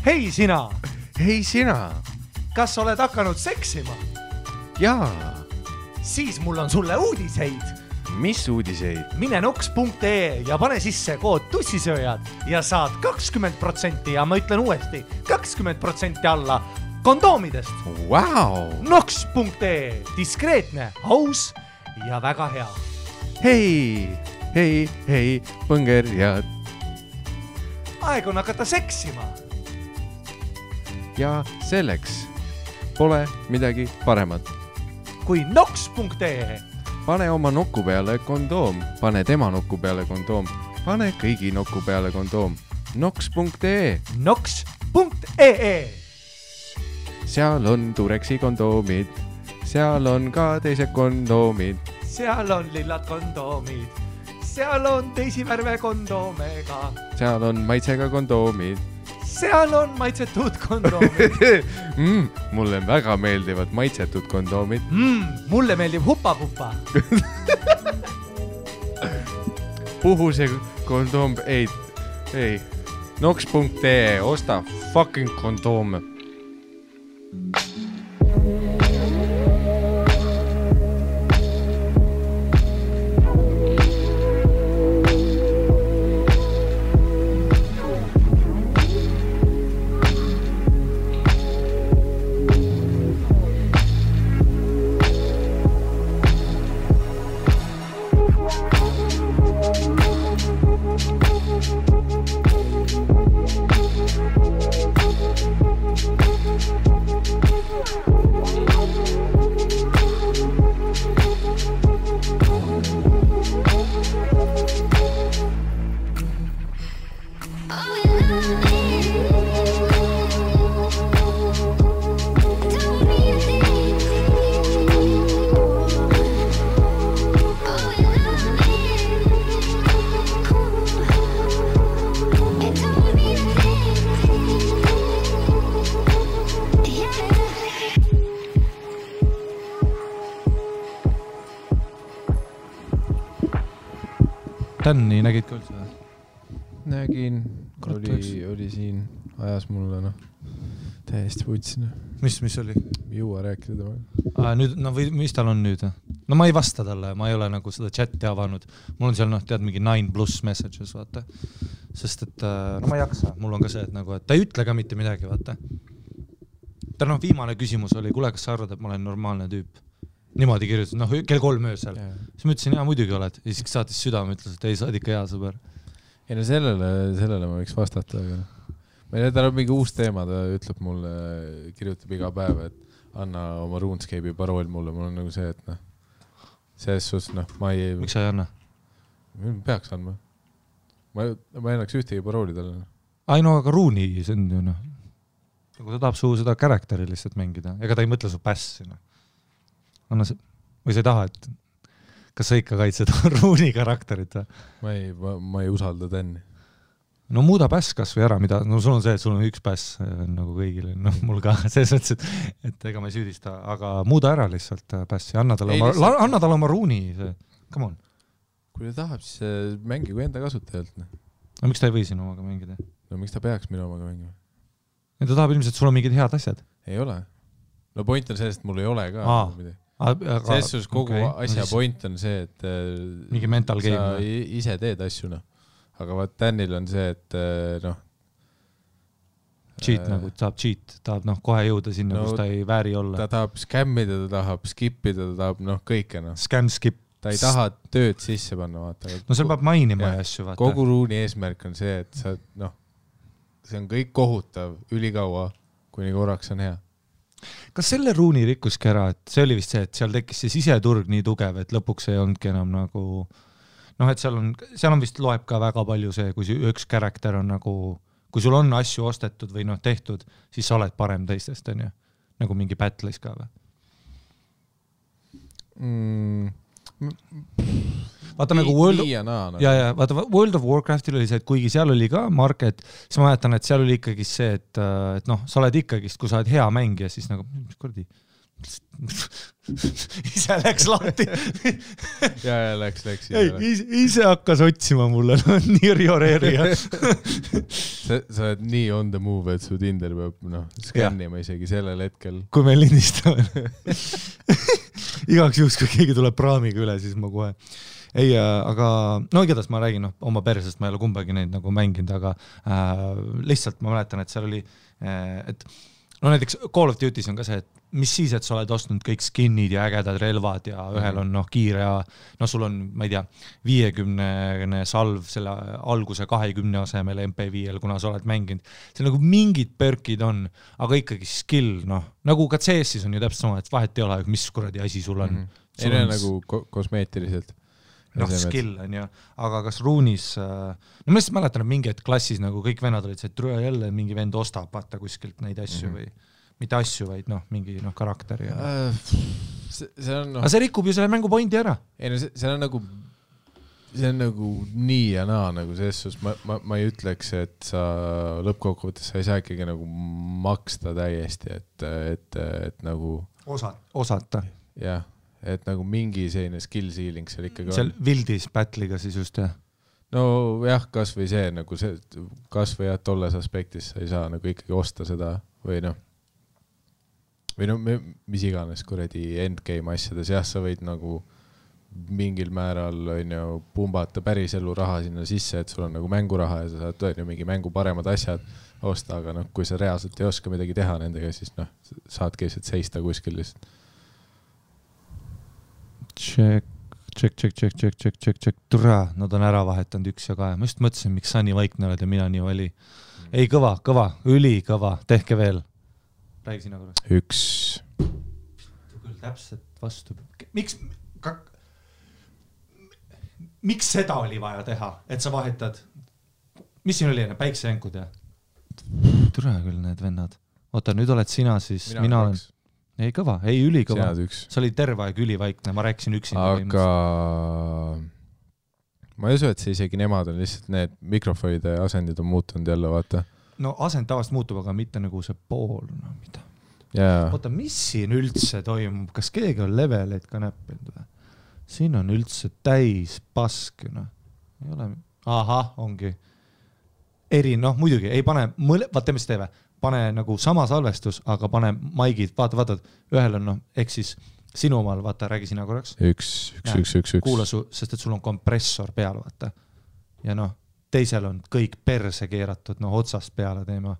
Hei sina! Hei sina! Kas oled hakanud seksima? Jaa. Siis mul on sulle uudiseid. Mis uudiseid? Mine noks.ee ja pane sisse kood tussisööjad ja saad 20% ja ma ütlen uuesti 20% alla kondoomidest. Wow! Noks.ee, diskreetne, aus ja väga hea. Hei, põngerjad. Aeg on hakata seksima. Ja selleks pole midagi paremat. Kui noks.ee. Pane oma nokku peale kondoom. Pane tema nokku peale kondoom. Pane kõigi nokku peale kondoom. Noks.ee. Noks.ee. Seal on Tureksi kondoomid. Seal on ka teised kondoomid. Seal on lillad kondoomid. Seal on teisi värve kondoomega. Seal on maitsega kondoomid. Seal on maitsetud kondoomid. Mulle väga meeldivad maitsetud kondoomid. Mulle meeldib hupa-pupa. Puhuse kondoom, ei. Noks.ee, osta fucking kondoome. Tänni nägid ka üldse? Nägin, oli siin, ajas mulle täiesti võtsin. Mis oli? Juua rääkida temaga. Nüüd, või mis tal on nüüd? No ma ei vasta talle, ma ei ole nagu seda chati avanud. Mul on seal, tead, mingi 9+ messages, vaata. Sest et, no ma ei jaksa, mul on ka see, et nagu, et ta ei ütle ka mitte midagi, vaata. Ta viimane küsimus oli, kuule, kas sa arvad, et ma olen normaalne tüüp? Niimoodi kirjutas, kell 3 öösel. Siis ma ütlesin, muidugi oled. Ja siis saatis südame, ütles, et ei, sa oled ikka hea sõber. Ei, no sellele ma võiks vastata. Tal on mingi uus teema, ta ütleb mulle, kirjutab iga päev, et anna oma RuneScape'i parool mulle. Mul on nagu see, et selles suhtes, ma ei... Miks sa ei anna? Peaks andma. Ma ei annaks ühtegi parooli talle. aga Ruuni, see on ju, Nagu ta tahab suu seda karakteri lihtsalt mängida. Ega ta ei mõtle su pässi, Anna see, või sa ei taha, et kas sa ikka kaitsed Ruuni karakterit? Ma ei usalda Tänni. No muuda päss kas või ära, mida, sul on see, et sul on üks päss nagu kõigile, mul ka selles mõttes, et ega ma ei süüdista, aga muuda ära lihtsalt pässi, anna talle oma Ruuni, come on. Kui ta tahab, siis mängigu enda kasutajalt. No miks ta ei või sinu omaga mängida? No miks ta peaks minu omaga mängima? Ja ta tahab ilmselt, sul on mingid head asjad. Ei ole. No point on sellest, mul ei ole ka midagi. Selles suhtes kogu asja point on see, et mingi mental game. Sa ise teed asju, Aga vaat Tänil on see, et cheat nagu, tahab cheat, tahab kohe jõuda sinna, kus ta ei vääri olla. Ta tahab skämmida, ta tahab skipida, ta tahab kõike. Scam, skip. Ta ei taha tööd sisse panna, vaata. No seal peab mainima asju, vaata. Kogu Ruuni eesmärk on see, et sa, see on kõik kohutav ülikaua, kuni korraks on hea. Kas selle Ruuni rikkuski ära, et see oli vist see, et seal tekkis see siseturg nii tugev, et lõpuks ei olnudki enam nagu, et seal on vist loeb ka väga palju see, kui üks karakter on nagu, kui sul on asju ostetud või tehtud, siis sa oled parem teistest, on ju? Nagu mingi battle'is ka või? Vaata nagu World of Warcraftil oli see, et kuigi seal oli ka market, siis ma mäletan, et seal oli ikkagi see, et sa oled ikkagi, kui sa oled hea mängija, siis nagu, mis kordi, ise läks lahti. ja läks. Ise hakkas otsima mulle, nii rioreerija. sa oled nii on the move, et su Tinder peab skannima isegi sellel hetkel. Kui me lindistame. Igaks juhuks, kui keegi tuleb praamiga üle, siis ma kohe. Ei, aga no igatahes ma räägin oma persest, ma ei ole kumbagi neid nagu mänginud, aga lihtsalt ma mäletan, et seal oli, et no näiteks Call of Duty's on ka see, et mis siis, et sa oled ostnud kõik skinnid ja ägedad relvad ja ühel on kiire ja sul on, ma ei tea, 50 salv selle alguse 20 asemel MP5-l, kuna sa oled mänginud. See nagu mingid perkid on, aga ikkagi skill, nagu ka CS-is on ju täpselt sama, et vahet ei ole, mis kuradi asi sul on. Ei ole nagu kosmeetiliselt. Skill on ju, aga kas ruunis, no ma lihtsalt mäletan, et mingi het klassis nagu kõik vennad olid see, et trüe jälle mingi vend ostab vaata kuskilt neid asju või mitte asju, vaid mingi karakteri. Aga see rikub ju selle mängu pointi ära. Ei no see on nagu nii ja naa nagu selles, ma ei ütleks, et sa lõppkokkuvõttes sa ei saa ikkagi nagu maksta täiesti, et nagu osata. Jah. Et nagu mingi selline skill ceiling seal ikkagi on. Seal Wildis battle'iga siis just, jah? No jah, kas või see, nagu see, kas või jah, tolles aspektis sa ei saa nagu ikkagi osta seda või mis iganes kuradi endgame asjades, jah, sa võid nagu mingil määral pumbata päris elu raha sinna sisse, et sul on nagu mänguraha ja sa saad mingi mängu paremad asjad osta, aga kui sa reaalselt ei oska midagi teha nendega, siis saadki lihtsalt seista kuskil lihtsalt. Check. Tura, nad on ära vahetanud 1 ja 2. Ma just mõtlesin, miks sa nii vaikne oled ja mina nii vali. Ei, kõva, ülikõva. Tehke veel. Räägi sina korra. 1. Küll täpselt vastu. Miks seda oli vaja teha, et sa vahetad? Mis siin oli enne? Päiksejänkud ja? Tura küll need vennad. Oota, nüüd oled sina siis. Mina olen... Ei kõva, ei ülikõva. See oli terve aeg ülivaikne, ma rääkisin üksinda. Aga ma ei usu, et see isegi nemad on lihtsalt need mikrofonide asendid on muutunud jälle, vaata. No asend tavast muutub, aga mitte nagu see pool. Mida? Oota, mis siin üldse toimub? Kas keegi on leveleid ka näppinud või? Siin on üldse täis pask. Ei ole... Aha, ongi. Muidugi, ei pane... Vaata, mis teeme? Pane nagu sama salvestus, aga pane maigid, vaata, ühel on, ehk siis sinu omal, vaata, räägi sina korraks. 1. Kuula sest et sul on kompressor peal, vaata. Ja teisel on kõik perse keeratud, otsast peale teema.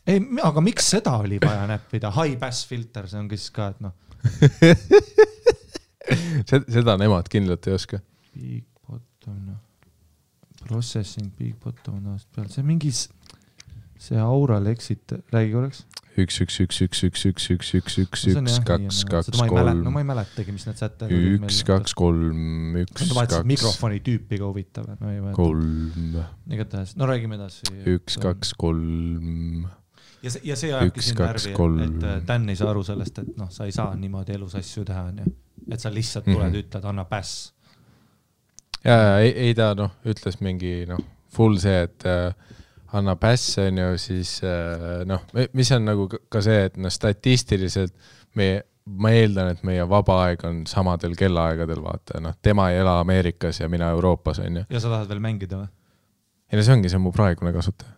Ei, aga miks seda oli vaja näppida? High pass filter, see on siis ka, et Seda nemad kindlalt ei oska. Big bottom, Processing, big bottom, peal. See mingis, see Aural exit, räägi korraks. 1, 2, 3. No ma ei mäletagi, mis need sätte. 1, 2, 3, 1, 2. Mikrofoni tüüpi ka huvitav. 3. Igatahes, no räägime edasi. 1, 2, 3. Ja see ajabki siin närvi, et Dan ei saa aru sellest, et sa ei saa niimoodi elus asju teha, et sa lihtsalt tuled, ütled, anna päss. Ja ei ta ütles mingi full see, et anna päss on ju, siis mis on nagu ka see, et statistiliselt ma eeldan, et meie vaba aeg on samadel kellaaegadel, vaata, tema ei ela Ameerikas ja mina Euroopas on ju. Ja sa tahad veel mängida või? Ei, see ongi, see on mu praegune kasutaja.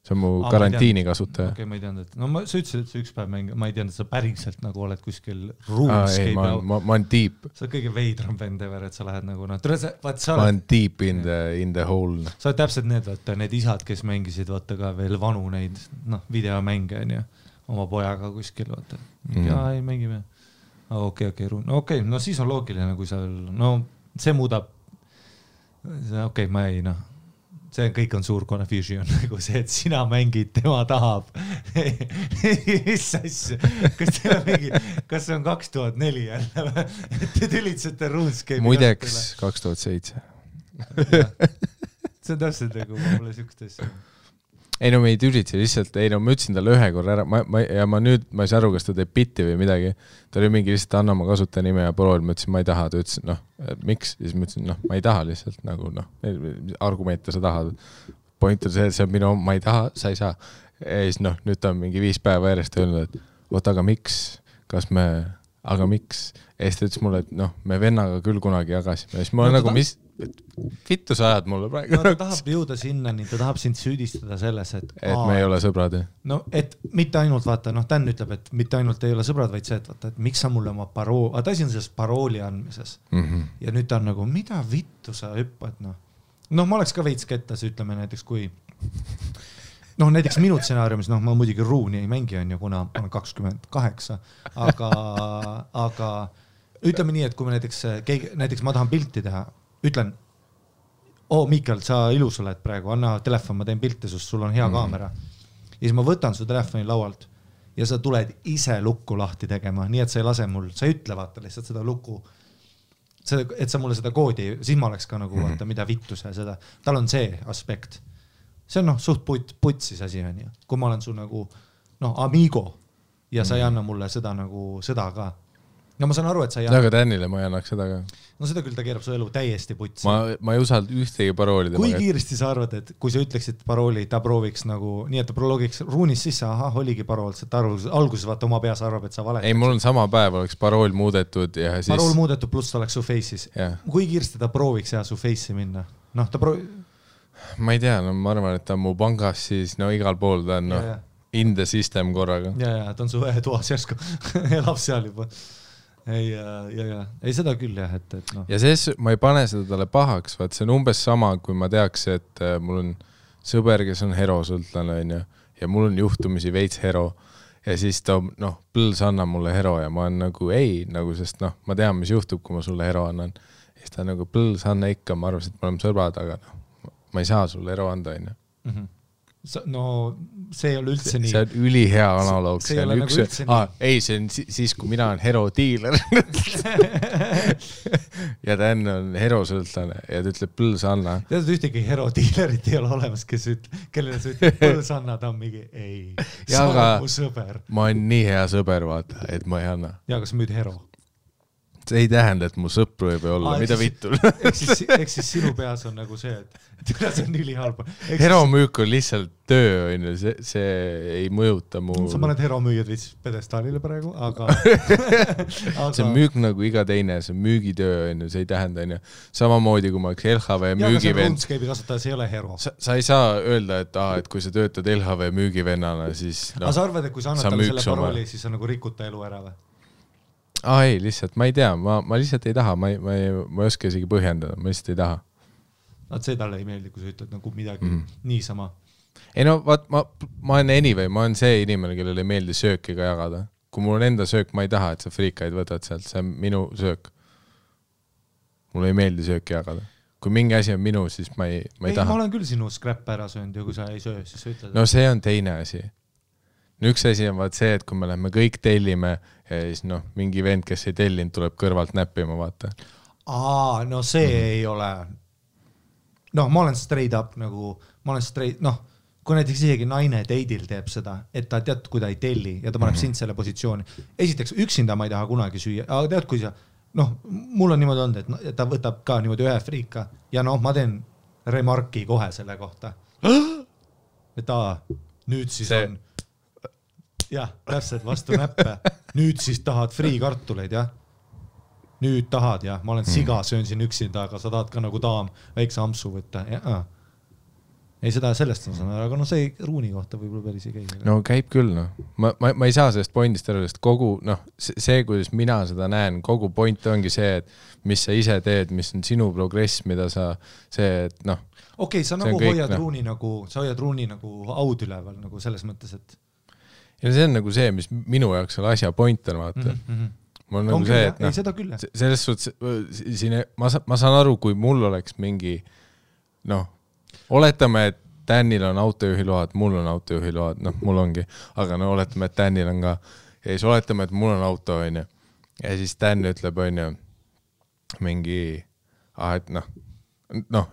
See on mu karantiini kasutaja. Okei, ma ei teadnud, et sa ütlesid, et sa üks päev mängid, ma ei teadnud, et sa päriselt nagu oled kuskil RuneScape. Ma olen deep. Sa oled kõige veidram vend ever, et sa lähed nagu, ma olen deep in the hole. Sa oled täpselt need isad, kes mängisid, vaata ka veel vanu neid, videomänge, oma pojaga kuskil, vaata. Ja ei mängime. Okei, no siis on loogiline, kui sa, see muudab, okei, ma ei, see kõik on suur confusion, nagu see, et sina mängid, tema tahab. Mis asja? Kas see on 2004 jälle? Te tülitsete RuneScape'i? Muideks 2007. See on täpselt nagu mulle sükst asja. Ei me ei tülitse lihtsalt, ma ütlesin talle ühe korra ära, ja ma ei saa aru, kas ta teeb bitti või midagi. Ta oli mingi lihtsalt anna oma kasutaja nime ja prool, ma ütlesin, ma ei taha, ta ütlesin, miks? Siis ma ütlesin, ma ei taha lihtsalt, nagu argumente sa tahad. point on see, et see on minu, ma ei taha, sa ei saa. Ja siis nüüd ta on mingi 5 päeva järjest öelnud, et oot, aga miks, aga miks? Ja siis ta ütles mulle, et me vennaga küll kunagi jagasime. Ja siis ma olen nagu, mis vittu sa ajad mulle praegu? Ta tahab jõuda sinnani, ta tahab sind süüdistada selles, et me ei ole sõbrad. No, et mitte ainult vaata, Dan ütleb, et mitte ainult ei ole sõbrad, vaid see, et vaata, et miks sa mulle oma ta asi on selles parooli andmises. Ja nüüd ta on nagu, mida vittu sa hüppad, ma oleks ka veits kettas, ütleme näiteks, kui näiteks minu stsenaariumis, ma muidugi ruuni ei mängi, kuna ma olen 28, aga ütleme nii, et kui me näiteks ma tahan pilti teha, ütlen, Miikal, sa ilus oled praegu, anna telefon, ma teen pilti, sest sul on hea kaamera. Ja siis ma võtan su telefoni laualt ja sa tuled ise lukku lahti tegema, nii et sa ei lase mul, sa ei ütle vaata lihtsalt seda lukku, et sa mulle seda koodi, siis ma oleks ka nagu vaata, mida vittu sa seda, tal on see aspekt. See on suht putsis asi on ju, kui ma olen su nagu amigo ja sa ei anna mulle seda nagu seda ka. No ma saan aru, et sa ei anna. Aga Tänile ma ei annaks seda ka. No seda küll ta keerab su elu täiesti putsi. Ma ei usalda ühtegi parooli. Kui kiiresti sa arvad, et kui sa ütleksid parooli, ta prooviks nagu, nii et ta prologiks ruunis sisse, oligi parool, et alguses vaata oma peas arvab, et sa valetad. Ei, mul on sama päev, oleks parool muudetud ja siis... Parool muudetud pluss ta oleks su face'is. Kui kiiresti ta prooviks ta su face'i minna? Ma ei tea, ma arvan, et ta on mu pangas siis, igal pool ta on in the system korraga. Ja, ta on su toas järsku, elab seal juba. Ei seda küll jah, et Ja see, ma ei pane seda talle pahaks, vaat see on umbes sama, kui ma teaks, et mul on sõber, kes on herosõltlane ja mul on juhtumisi veits hero ja siis ta, põls annab mulle hero ja ma olen nagu ei, sest ma tean, mis juhtub, kui ma sulle hero annan. Ja siis ta nagu põls anna ikka, ma arvasin, et me oleme sõbrad, aga ma ei saa sulle hero anda, No see ei ole üldse nii. See on ülihea analoog. See on üks... ei, see on siis, kui mina olen hero dealer. ja ta enne on herosõltlane ja ta ütleb põls anna. Tead, ühtegi hero dealerit ei ole olemas, kellele sa ütleb põls anna, ta on mingi ei. Sa oled mu sõber. Ma olen nii hea sõber, vaata, et ma ei anna. Ja, kas müüd hero? See ei tähenda, et mu sõpru ei või olla, mida vittul. Eks siis sinu peas on nagu see, et see on ülihaalba. Hero müük on lihtsalt töö, see ei mõjuta mu... Sa paned hero müüjad viis pedestaalile praegu, aga... See on müük nagu iga teine, see on müügitöö, see ei tähenda, samamoodi kui ma üks LHV müügivend... Ja, aga see RuneScape'i kasutajas ei ole hero. Sa ei saa öelda, et kui sa töötad LHV müügivennana, siis... Aga sa arvad, et kui sa annad talle selle parooli, siis sa nagu rikut ta elu ära või? Ei, lihtsalt, ma ei tea, ma lihtsalt ei taha, ma ei oska isegi põhjendada, ma lihtsalt ei taha. See talle ei meeldi, kui sa ütled nagu midagi niisama. Ei vaat, ma olen anyway, ma olen see inimene, kellele ei meeldi sööki ka jagada. Kui mul on enda söök, ma ei taha, et sa friikaid võtad sealt, see on minu söök. Mulle ei meeldi sööki jagada. Kui mingi asi on minu, siis ma ei taha. Ma olen küll sinu scrap ära söönud ja kui sa ei söö, siis sa ütled. No see on teine asi. Üks asi on vaat see, et kui me lähme kõik tellime ja siis mingi vend, kes ei tellinud, tuleb kõrvalt näppima, vaata. No see ei ole... ma olen straight up nagu, kui näiteks isegi naine date'il teeb seda, et ta tead, kui ta ei telli ja ta paneb sind selle positsiooni. Esiteks, üksinda ma ei taha kunagi süüa, aga tead, kui sa, mul on niimoodi olnud, et ta võtab ka niimoodi ühe friika ja ma teen remarki kohe selle kohta. Et nüüd siis on... Jah, täpselt vastu näppe. Nüüd siis tahad friikartuleid, jah? Nüüd tahad, jah? Ma olen siga, söön siin üksinda, aga sa tahad ka nagu daam väikse ampsu võtta. Ei, seda sellest on sõna, aga see ruuni kohta võib-olla päris ei käi. No käib küll, Ma ei saa sellest pointist ära, sest kogu, see, kuidas mina seda näen, kogu point ongi see, et mis sa ise teed, mis on sinu progress, mida sa, see, et Okei, sa nagu hoiad ruuni nagu aud üleval nagu selles mõttes, et ja see on nagu see, mis minu jaoks selle asja point on, vaata. Mul on nagu see, et ei, seda küll. Selles suhtes, ma saan aru, kui mul oleks mingi, oletame, et Danil on autojuhiload, mul on autojuhiload, mul ongi, aga oletame, et Danil on ka, ja siis oletame, et mul on auto, on ju, ja siis Dan ütleb, on ju, mingi, et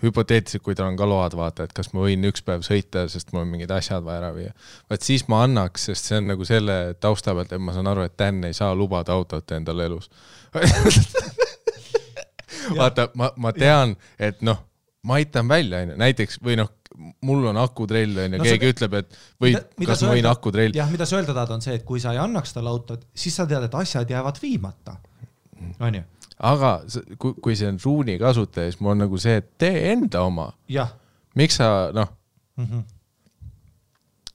hüpoteetiliselt, kui tal on ka load, vaata, et kas ma võin üks päev sõita, sest mul on mingid asjad vaja ära viia. Vaat siis ma annaks, sest see on nagu selle tausta pealt, et ma saan aru, et Dan ei saa lubada autot endale elus. Vaata, ma tean, et ma aitan välja, näiteks, või mul on akutrell on ja keegi ütleb, et kas ma võin akutrell. Jah, mida sa öelda tahad on see, et kui sa ei annaks talle autot, siis sa tead, et asjad jäävad viimata. On ju? Aga kui see on ruuni kasutaja, siis mul on nagu see, et tee enda oma. Jah. Miks sa,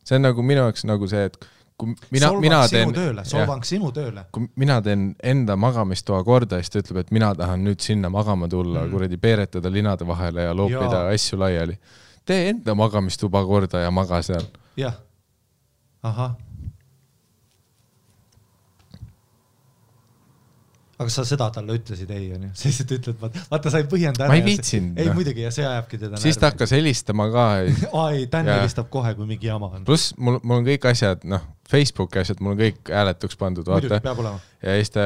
see on nagu minu jaoks nagu see, et kui mina teen solvang sinu tööle. Kui mina teen enda magamistoa korda, siis ta ütleb, et mina tahan nüüd sinna magama tulla, kuradi peeretada linade vahele ja loopida asju laiali. Tee enda magamistuba korda ja maga seal. Jah. Aha. Aga sa seda talle ütlesid ei, on ju? Siis et ütled, vaata, sa ei põhjenda ära. Ma ei viitsin. Ei, muidugi, ja see ajabki teda närvi. Siis ta hakkas helistama ka. Ai, Dan helistab kohe, kui mingi jama on. Plus, mul on kõik asjad, Facebooki asjad, mul on kõik hääletuks pandud. Muidugi, peab olema. Ja siis ta,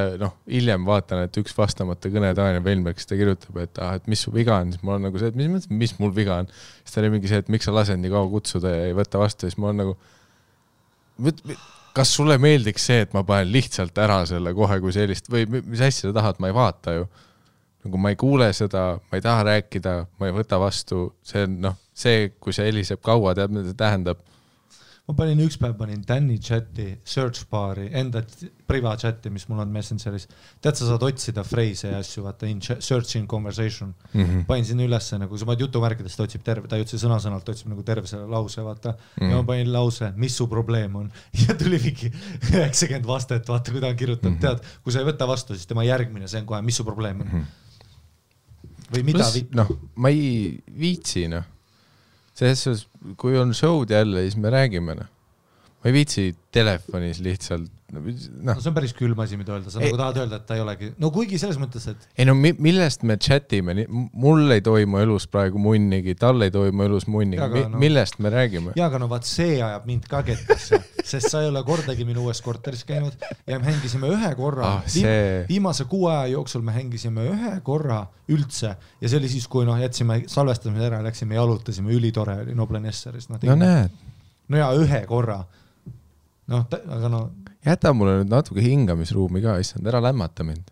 hiljem vaatan, et üks vastamata kõne Daniel Velmerk, kes ta kirjutab, et mis su viga on, siis mul on nagu see, et mis mul viga on. Siis ta oli mingi see, et miks sa lased nii kaua kutsuda ja ei võtta vastu, siis mul on nagu kas sulle meeldiks see, et ma panen lihtsalt ära selle kohe, kui sellist, või mis asja sa tahad, ma ei vaata ju. Nagu ma ei kuule seda, ma ei taha rääkida, ma ei võta vastu, see on, see, kui see heliseb kaua, tead, mida see tähendab. Ma üks päev panin Danny chati, search bar'i, enda priva chati, mis mul on Messengeris. Tead, sa saad otsida freise ja asju, vaata, search in conversation. Panin sinna ülesse, nagu sa paned jutumärkidest otsib terve, ta ei otsi sõna-sõnalt, otsib nagu terve selle lause, vaata. Ja ma panin lause, mis su probleem on. Ja tuli mingi 90 vastet, vaata, kui ta on kirjutanud. Tead, kui sa ei võta vastu, siis tema järgmine, see on kohe, mis su probleem on. Või mida ma ei viitsi, Selles, kui on show'd jälle, siis me räägime. Ma ei viitsi telefonis lihtsalt. See on päris külm asi, mida öelda. Sa nagu tahad öelda, et ta ei olegi. No kuigi selles mõttes, et... Ei millest me chatime? Mul ei toimu elus praegu munnigi, tal ei toimu elus munnigi. Millest me räägime? Ja, aga vaat see ajab mind ka kettasse, sest sa ei ole kordagi minu uues korteris käinud ja me hängisime ühe korra. Viimase 6 aja jooksul me hängisime ühe korra üldse ja see oli siis, kui jätsime salvestamise ära, läksime ja jalutasime, ülitore oli Noblen Esseris. Näed. No ja ühe korra. Aga Jäta mulle nüüd natuke hingamisruumi ka, issand, ära lämmata mind.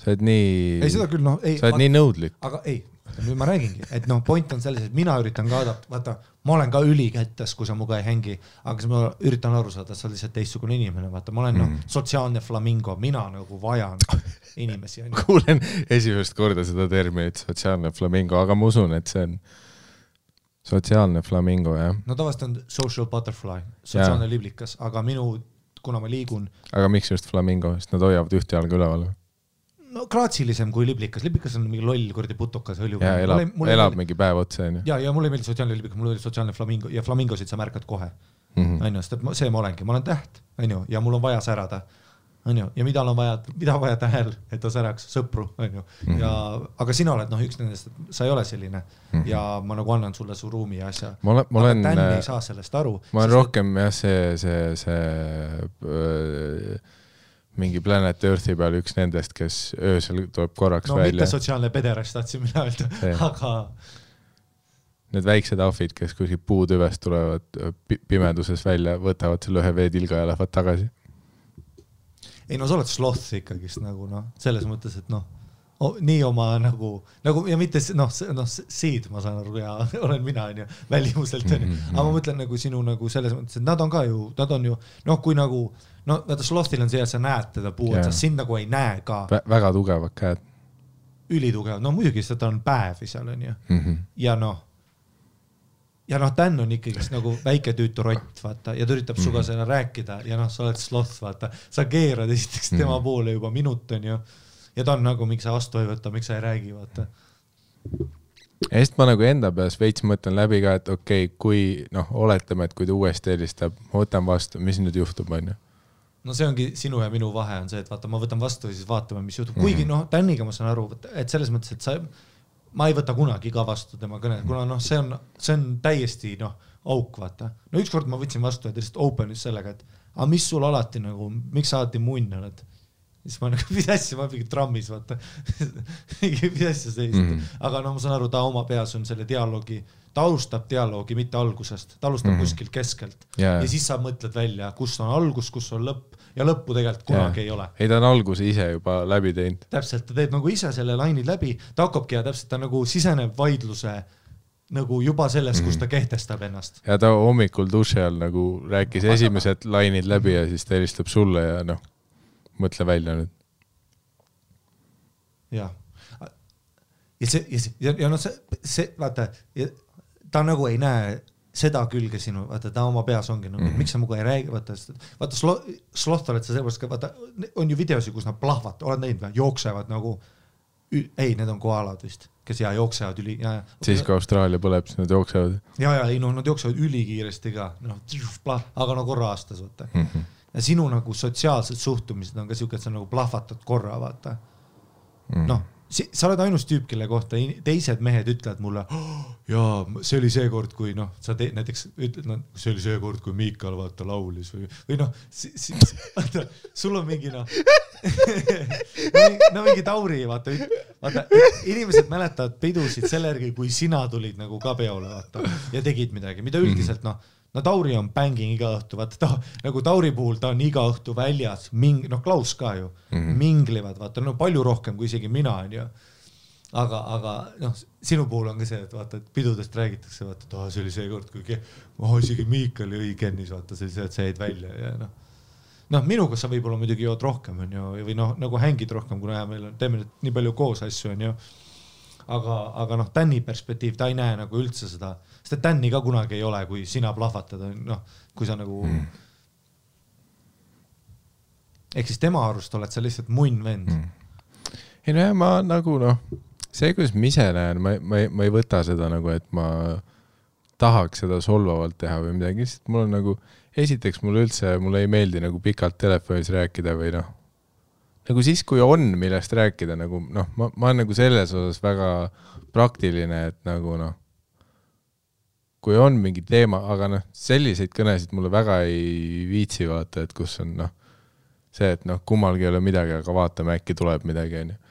Sa oled nii... Ei, seda küll, sa oled nii nõudlik. Aga ei, nüüd ma räägingi, et point on selles, et mina üritan ka vaata, ma olen ka ülikättes, kui sa muga ei hängi, aga ma üritan aru saada, et sa oled lihtsalt teistsugune inimene, vaata, ma olen sotsiaalne flamingo, mina nagu vajan inimesi. Kuulen esimest korda seda terminit, sotsiaalne flamingo, aga ma usun, et see on sotsiaalne flamingo, jah. No tavast on social butterfly, sotsiaalne liblikas, aga kuna ma liigun. Aga miks just flamingo, sest nad hoiavad ühte jalga üleval? No graatsilisem kui liblikas. Liblikas on mingi loll kurdi putukas. Ja elab mingi päev otsa. Ja mulle ei meeldi sotsiaalne liblikas, mulle meeldi sotsiaalne flamingo ja flamingosid sa märkad kohe. See ma olengi, ma olen täht ja mul on vaja särada. Ja mida on vaja tähel, et ta säraks sõpru. Aga sina oled üks nendest, et sa ei ole selline ja ma nagu annan sulle su ruumi ja asja. Aga Dan ei saa sellest aru. Ma olen rohkem see mingi Planet Earthi peal üks nendest, kes öösel tuleb korraks välja. Mitte sotsiaalne pederast tahtsin mina öelda, aga... Need väiksed ahvid, kes kuskil puutüvest tulevad pimeduses välja, võtavad selle ühe veetilga ja lähevad tagasi. Ei, sa oled sloth ikkagist selles mõttes, et nii oma ja mitte seed, ma saan aru, ja olen mina, välimuselt, aga ma mõtlen sinu selles mõttes, et nad on ju, kui vaata slothil on see, et sa näed teda puu, et sa sind ei näe ka. Väga tugevad käed. Ülitugevad, muidugi seda on päevi seal, on ju. Ja Dan on ikkagi väike tüütu rott, vaata, ja ta üritab suga selle rääkida ja sa oled sloth, vaata. Sa keerad esiteks tema poole juba minut, on ju. Ja ta on miks sa vastu ei võtta, miks sa ei räägi, vaata. Ja sest ma enda peas veits mõtlen läbi ka, et okei, kui oletame, et kui ta uuesti helistab, ma võtan vastu, mis nüüd juhtub, on ju? No see ongi sinu ja minu vahe on see, et vaata, ma võtan vastu ja siis vaatame, mis juhtub. Kuigi Daniga ma saan aru, et selles mõttes, et ma ei võta kunagi ka vastu tema kõne, kuna see on täiesti auk, vaata. No ükskord ma võtsin vastu ja ta lihtsalt openis sellega, et mis sul alati miks sa alati munn oled? Siis ma mis asja, ma mingi trammis, vaata. Mis asja sellist. Aga ma saan aru, ta oma peas on selle dialoogi, ta alustab dialoogi mitte algusest, ta alustab kuskil keskelt. Ja siis sa mõtled välja, kus on algus, kus on lõpp. Ja lõppu tegelikult kunagi ei ole. Ei, ta on alguse ise juba läbi teinud. Täpselt, ta teeb ise selle lainid läbi, ta hakkabki ja täpselt ta siseneb vaidluse nagu juba selles, kus ta kehtestab ennast. Ja ta hommikul duši all nagu rääkis esimesed lainid läbi ja siis ta helistab sulle ja noh, mõtle välja nüüd. Jah. Ja no see, vaata, ta nagu ei näe seda külge sinu, vaata, ta oma peas ongi nagu, miks sa muga ei räägi, vaata sloth oled sa sellepärast ka, vaata, on ju videosi, kus nad plahvad, oled näinud või, jooksevad nagu, ei, need on koalad vist, kes jooksevad üli, siis kui Austraalia põleb, siis nad jooksevad. Ei, no nad jooksevad ülikiiresti ka, noh, aga no korra aastas, vaata. Ja sinu nagu sotsiaalsed suhtumised on ka siuke, et sa nagu plahvatad korra, vaata. Noh, sa oled ainus tüüp, kelle kohta teised mehed ütlevad mulle, jaa, see oli see kord, kui noh, sa näiteks ütled, no, see oli see kord, kui Miikal vaata laulis või noh, vaata, sul on mingi noh, no mingi Tauri, vaata, inimesed mäletavad pidusid selle järgi, kui sina tulid nagu ka peole, vaata, ja tegid midagi, mida üldiselt noh, no Tauri on bänging iga õhtu, vaata nagu Tauri puhul ta on iga õhtu väljas, noh Klaus ka ju, minglivad, vaata, no palju rohkem kui isegi mina on ju. Aga noh, sinu puhul on ka see, et vaata, et pidudest räägitakse, vaata, et see oli see kord, kui isegi Miikal jõi kennis, vaata, see jäid välja ja noh, minuga sa võib-olla muidugi jood rohkem on ju, või noh, nagu hängid rohkem, kuna meil teeme nii palju koos asju on ju. Aga noh, Tänni perspektiiv, ta ei näe nagu üldse seda, sest Tänni ka kunagi ei ole, kui sina plahvatad, noh, kui sa nagu ehk siis tema arust oled sa lihtsalt munn vend. Ei no ja ma nagu noh, see, kuidas ma ise näen, ma ei võta seda nagu, et ma tahaks seda solvavalt teha või midagi, sest mul on nagu, esiteks mulle ei meeldi nagu pikalt telefonis rääkida või noh, nagu siis, kui on millest rääkida, nagu noh, ma olen nagu selles osas väga praktiline, et nagu noh, kui on mingi teema, aga noh, selliseid kõnesid mulle väga ei viitsi vaata, et kus on noh, see, et noh, kummalgi ei ole midagi, aga vaatame, äkki tuleb midagi, on ju.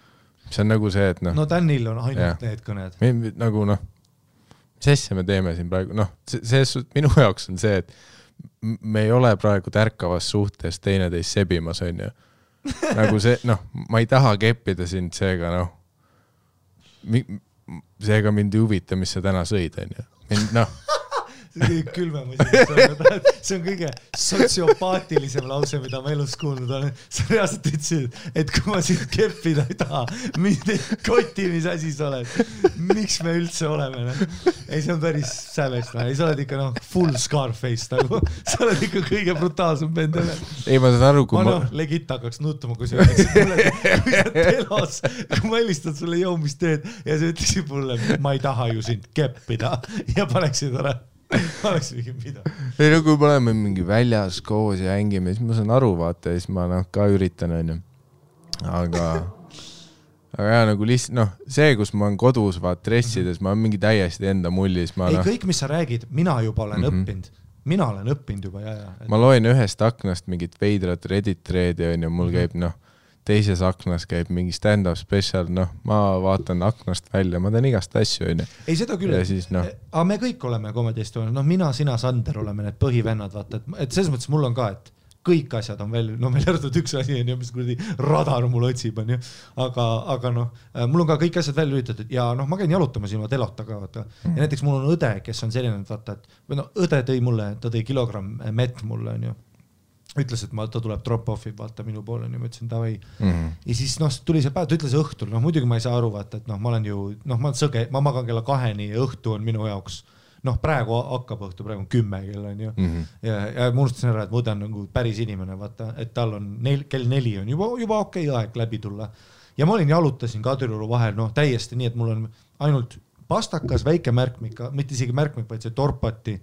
See on nagu see, et noh. No Tänil on ainult need kõned. Nagu noh, mis asja me teeme siin praegu, noh, minu jaoks on see, et me ei ole praegu tärkavas suhtes teineteist sebimas, on ju. Nagu see, noh, ma ei taha keppida sind, seega noh, seega mind ei huvita, mis sa täna sõid, on ju. Noh. See on kõige sotsiopaatilisem lause, mida ma elus kuulnud olen. Sa reaalselt ütlesid, et kui ma sind keppida ei taha, mind ei koti, mis asi sa oled. Miks me üldse oleme? Ei, see on päris sävest. Ei, sa oled ikka noh, full Scarface nagu. Sa oled ikka kõige brutaalsem bend. Ei, ma saan aru, kui ma... legit hakkaks nutuma, kui sa ütleksid mulle, kui sa telos, kui ma helistad sulle jõu, mis teed, ja sa ütleksid mulle, ma ei taha ju sind keppida ja paneksid ära. Oleks mingi mida. Ei no kui me oleme mingi väljas koos ja hängime, siis ma saan aru vaata ja siis ma noh, ka üritan on ju. Aga ja nagu lihtsalt noh, see, kus ma olen kodus vaat dressides, ma olen mingi täiesti enda mullis. Ei, kõik, mis sa räägid, mina juba olen õppinud. Mina olen õppinud juba, ja. Ma loen ühest aknast mingit veidrat Reddit threadi on ju, mul käib noh, teises aknas käib mingi stand-up special, noh, ma vaatan aknast välja, ma teen igast asju, on ju. Ei, seda küll. Siis, no. Aga me kõik oleme komedist, noh, mina, sina, Sander oleme need põhivennad, vaata, et selles mõttes mul on ka, et kõik asjad on veel, no meil järgtud üks asi on ju, mis kuradi radar mul otsib, on ju. Aga noh, mul on ka kõik asjad välja üritatud ja noh, ma käin jalutamas ilma telota ka, vaata. Ja näiteks mul on õde, kes on selline, vaata, et või no, õde tõi mulle, ta tõi kilogramm mett mulle, on ju. Ütles, et ta tuleb drop-offi, vaata minu poole, ja ma ütlesin, davai. Ja siis noh, tuli see päev, ta ütles õhtul, noh muidugi ma ei saa aru, vaata, et noh, ma olen ju, noh, ma olen sõge, ma magan kella 2 ja õhtu on minu jaoks, noh, praegu hakkab õhtu, praegu on 10 kell on ju. Ja ma unustasin ära, et ma õde on nagu päris inimene, vaata, et tal on kell 4 on juba okei aeg läbi tulla. Ja ma olin jalutasin Kadrioru vahel, noh, täiesti nii, et mul on ainult pastakas, väike märkmik, mitte isegi märkmik, vaid see torpati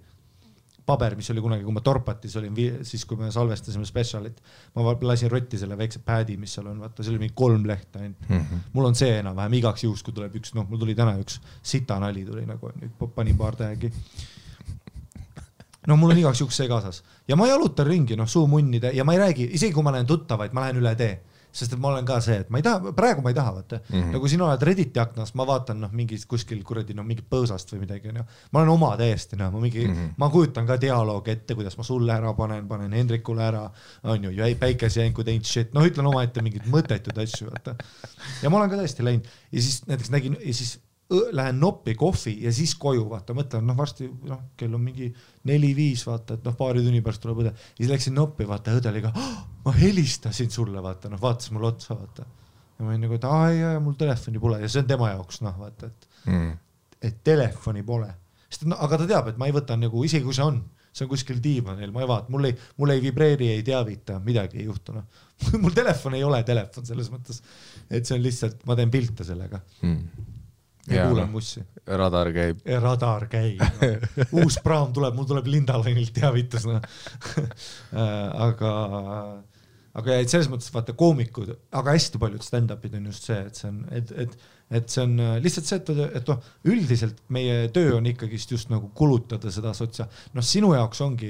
paber, mis oli kunagi, kui ma torpatis olin, siis kui me salvestasime specialit, ma lasin rotti selle väikse pädi, mis seal on, vaata, see oli mingi 3 lehta ainult. Mul on see enam-vähem igaks juhus, kui tuleb üks, noh, mul tuli täna üks sita nali tuli nagu, panin paar tähegi. No mul on igaks juhus see kaasas. Ja ma jalutan ringi, noh, suumunnide ja ma ei räägi, isegi kui ma lähen tuttavaid, ma lähen üle tee. Sest et ma olen ka see, et ma ei taha, praegu ma ei taha, vaata. Nagu siin oled Redditi aknas, ma vaatan noh, mingi kuskil kuradi, noh, mingi põõsast või midagi. No. Ma olen oma täiesti, noh, ma kujutan ka dialoog ette, kuidas ma sulle ära panen Hendrikule ära, on ju, päikesejänku teinud shit, noh, ütlen oma ette mingid mõttetud asju, vaata. Ja ma olen ka täiesti läinud ja siis näiteks nägin, ja siis lähen noppi kohvi ja siis koju, vaata, mõtlen, varsti, kell on mingi 4-5, vaata, et paari tunni pärast tuleb õde. Ja siis läksin noppi, vaata, õde oli ka, ma helistasin sulle, vaata, vaatas mul otsa, vaata. Ja ma olin nagu, et mul telefoni pole ja see on tema jaoks, vaata, et telefoni pole. Aga ta teab, et ma ei võta nagu, isegi kui see on kuskil diivanil, ma ei vaata, mul ei vibreeri, ei teavita, midagi ei juhtu. Mul telefon ei ole telefon selles mõttes, et see on lihtsalt, ma teen pilte sellega. Ja kuulen mussi. Radar käib. Radar käib. Uus praam tuleb, mul tuleb Lindalainilt teavitus. Aga selles mõttes vaata koomikud, aga hästi paljud stand-upid on just see, et see on lihtsalt see, et üldiselt meie töö on ikkagist just nagu kulutada seda sinu jaoks ongi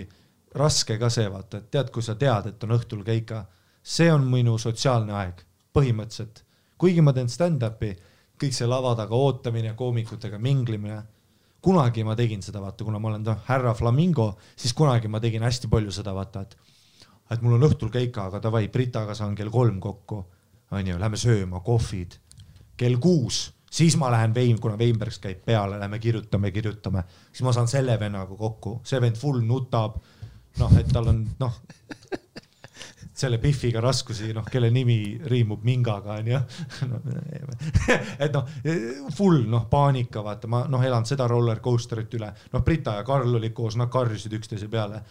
raske ka see, vaata, et tead, kui sa tead, et on õhtul keika, see on minu sotsiaalne aeg, põhimõtteliselt. Kuigi ma teen stand-upi, kõik see lava taga ootamine, koomikutega minglimine, kunagi ma tegin seda, vaata, kuna ma olen härra Flamingo, siis kunagi ma tegin hästi palju seda, vaata, et mul on õhtul keika, aga davai, Britaga saan kell 3 kokku, lähme sööma, kohvid, kell 6, siis ma lähen kuna Weinbergs käib peale, lähme kirjutame, siis ma saan selle vennaga kokku, see vend full nutab, et tal on, selle Biffiga raskusi, kelle nimi riimub mingaga, et full, paanika, vaata, ma elan seda rollercoasterit üle, Brita ja Karl oli koos, nad karjusid üksteise peale,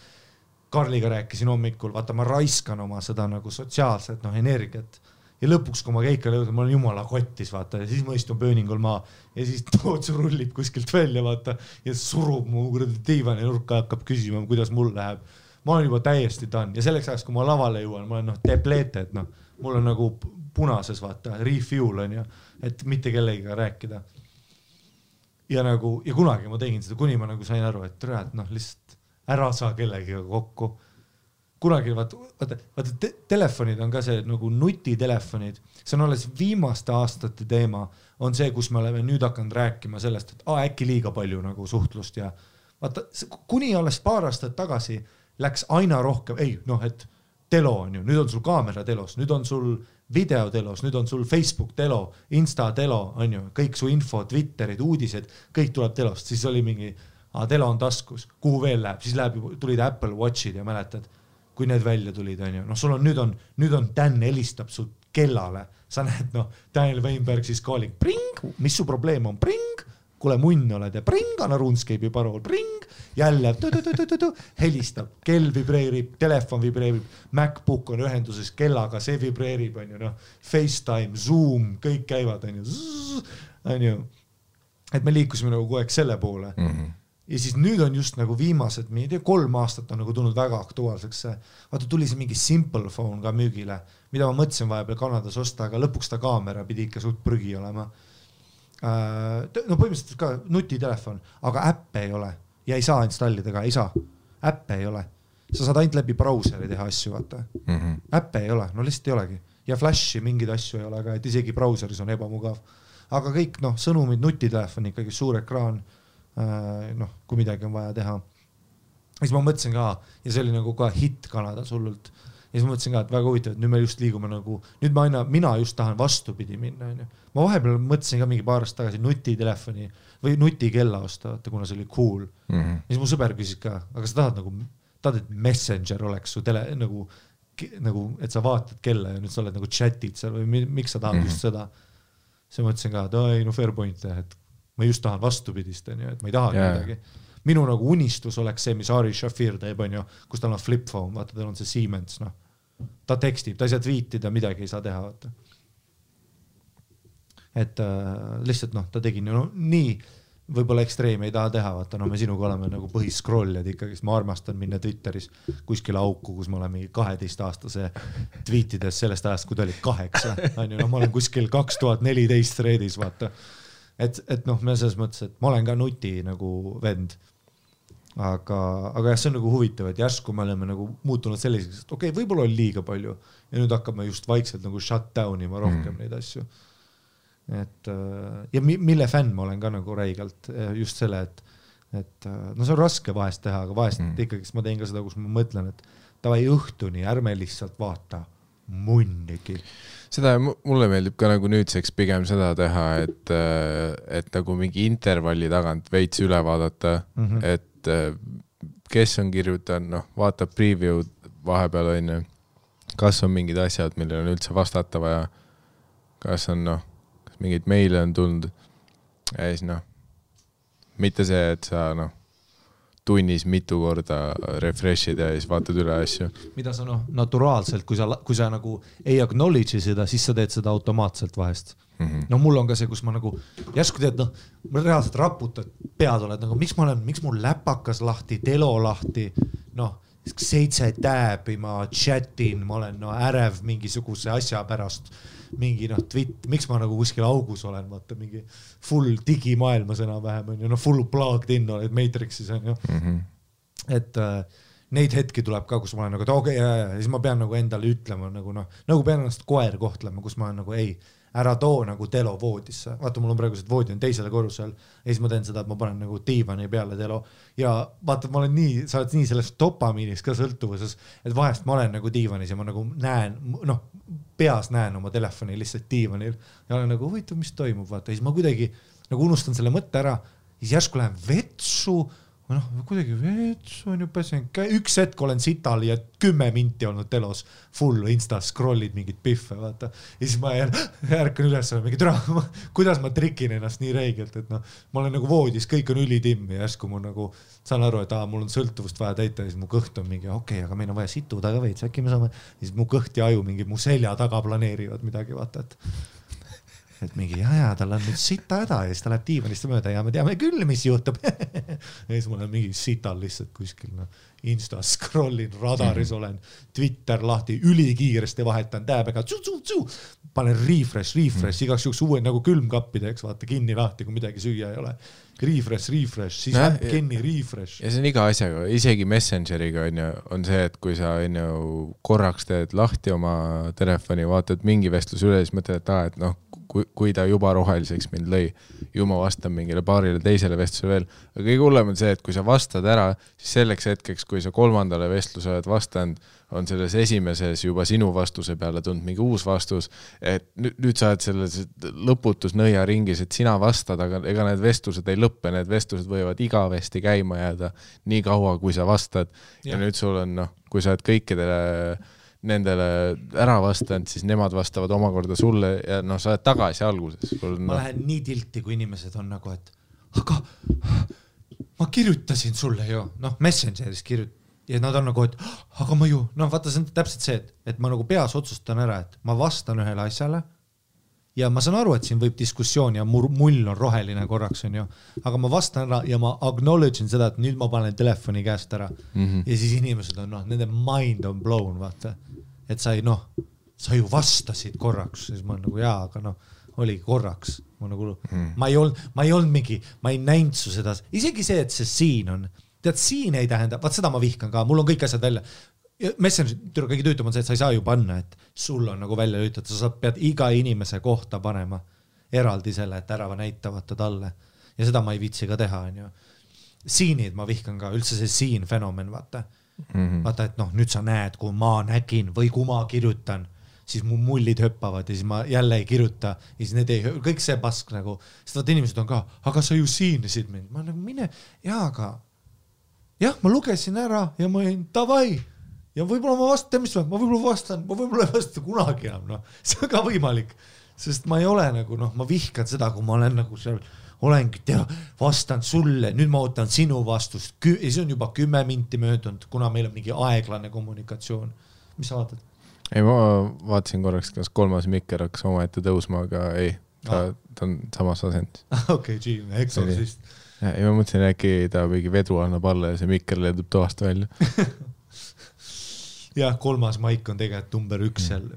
Karliga rääkisin hommikul, vaata, ma raiskan oma seda nagu sotsiaalset energiat ja lõpuks, kui ma keikale jõudin, ma olen jumala kottis, vaata, ja siis ma istun pööningul maa ja siis Tootsu rullib kuskilt välja, vaata, ja surub mu diivani nurka, hakkab küsima, kuidas mul läheb. Ma olen juba täiesti done ja selleks ajaks, kui ma lavale jõuan, ma olen depleted, mul on nagu punases, vaata, refuel on ju, et mitte kellegiga rääkida. Ja kunagi ma tegin seda, kuni ma nagu sain aru, et lihtsalt ära saa kellegiga kokku. Kunagi, vaata, telefonid on ka see nagu nutitelefonid, see on alles viimaste aastate teema, on see, kus me oleme nüüd hakanud rääkima sellest, et äkki liiga palju nagu suhtlust ja vaata, kuni alles paar aastat tagasi läks aina rohkem, et telo on ju, nüüd on sul kaamera telos, nüüd on sul video telos, nüüd on sul Facebook telo, Insta telo, on ju, kõik su info, Twitterid, uudised, kõik tuleb telost, siis oli mingi, telo on taskus, kuhu veel läheb, siis tulid Apple Watchid ja mäletad, kui need välja tulid, on ju, sul on, nüüd on Dan helistab su kellale, sa näed, Daniel Weinberg siis koolig, pring, mis su probleem on, pring, kuule munn oled ja pring, anna RuneScape'i parool, pring, jälle helistab, kell vibreerib, telefon vibreerib, MacBook on ühenduses kellaga, see vibreerib, on ju, FaceTime, Zoom, kõik käivad, on ju, et me liikusime nagu kogu aeg selle poole. Ja siis nüüd on just nagu viimased, 3 aastat on nagu tulnud väga aktuaalseks. Vaata, tuli see mingi Simple Phone ka müügile, mida ma mõtlesin vahepeal Kanadas osta, aga lõpuks ta kaamera pidi ikka suht prügi olema. Põhimõtteliselt ka nutitelefon, aga äppe ei ole ja ei saa installida ka, ei saa. Äppe ei ole. Sa saad ainult läbi brauseri teha asju, vaata. Äppe ei ole, lihtsalt ei olegi. Ja flashi mingid asju ei ole ka, et isegi brauseris on ebamugav. Aga kõik, sõnumid, nutitelefon, ikkagi suur ekraan, kui midagi on vaja teha. Ja siis ma mõtlesin ka, ja see oli nagu ka hit Kanadas hullult. Ja siis ma mõtlesin ka, et väga huvitav, et nüüd me just liigume nagu, nüüd mina just tahan vastupidi minna. Ma vahepeal mõtlesin ka mingi paar aastat tagasi nutitelefoni või nutikella osta, kuna see oli cool. Ja siis mu sõber küsis ka, aga sa tahad, et Messenger oleks su nagu, et sa vaatad kella ja nüüd sa oled nagu chatid seal või miks sa tahad just seda. See mõtlesin ka, et fair point, et ma just tahan vastupidist, et ma ei taha midagi. Minu nagu unistus oleks see, mis Ari Shafir teeb, kus tal on flip phone, vaata, tal on see Siemens, ta tekstib, ta ei saa tweetida, midagi ei saa teha, vaata. Et lihtsalt, ta tegi nii, võib-olla ekstreemi ei taha teha, vaata, me sinuga oleme nagu põhiscrolljad ikkagi, ma armastan minna Twitteris kuskile auku, kus ma olen mingi 12-aastase tweetides sellest ajast, kui ta oli 8, ma olen kuskil 2014 threadis, vaata. Et me selles mõttes, et ma olen ka nuti nagu vend, aga jah, see on nagu huvitav, et järsku me oleme nagu muutunud selliseks, et võib-olla oli liiga palju ja nüüd hakkame just vaikselt nagu shut down ima rohkem neid asju. Ja mille fänn ma olen ka nagu räigelt just selle, et see on raske vahest teha, aga vahest ikkagi ma teen ka seda, kus ma mõtlen, et tavai õhtuni, ärme lihtsalt vaata munnigi. Seda mulle meeldib ka nagu nüüdseks pigem seda teha, et nagu mingi intervalli tagant veits üle vaadata, et kes on kirjutanud, vaatab preview vahepeal on, kas on mingid asjad, millel on üldse vastata vaja, kas on kas mingid meile on tulnud ja siis mitte see, et sa tunnis mitu korda refresh'id ja siis vaatad üle asju. Mida sa naturaalselt, kui sa nagu ei acknowledge seda, siis sa teed seda automaatselt vahest. Mul on ka see, kus ma nagu järsku teed, ma reaalselt raputad pead oled, nagu miks mul läpakas lahti, telo lahti, 7 tääbi, ma chatin, ma olen ärev mingisuguse asja pärast, mingi miks ma nagu kuskil augus olen, vaata mingi full digimaailmas enam-vähem on full plugged in oled Matrixis on ju. Et neid hetki tuleb ka, kus ma olen nagu, et okei, siis ma pean nagu endale ütlema nagu pean ennast koer kohtlema, kus ma olen nagu ei, ära too nagu telo voodisse. Vaata, mul on praegused voodi on teisele korrusel ja siis ma teen seda, et ma panen nagu diivani peale telo ja vaata, ma olen nii, sa oled nii selles dopamiinis ka sõltuvuses, et vahest ma olen nagu diivanis ja ma nagu näen, peas näen oma telefoni lihtsalt diivanil ja olen nagu huvitav, mis toimub, vaata, siis ma kuidagi nagu unustan selle mõtte ära, siis järsku lähen vetsu, kuidagi vetsu on ju pesen, üks hetk olen sital ja 10 minti olnud telos, full insta scrollid mingid piffe, vaata. Ja siis ma ärkan üles, mingi türa, kuidas ma trikin ennast nii reigelt, et ma olen nagu voodis, kõik on ülitim ja järsku mul nagu saan aru, et mul on sõltuvust vaja täita ja siis mu kõht on mingi, okei, aga meil on vaja situda ka veits, äkki me saame, siis mu kõht ja aju mingi mu selja taga planeerivad midagi, vaata, et mingi tal on nüüd sita häda ja siis ta läheb diivanist mööda ja me teame küll, mis juhtub. Ja siis ma olen mingi sital lihtsalt kuskil, Insta scrollin, radaris olen, Twitter lahti, ülikiiresti vahetan tääbega, panen refresh, igaks juhuks uue nagu külmkappideks, vaata kinni lahti, kui midagi süüa ei ole. Refresh, siis äpp kinni, refresh. Ja see on iga asjaga, isegi Messengeriga on see, et kui sa korraks teed lahti oma telefoni, vaatad mingi vestlus üle, siis mõtled, et kui ta juba roheliseks mind lõi, ju ma vastan mingile paarile teisele vestluse veel. Aga kõige hullem on see, et kui sa vastad ära, siis selleks hetkeks, kui sa 3. vestluse oled vastanud, on selles esimeses juba sinu vastuse peale tulnud mingi uus vastus, et nüüd sa oled selles lõputus nõiaringis, et sina vastad, aga ega need vestlused ei lõppe, need vestlused võivad igavesti käima jääda nii kaua, kui sa vastad. Ja nüüd sul on, kui sa oled kõikidele nendele ära vastanud, siis nemad vastavad omakorda sulle ja sa oled tagasi alguses. Ma lähen nii tilti, kui inimesed on nagu, et aga ma kirjutasin sulle ju, Messengeris ja nad on nagu, et aga ma ju, vaata, see on täpselt see, et ma nagu peas otsustan ära, et ma vastan ühele asjale ja ma saan aru, et siin võib diskussioon ja mull on roheline korraks on ju, aga ma vastan ära ja ma acknowledge'in seda, et nüüd ma panen telefoni käest ära ja siis inimesed on, nende mind on blown, vaata, et sa ju vastasid korraks, siis ma nagu aga oligi korraks, ma nagu, ma ei olnud mingi, ma ei näinud su seda, isegi see, et see siin on, tead, siin ei tähenda, vaat seda ma vihkan ka, mul on kõik asjad välja. Messenger kõige tüütum on see, et sa ei saa ju panna, et sul on nagu välja lüütud, sa pead iga inimese kohta panema eraldi selle, et ära näitavata talle ja seda ma ei viitsi ka teha, on ju. Siinid ma vihkan ka, üldse see siin fenomen, vaata, et nüüd sa näed, kui ma nägin või kui ma kirjutan, siis mu mullid hüppavad ja siis ma jälle ei kirjuta ja siis need ei, kõik see pask nagu, sest vaata inimesed on ka, aga sa ju siinisid mind, ma nagu mine, aga ma lugesin ära ja ma olin davai ja võib-olla ma vastan, ma võib-olla ei vasta kunagi enam, see on ka võimalik, sest ma ei ole nagu, ma vihkan seda, kui ma olen nagu seal, olengi, vastan sulle, nüüd ma ootan sinu vastust, ja see on juba 10 minti möödunud, kuna meil on mingi aeglane kommunikatsioon. Mis sa vaatad? Ei, ma vaatasin korraks, kas 3. mikker hakkas omaette tõusma, aga ei, ta on samas asendis. Okei, Exorcist. Ja ma mõtlesin, äkki ta mingi vedru annab alla ja see mikker leedub toast välja. Jah, 3. maik on tegelikult number 1 seal.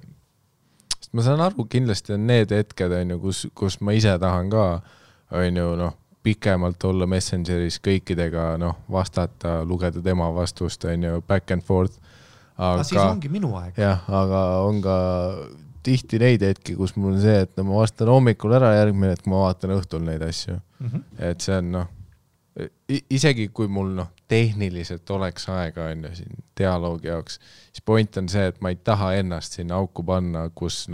Ma saan aru, kindlasti on need hetked, kus ma ise tahan ka pikemalt olla Messengeris kõikidega, vastata, lugeda tema vastust, back and forth. Aga siis ongi minu aeg. Jah, aga on ka tihti neid hetki, kus mul on see, et ma vastan hommikul ära järgmine, et ma vaatan õhtul neid asju. Et see on, isegi kui mul tehniliselt oleks aega on ju siin dialoogi jaoks, siis point on see, et ma ei taha ennast sinna auku panna, kus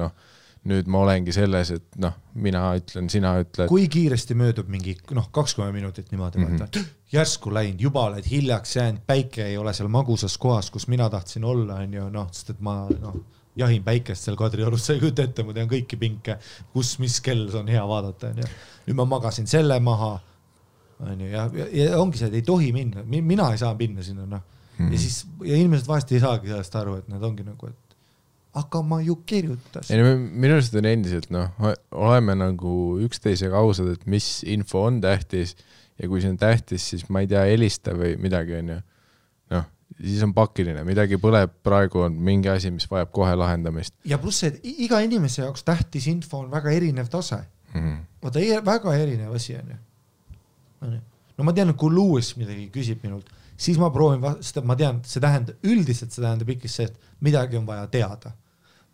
nüüd ma olengi selles, et mina ütlen, sina ütled. Kui kiiresti möödub mingi 20 minutit niimoodi, järsku läinud, juba oled hiljaks jäänud, päike ei ole seal magusas kohas, kus mina tahtsin olla, on ju, sest et ma jahin päikest seal Kadriorus, sa ei kujuta ette, ma tean kõiki pinke, kus, mis kell on hea vaadata, on ju. Nüüd ma magasin selle maha, on ju, ja ongi see, et ei tohi minna, mina ei saa minna sinna, ja siis, ja inimesed vahest ei saagi sellest aru, et nad ongi nagu, et aga ma ju kirjutasin. Minu arust on endiselt, oleme nagu üksteisega ausad, et mis info on tähtis ja kui see on tähtis, siis ma ei tea, helista või midagi on ju. Siis on pakiline, midagi põleb, praegu on mingi asi, mis vajab kohe lahendamist. Ja pluss, et iga inimese jaoks tähtis info on väga erinev tase. Vaata, väga erinev asi on ju. No ma tean, et kui Lewis midagi küsib minult, siis ma proovin, sest ma tean, üldiselt see tähendab ikka see, et midagi on vaja teada.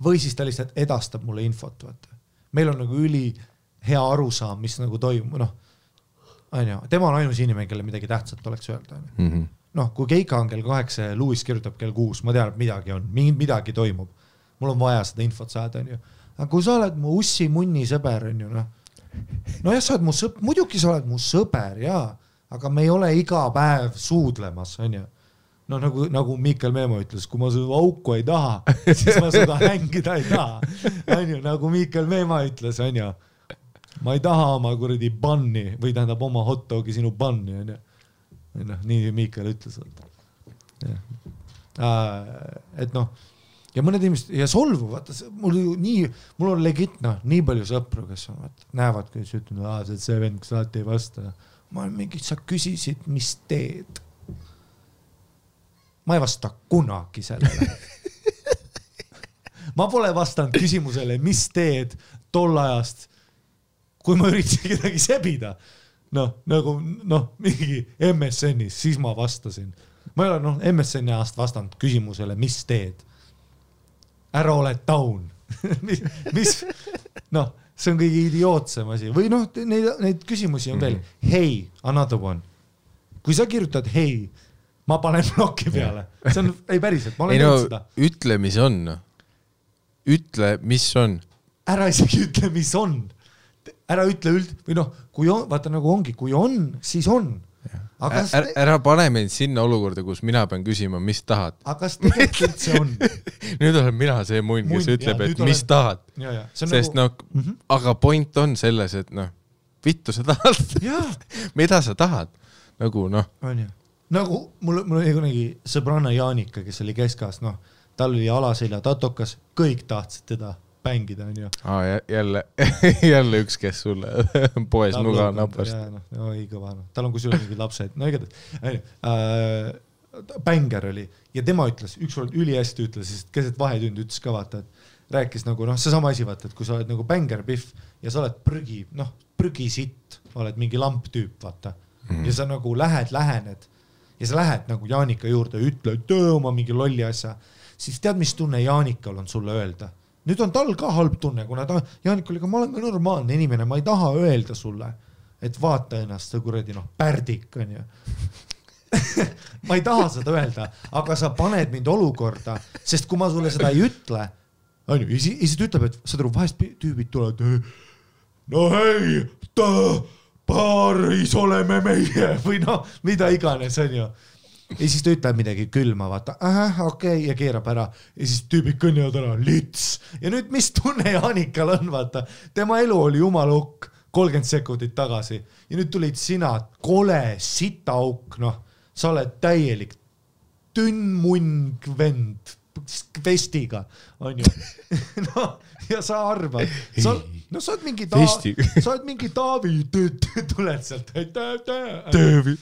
Või siis ta lihtsalt edastab mulle infot. Vaata. Meil on nagu üli hea arusaam, mis nagu toimub. Tema on ainus inimene, kelle midagi tähtsat oleks öelda. Kui Keika on kell 8 ja Lewis kirjutab kell 6, ma tean, et midagi on, midagi toimub. Mul on vaja seda infot saada, on ju. Aga kui sa oled mu ussi munni sõber, on ju, jah, sa oled mu sõber, muidugi sa oled mu sõber, jaa, aga me ei ole iga päev suudlemas, on ju. Nagu Miikal Meemo ütles, kui ma seda auku ei taha, siis ma seda hängida ei taha. On ju, nagu Miikal Meemo ütles, on ju, ma ei taha oma kuradi banni või tähendab oma hotdogi sinu banni, on ju. Nii Miikal ütles. Et ja mõned inimesed, ja solvu, vaata, mul on legit, nii palju sõpru, kes on, näevad, kes ütlevad, see vend, kus alati ei vasta. Ma olen mingi, sa küsisid, mis teed? Ma ei vasta kunagi sellele. Ma pole vastanud küsimusele, mis teed tol ajast, kui ma üritasin kedagi sebida. Mingi MSN-is, siis ma vastasin. Ma ei ole MSN-i ajast vastanud küsimusele, mis teed? Ära ole taun. mis? See on kõige idiootsem asi. Või neid küsimusi on veel. Hey, another one. Kui sa kirjutad hei, ma panen blokki peale. See on, ei päriselt, ma olen teinud seda. Ütle, mis on. Ütle, mis on. Ära isegi ütle, mis on. Ära ütle või kui on, vaata nagu ongi, kui on, siis on. Ära pane meid sinna olukorda, kus mina pean küsima, mis tahad. Aga kas tegelikult see on? Nüüd olen mina see munn, kes ütleb, et mis tahad. Sest aga point on selles, et vittu sa tahad. Mida sa tahad? Nagu mul oli kunagi sõbranna Jaanika, kes oli Keskas, tal oli alaselja tatokas, kõik tahtsid teda pängida, on ju. Jälle üks, kes sulle poes nuga napast. Ei kõva, tal on kusjuures mingid lapsed. Bänger oli ja tema ütles, ükskord ülihästi ütles, sest keset vahetund ütles ka vaata, et rääkis nagu, see sama asi vaata, et kui sa oled nagu bänger piff ja sa oled prügisitt, oled mingi lamptüüp, vaata. Ja sa nagu lähened ja sa lähed nagu Jaanika juurde ja ütled oma mingi lolli asja, siis tead, mis tunne Jaanikal on sulle öelda? Nüüd on tal ka halb tunne, kuna Jaanik oli, ma olen ka normaalne inimene, ma ei taha öelda sulle, et vaata ennast see kuradi pärdik, on ju. Ma ei taha seda öelda, aga sa paned mind olukorda, sest kui ma sulle seda ei ütle, on ju, ja siis ütleb, et sa turu vahest tüübid tulevad, hei, paaris oleme meie, või mida iganes, on ju. Ja siis ta ütleb midagi külma, vaata, okei, ja keerab ära. Ja siis tüübid kõnnivad ära, lits. Ja nüüd mis tunne Jaanikal on, vaata. Tema elu oli jumalukk 30 sekundit tagasi. Ja nüüd tulid sina, kole, sitaauk, sa oled täielik tünnmunn vend vestiga, on ju. Ja sa arvad, sa oled mingi Taavi, tuled sealt. Taavi.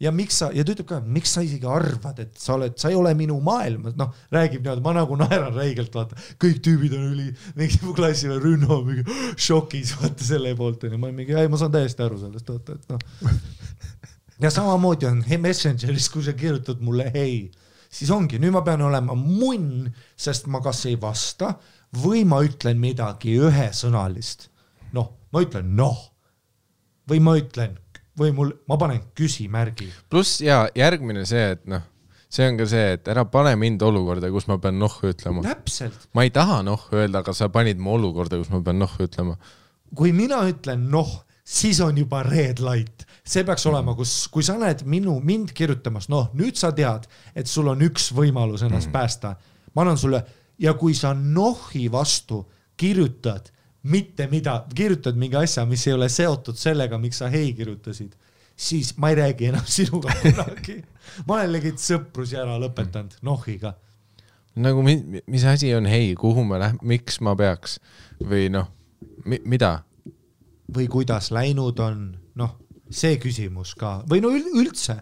Ja miks sa, ja ta ütleb ka, miks sa isegi arvad, et sa ei ole minu maailmas, räägib niimoodi, ma nagu naeran räigelt, vaata, kõik tüübid on mingi mu klassi või Rünno mingi šokis, vaata selle poolt, ja ma saan täiesti aru sellest, vaata, et Ja samamoodi on Messengeris, kui sa kirjutad mulle hei, siis ongi, nüüd ma pean olema munn, sest ma kas ei vasta või ma ütlen midagi ühesõnalist. Ma ütlen või ma ütlen või ma panen küsimärgi. Pluss ja järgmine see, et noh, see on ka see, et ära pane mind olukorda, kus ma pean ütlema. Täpselt. Ma ei taha öelda, aga sa panid mu olukorda, kus ma pean ütlema. Kui mina ütlen siis on juba red light. See peaks olema, kui sa näed mind kirjutamas, nüüd sa tead, et sul on üks võimalus ennast päästa. Ma annan sulle, ja kui sa nohi vastu kirjutad kirjutad mingi asja, mis ei ole seotud sellega, miks sa hei kirjutasid, siis ma ei räägi enam sinuga kunagi. Ma olen legit sõprus ära lõpetanud nohiga. Nagu mis asi on hei, kuhu me miks ma peaks või mida? Või kuidas läinud on, see küsimus ka. Või üldse,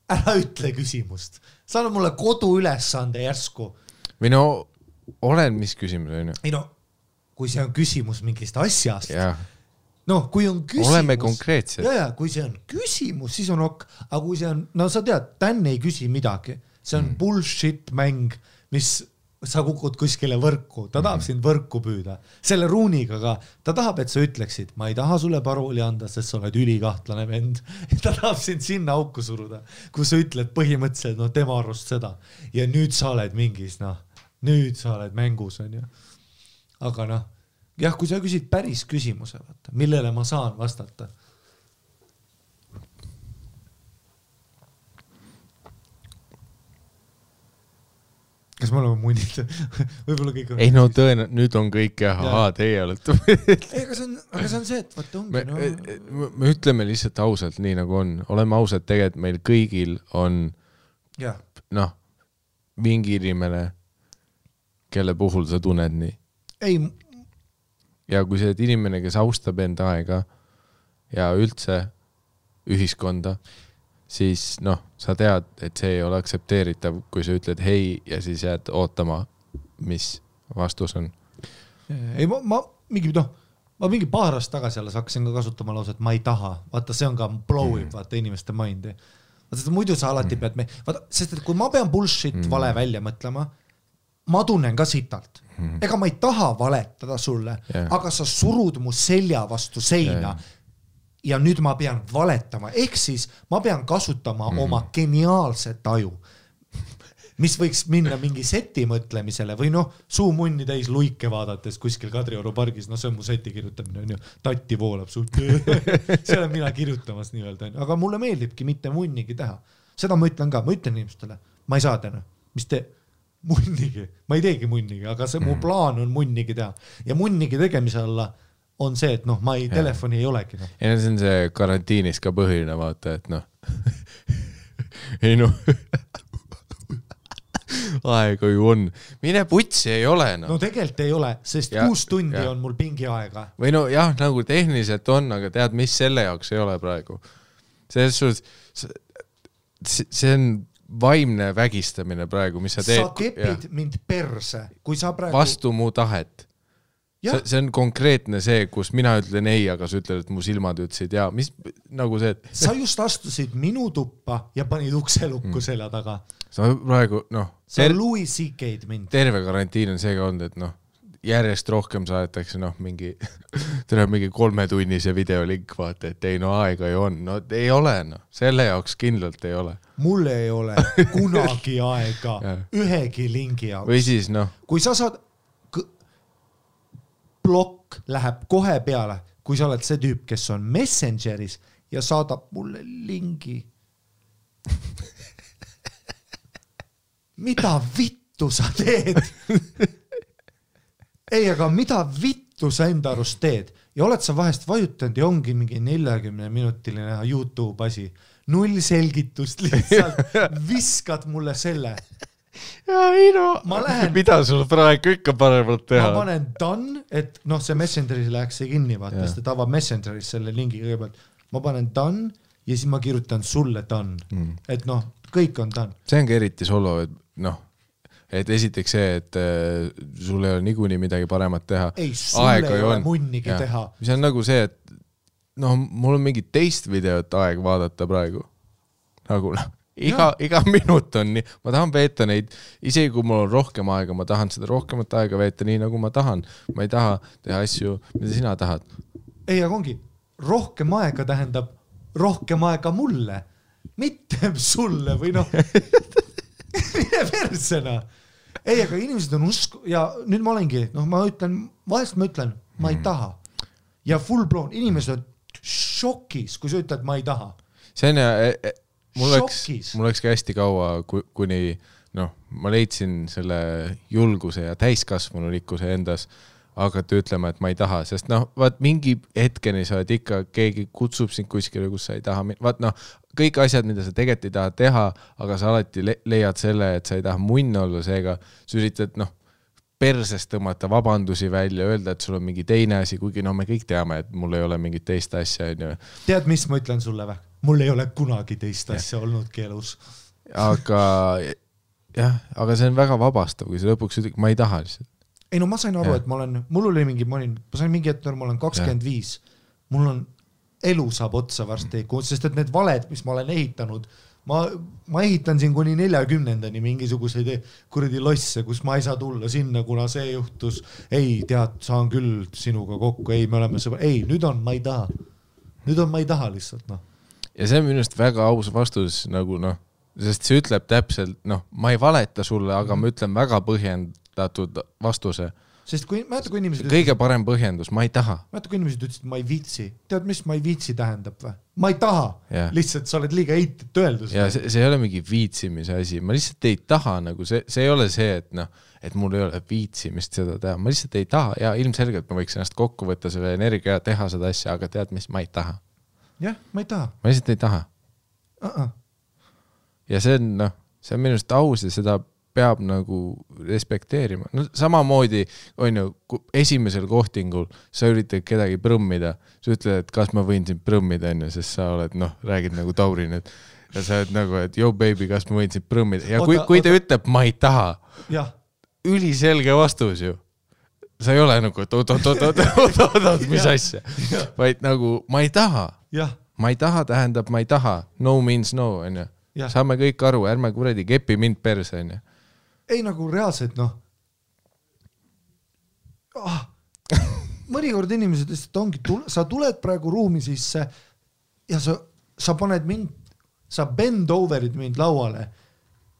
ära ütle küsimust. Sa annad mulle kodu ülesande järsku. Või olen mis küsimus on ju? Ei kui see on küsimus mingist asjast. Kui on küsimus. Oleme konkreetsed. Kui see on küsimus, siis on ok. Aga kui see on, sa tead, Dan ei küsi midagi. See on bullshit mäng, mis sa kukud kuskile võrku. Ta tahab sind võrku püüda. Selle ruuniga ka. Ta tahab, et sa ütleksid, ma ei taha sulle parooli anda, sest sa oled ülikahtlane vend. Ta tahab sind sinna auku suruda, kui sa ütled põhimõtteliselt, tema arust seda. Ja nüüd sa oled mingis, nüüd sa oled mängus, on ju. Aga jah, kui sa küsid päris küsimuse, millele ma saan vastata. Kas me oleme munnid? Võib-olla kõik on... Ei nüüd on kõik teie olete. Aga see on see, et vaata ongi. Me ütleme lihtsalt ausalt, nii nagu on. Oleme ausalt, tegelikult meil kõigil on mingi inimene, kelle puhul sa tunned nii. Ei. Ja kui see inimene, kes austab enda aega ja üldse ühiskonda, siis sa tead, et see ei ole aksepteeritav, kui sa ütled hei ja siis jääd ootama, mis vastus on. Ei, ma mingi paar aastat tagasi alles hakkasin ka kasutama lause, et ma ei taha. Vaata, see on ka blowib, vaata inimeste mindi. Vaata, muidu sa alati pead sest et kui ma pean bullshit vale välja mõtlema, ma tunnen ka sitalt. Ega ma ei taha valetada sulle, aga sa surud mu selja vastu seina ja nüüd ma pean valetama. Ehk siis ma pean kasutama oma geniaalset aju, mis võiks minna mingi seti mõtlemisele või suumunni täis luike vaadates kuskil Kadrioru pargis, see on mu seti kirjutamine, on ju, tatti voolab sult. See olen mina kirjutamas nii-öelda, aga mulle meeldibki mitte munnigi teha. Seda ma ütlen ka, ma ütlen inimestele, ma ei saa täna, mis te munnigi, ma ei teegi munnigi, aga see mu plaan on munnigi teha. Ja munnigi tegemise alla on see, et ma ei, telefoni ei olegi. Ja see on see karantiinis ka põhiline vaata, et ei aega ju on. Mine putsi ei ole. No tegelikult ei ole, sest 6 tundi on mul pingi aega. Või jah, nagu tehniliselt on, aga tead, mis selle jaoks ei ole praegu. See on vaimne vägistamine praegu, mis sa teed. Sa kepid mind perse, kui sa praegu... Vastu mu tahet. See on konkreetne see, kus mina ütlen ei, aga sa ütled, et mu silmad ütlesid ja mis nagu see, et... Sa just astusid minu tuppa ja panid ukselukku selja taga. Sa praegu, Sa Louis C.K.'d mind. Terve karantiin on seega olnud, et järjest rohkem saadetakse mingi 3-tunnise videolink, vaata, et ei aega ju on. Ei ole, selle jaoks kindlalt ei ole. Mul ei ole kunagi aega ühegi lingi jaoks. Või siis, kui sa saad, blokk läheb kohe peale, kui sa oled see tüüp, kes on Messengeris ja saadab mulle lingi. Mida vittu sa teed? Ei, aga mida vittu sa enda arust teed? Ja oled sa vahest vajutanud ja ongi mingi 40-minutiline YouTube asi. 0 selgitust lihtsalt. Viskad mulle selle. Ja mida sul praegu ikka paremalt teha? Ma panen done, et see Messengeris läheks see kinni, vaata, sest ta avab Messengeris selle lingi kõigepealt. Ma panen done ja siis ma kirjutan sulle done. Et kõik on done. See on ka eriti solo, et esiteks see, et sul ei ole niikuinii midagi paremat teha. Ei, sul ei ole munnigi teha. See on nagu see, et mul on mingi teist videot aeg vaadata praegu. Nagu iga minut on nii. Ma tahan veeta neid, isegi kui mul on rohkem aega, ma tahan seda rohkemat aega veeta nii, nagu ma tahan. Ma ei taha teha asju, mida sina tahad. Ei, aga ongi, rohkem aega tähendab rohkem aega mulle, mitte sulle või noh, mine persena. Ei, aga inimesed on ja nüüd ma olengi, ma ütlen, vahest ma ütlen, ma ei taha. Ja full blown, inimesed on šokis, kui sa ütled, ma ei taha. See on mul läks ka hästi kaua, kuni ma leidsin selle julguse ja täiskasvanulikkuse endas hakata ütlema, et ma ei taha, sest vaat mingi hetkeni sa oled ikka, keegi kutsub sind kuskile, kus sa ei taha, vaat kõik asjad, mida sa tegelikult ei taha teha, aga sa alati leiad selle, et sa ei taha munn olla, seega sa üritad persest tõmmata vabandusi välja, öelda, et sul on mingi teine asi, kuigi me kõik teame, et mul ei ole mingit teist asja. Tead, mis ma ütlen sulle või? Mul ei ole kunagi teist asja olnudki elus. Aga see on väga vabastav, kui sa lõpuks ütled, ma ei taha lihtsalt. Ei ma sain aru, et ma sain mingi hetk, ma olen 25, mul on elu saab otsa varsti, sest et need valed, mis ma olen ehitanud, ma ehitan siin kuni 40-ndani mingisuguseid kuradi losse, kus ma ei saa tulla sinna, kuna see juhtus, ei tead, saan küll sinuga kokku, ei, me oleme sõbra, ei, nüüd on ma ei taha lihtsalt, Ja see on minust väga aus vastus, sest see ütleb täpselt, ma ei valeta sulle, aga ma ütlen väga põhjendatud vastuse. Sest kui inimesed kõige parem põhjendus, ma ei taha. Kui inimesed ütlesid, ma ei viitsi. Tead, mis ma ei viitsi tähendab või? Ma ei taha. Lihtsalt sa oled liiga heitit öeldus. Ja see ei ole mingi viitsimise asi. Ma lihtsalt ei taha, see ei ole see, et mul ei ole viitsimist seda teha. Ma lihtsalt ei taha ja ilmselgelt ma võiks ennast kokku võtta selle energia ja teha seda asja, aga tead, mis ma ei taha. Jah, ma ei taha. Ma lihtsalt ei taha. Ja see on minust aus ja seda peab respekteerima. Samamoodi esimesel kohtingul sa üritad kedagi prõmmida, sa ütled, et kas ma võin sind prõmmida enne, sest sa oled, räägid Taurin, ja sa oled et yo baby, kas ma võin sind prõmmida. Ja kui ta ütleb, ma ei taha, üliselge vastus ju. Sa ei ole oot, mis asja, vaid ma ei taha. Ma ei taha tähendab, ma ei taha. No means no, on ju. Saame kõik aru, ärme kuradi kepi mind perse, on ju. Ei reaalselt, mõnikord inimesed lihtsalt ongi, sa tuled praegu ruumi sisse ja sa paned mind, sa bend over'id mind lauale,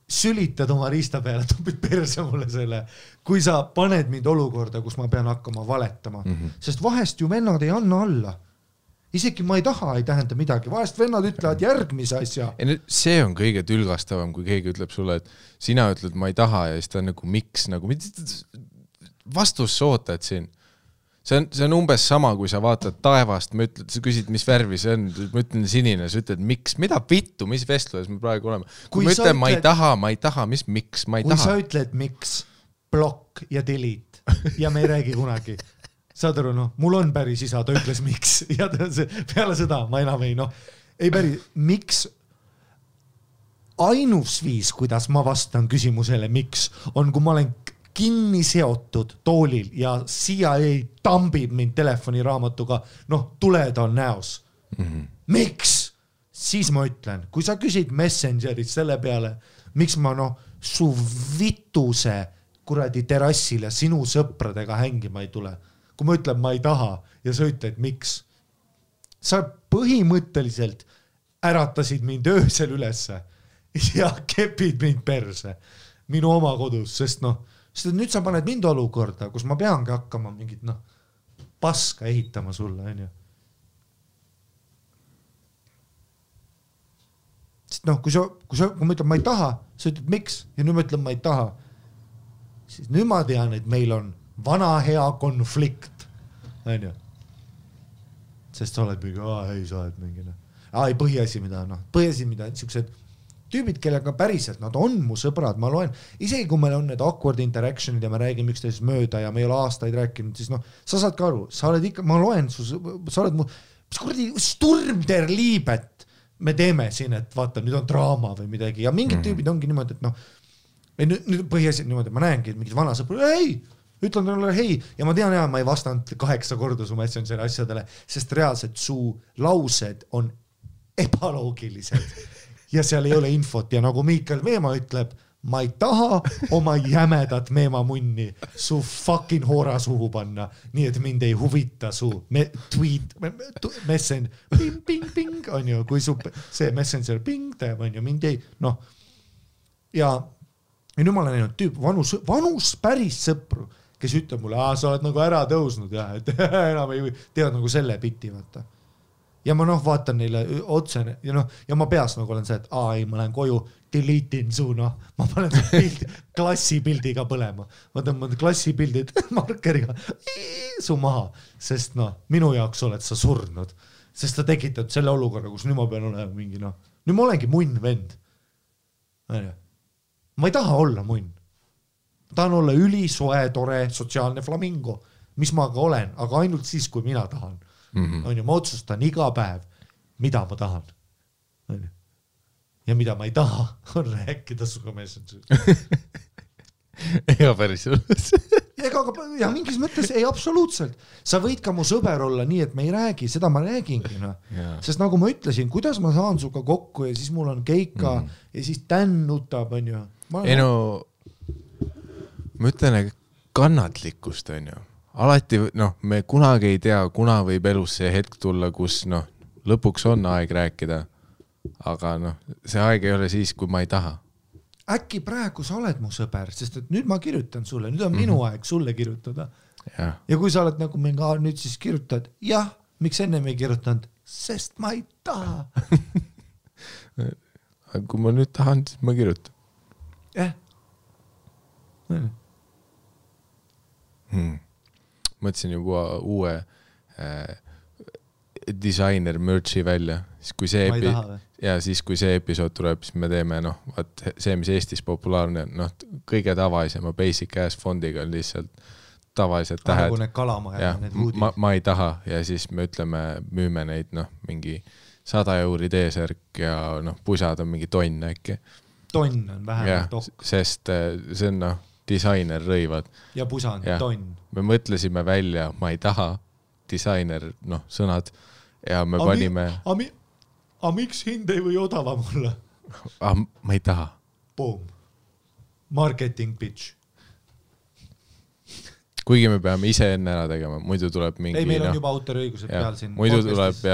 sülitad oma riista peale, tupid perse mulle selle, kui sa paned mind olukorda, kus ma pean hakkama valetama, sest vahest ju vennad ei anna alla. Isegi ma ei taha, ei tähenda midagi. Vahest vennad ütlevad järgmise asja. See on kõige tülgastavam, kui keegi ütleb sulle, et sina ütled, ma ei taha ja siis ta on miks, vastus sa ootad siin. See on umbes sama, kui sa vaatad taevast, sa küsid, mis värvi see on, ma ütlen sinine, sa ütled, miks, mida vittu, mis vestluses me praegu oleme. Kui ma ütlen, ma ei taha, mis miks, ma ei taha. Kui sa ütled, miks, blokk ja delete ja me ei räägi kunagi. Saad aru, mul on päris isa, ta ütles miks ja peale seda ma enam ei päris, miks ainus viis, kuidas ma vastan küsimusele miks, on kui ma olen kinni seotud toolil ja CIA tambib mind telefoniraamatuga, tuled on näos. Miks? Siis ma ütlen, kui sa küsid Messengerit selle peale, miks ma su vituse kuradi terrassile sinu sõpradega hängima ei tule. Kui ma ütlen, ma ei taha ja sa ütled, miks? Sa põhimõtteliselt äratasid mind öösel ülesse ja kepid mind perse minu oma kodus, sest nüüd sa paned mind olukorda, kus ma peangi hakkama mingit paska ehitama sulle, on ju. Sest kui ma ütlen, ma ei taha, sa ütled, miks? Ja nüüd ma ütlen, ma ei taha. Siis nüüd ma tean, et meil on vana hea konflikt, on ju. Sest sa oled mingi, ei, sa oled mingi, ei, põhiasi, mida, niisugused tüübid, kellega päriselt, nad on mu sõbrad, ma loen, isegi kui meil on need awkward interactionid ja me räägime üksteisest mööda ja me ei ole aastaid rääkinud, siis sa saad ka aru, sa oled ikka, ma loen, sa oled mu, mis kuradi Sturm der Liebet me teeme siin, et vaata, nüüd on draama või midagi ja mingid tüübid ongi niimoodi, et nüüd põhiasi niimoodi, ma näengi, et mingid vana sõpra, ei, ütlen talle hei ja ma tean, ma ei vastanud 8 korda su Messengeri asjadele, sest reaalselt su laused on ebaloogilised ja seal ei ole infot ja nagu Miikael Veemaa ütleb, ma ei taha oma jämedat meemamunni su fucking hoora suhu panna, nii et mind ei huvita su tweet, messenger, ping, on ju, kui su see messenger ping teeb, on ju, mind ei, noh. Ja nüüd ma olen näinud tüüp, vanus päris sõpru, kes ütleb mulle, sa oled nagu ära tõusnud ja et enam ei tead nagu selle biti, vaata. Ja ma vaatan neile otse ja ma peas nagu olen see, et ei, ma lähen koju, delete'in su, ma panen pildi, klassipildiga põlema. Ma tõmban klassipildid markeriga su maha, sest minu jaoks oled sa surnud, sest ta tekitad selle olukorra, kus nüüd ma pean olema mingi, nüüd ma olengi munn vend. Ma ei taha olla munn. Ma tahan olla ülisoe, tore, sotsiaalne flamingo, mis ma ka olen, aga ainult siis, kui mina tahan. On ju, ma otsustan iga päev, mida ma tahan. Ja mida ma ei taha, on rääkida suga messenger. Ega päris ja mingis mõttes ei absoluutselt. Sa võid ka mu sõber olla nii, et me ei räägi, seda ma räägingi. Sest nagu ma ütlesin, kuidas ma saan suga kokku ja siis mul on keika ja siis tän nutab, on ju. Ei no, ma ütlen, kannatlikkust, on ju. Alati, me kunagi ei tea, kuna võib elus see hetk tulla, kus lõpuks on aeg rääkida, aga see aeg ei ole siis, kui ma ei taha. Äkki praegu sa oled mu sõber, sest et nüüd ma kirjutan sulle, nüüd on minu aeg sulle kirjutada. Ja kui sa oled nagu mingi, nüüd siis kirjutad, jah, miks enne me ei kirjutanud, sest ma ei taha. Kui ma nüüd tahan, siis ma kirjutan. Mõtlesin juba uue designer merch'i välja, siis kui see episood tuleb, siis me teeme see, mis Eestis populaarne, kõige tavalisema basic ass fondiga on lihtsalt tavalised tähed. Need kalamaja, need huudid. Ma ei taha ja siis me ütleme, müüme neid mingi 100 € T-särk ja pusad on mingi tonn äkki. Tonn on vähemalt okk. Sest see on disainer rõivad. Ja pusa on tonn. Me mõtlesime välja, ma ei taha, disainer, sõnad ja me panime... miks hind ei või odava mulle? Ma ei taha. Boom. Marketing pitch. Kuigi me peame ise enne ära tegema, muidu tuleb mingi... Ei, meil on juba autoriõigused peal siin. Muidu tuleb,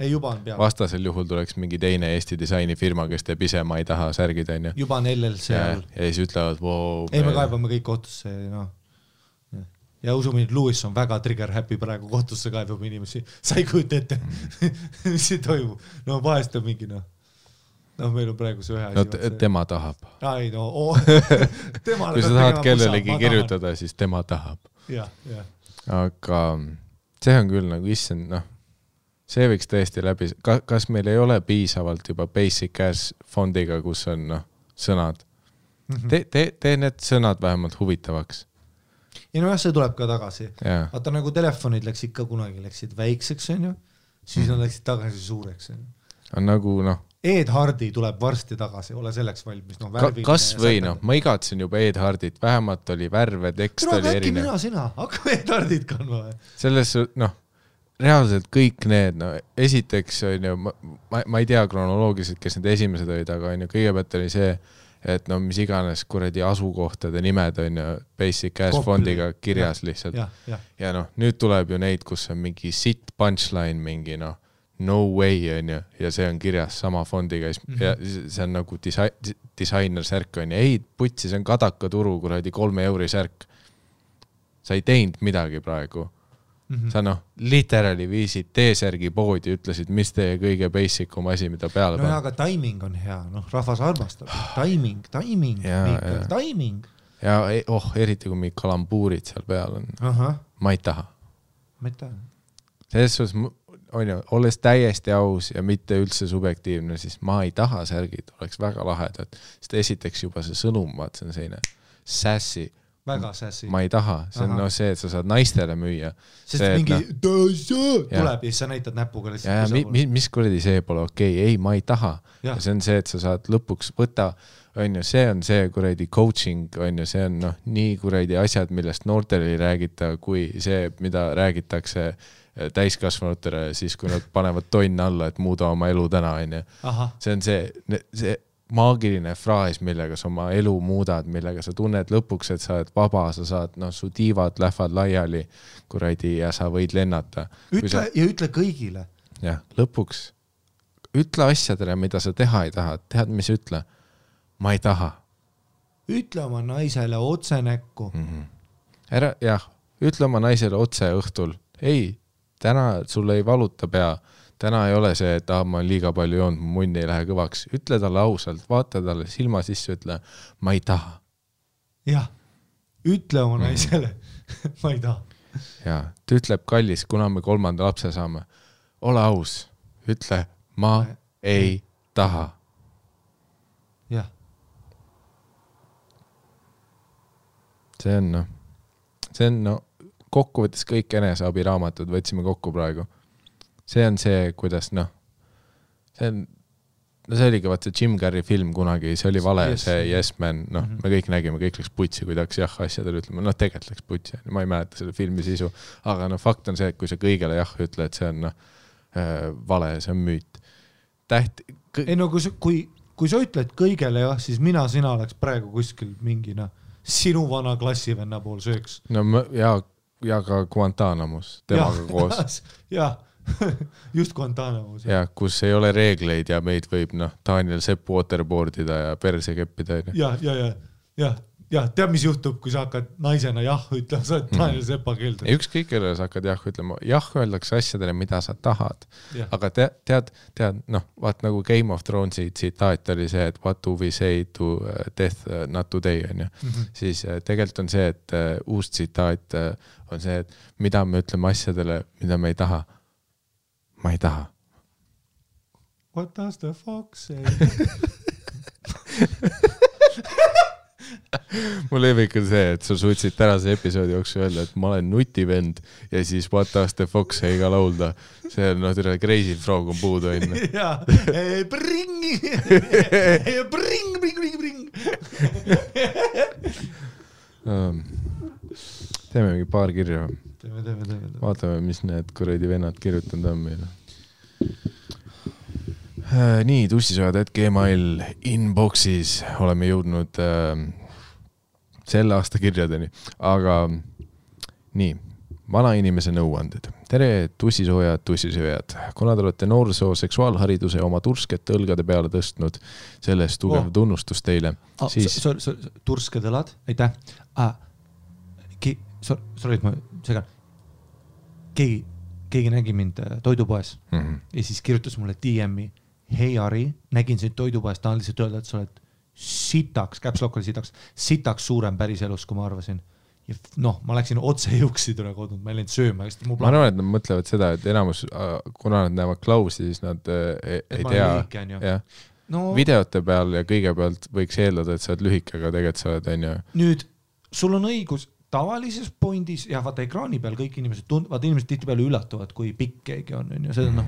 Ei, juba on peal. Vastasel juhul tuleks mingi teine Eesti disainifirma, kes teeb ise, ma ei taha särgid, on ju. Juba on LLC all. Ja siis ütlevad, wow... Ei, me kaebame kõik kohtusse, Ja usumine, et Lewis on väga trigger happy praegu kohtusse kaebab inimesi. Sa ei kujuta ette, mis see toimub. Vahest on mingi, meil on praegu see ühe asi. Tema tahab. Ai, Kui sa tahad kellelegi kirjutada, siis tema tahab. Aga see on küll nagu issand, see võiks tõesti läbi, kas meil ei ole piisavalt juba basic ass fondiga, kus on sõnad. Tee need sõnad vähemalt huvitavaks. Ja see tuleb ka tagasi. Vaata nagu telefonid läksid ka kunagi, läksid väikseks, on ju, siis nad läksid tagasi suureks. On nagu, Ed Hardy tuleb varsti tagasi, ole selleks valmis. Kas või, ma igatsen juba Ed Hardit, vähemalt oli värve, tekst oli erinev. Äkki sina, hakkame Ed Hardit kandma. Selles, reaalselt kõik need, esiteks on ju, ma ei tea kronoloogiliselt, kes need esimesed olid, aga on ju, kõigepealt oli see, et mis iganes kuradi asukohtade nimed on ju basic ass fondiga kirjas lihtsalt. Ja nüüd tuleb ju neid, kus on mingi sit punchline, mingi no way on ju, ja see on kirjas sama fondiga ja see on nagu disainer särk on ju, ei putsi, see on Kadaka turu kuradi 3 € särk. Sa ei teinud midagi praegu. Sa literally viisid T-särgi poodi, ütlesid, mis teie kõige basicum asi, mida peale panna. Aga timing on hea, rahvas armastab. Timing. Ja eriti kui mingi kalambuurid seal peal on. Ma ei taha. Selles suhtes, on ju, olles täiesti aus ja mitte üldse subjektiivne, siis ma ei taha särgid, oleks väga lahedad. Sest esiteks juba see sõnum, vaat see on selline sassy. Väga sassy. Ma ei taha, see on see, et sa saad naistele müüa. Sest mingi tuleb ja siis sa näitad näpuga mis kuradi see pole okei, ei, ma ei taha. Ja see on see, et sa saad lõpuks võtta, on ju, see on see kuradi coaching, on ju, see on nii kuradi asjad, millest noortele ei räägita, kui see, mida räägitakse täiskasvanutele, siis kui nad panevad tonn alla, et muuda oma elu täna, on ju. See on see maagiline fraas, millega sa oma elu muudad, millega sa tunned lõpuks, et sa oled vaba, sa saad, su tiivad lähevad laiali kuradi ja sa võid lennata. Ütle kõigile. Jah, lõpuks ütle asjadele, mida sa teha ei taha. Tead, mis ütle? Ma ei taha. Ütle oma naisele otse näkku. Ütle oma naisele otse õhtul. Ei, täna sul ei valuta pea. Täna ei ole see, et ma olen liiga palju joonud, mu munn ei lähe kõvaks. Ütle talle ausalt, vaata talle silma sisse, ütle, ma ei taha. Jah, ütle oma naisele, ma ei taha. Ja, ta ütleb kallis, kuna me 3. lapse saame. Ole aus, ütle, ma ei taha. Jah. See on kokkuvõttes kõik eneseabiraamatud, võtsime kokku praegu. See on see, kuidas see oligi vaata Jim Carrey film kunagi, see oli vale, see Yes Man, me kõik nägime, kõik läks putsi, kui tahaks jah asjadele ütlema, tegelikult läks putsi, ma ei mäleta selle filmi sisu, aga fakt on see, et kui sa kõigele jah ütle, et see on vale, see on müüt. Ei kui sa ütled kõigele jah, siis sina oleks praegu kuskil mingi sinu vana klassivenna pool sööks. Ja ka Guantanamus, temaga koos. Jah. Just Guantanamus. Ja, kus ei ole reegleid ja meid võib Daniel Sepp waterboardida ja perse keppida. Ja, tead, mis juhtub, kui sa hakkad naisena jah ütlema, sa oled Daniel Seppa keeldud. Ükskõik, kellele sa hakkad jah ütlema. Jah öeldakse asjadele, mida sa tahad. Aga tead, vaat nagu Game of Thronesi tsitaat oli see, et what do we say to death, not today, on ju. Siis tegelikult on see, et uus tsitaat on see, et mida me ütleme asjadele, mida me ei taha. Ma ei taha. What does the fox say? Mul lemmik on see, et sa suutsid tänase episoodi jooksul öelda, et ma olen nutivend ja siis What does the fox say ka laulda. See on crazy frog on puudu enne. Jaa, bring! Teeme mingi paar kirja. Teeme. Vaatame, mis need kuradi vennad kirjutanud on meile. Nii, tussisojad.gmail inboxis oleme jõudnud selle aasta kirjadeni. Aga nii, vanainimese nõuanded. Tere, tussisojad. Kuna te olete noorsoo seksuaalhariduse oma turskete õlgade peale tõstnud, sellest tugev tunnustus teile. Tursked õlad, aitäh. Sorry, et ma segan. Keegi nägi mind toidupoes ja siis kirjutas mulle DM-i. Hei Ari, nägin sind toidupoes, tahan lihtsalt öelda, et sa oled sitaks, käpslokk oli sitaks suurem päris elus, kui ma arvasin. Ja ma läksin otse jõuksi tule kodnud, ma ei läinud sööma. Ma arvan, et nad mõtlevad seda, et enamus, kuna nad näevad klausi, siis nad ei tea. Videote peal ja kõigepealt võiks eeldada, et sa oled lühike, aga tegelikult sa oled. Nüüd, sul on õigus tavalises pointis ja vaata ekraani peal kõik inimesed tihti peale üllatuvad, kui pikk keegi on. Seda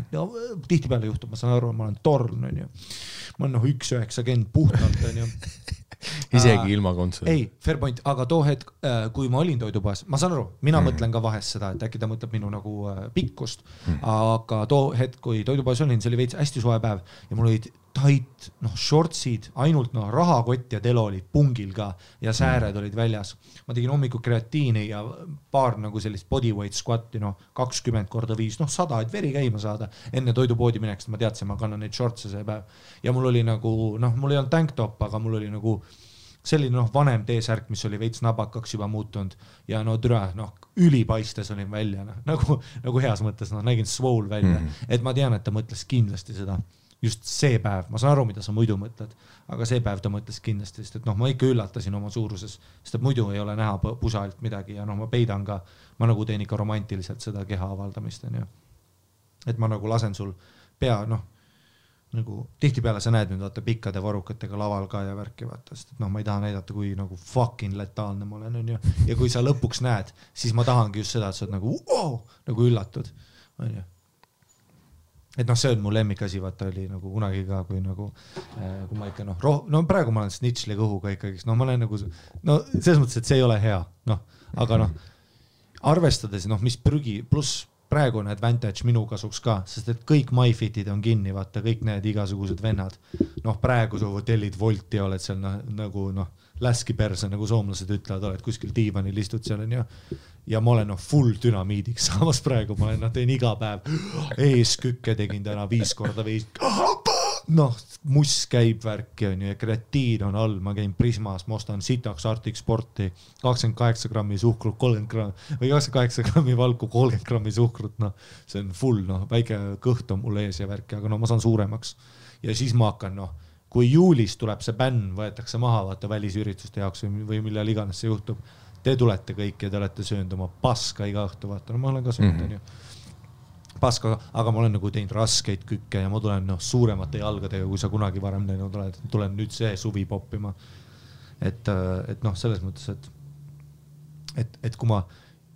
tihti peale juhtub, ma saan aru, ma olen torn. Ma olen 1,90 puhtalt. Isegi ilma kontsoli. Ei, fair point, aga too hetk, kui ma olin toidupoes, ma saan aru, mina mõtlen ka vahest seda, et äkki ta mõtleb minu nagu pikkust, aga too hetk, kui toidupoes olin, see oli veits hästi soe päev ja mul olid tait, shortsid, ainult rahakott ja telo olid pungil ka ja sääred olid väljas. Ma tegin hommiku kreatiini ja paar nagu sellist bodyweight squatti, 20x5, 100, et veri käima saada. Enne toidupoodi mineks, ma teadsin, ma kannan neid shortse see päev. Ja mul oli nagu, mul ei olnud tanktop, aga mul oli nagu selline vanem T-särk, mis oli veits nabakaks juba muutunud ja ülipaistes olin välja, nagu heas mõttes, nägin swole välja. Et ma tean, et ta mõtles kindlasti seda. Just see päev, ma saan aru, mida sa muidu mõtled, aga see päev ta mõtles kindlasti, sest et ma ikka üllatasin oma suuruses, sest et muidu ei ole näha pusalt midagi ja ma peidan ka, ma nagu teen ikka romantiliselt seda keha avaldamist. Et ma nagu lasen sul pea, nagu tihtipeale sa näed nüüd vaata pikkade varukatega laval ka ja värki vaata, sest et ma ei taha näidata, kui nagu fucking letaalne ma olen, ja kui sa lõpuks näed, siis ma tahangi just seda, et sa oled nagu üllatud, on ju. Et see on mu lemmikasi, vaata oli nagu kunagi ka, kui ma ikka praegu ma olen snitšli kõhuga ikkagi, ma olen nagu, selles mõttes, et see ei ole hea, aga arvestades, mis prügi, pluss praegu on advantage minu kasuks ka, sest et kõik MyFitid on kinni, vaata, kõik need igasugused vennad. Noh, praegu su hotellid Volti oled seal nagu läski perse, nagu soomlased ütlevad, oled kuskil diivanil istud seal on ja ma olen full dünamiidiks, samas praegu ma olen, teen iga päev eeskükke tegin täna 5 korda 5. Muss käib värki on ju ja kreatiin on all, ma käin Prismas, ma ostan sitaks Arctic Sporti 28 grammi suhkrut, 30 grammi või 28 grammi valku, 30 grammi suhkrut, see on full, väike kõht on mul ees ja värki, aga ma saan suuremaks ja siis ma hakkan, kui juulis tuleb see bänn, võetakse maha vaata välisürituste jaoks või millal iganes see juhtub, te tulete kõik ja te olete söönud oma paska iga õhtu, vaata, ma olen ka söönud on ju paska, aga ma olen nagu teinud raskeid kükke ja ma tulen suuremate jalgadega, kui sa kunagi varem teinud oled, tulen nüüd see suvi poppima. Et selles mõttes, et kui ma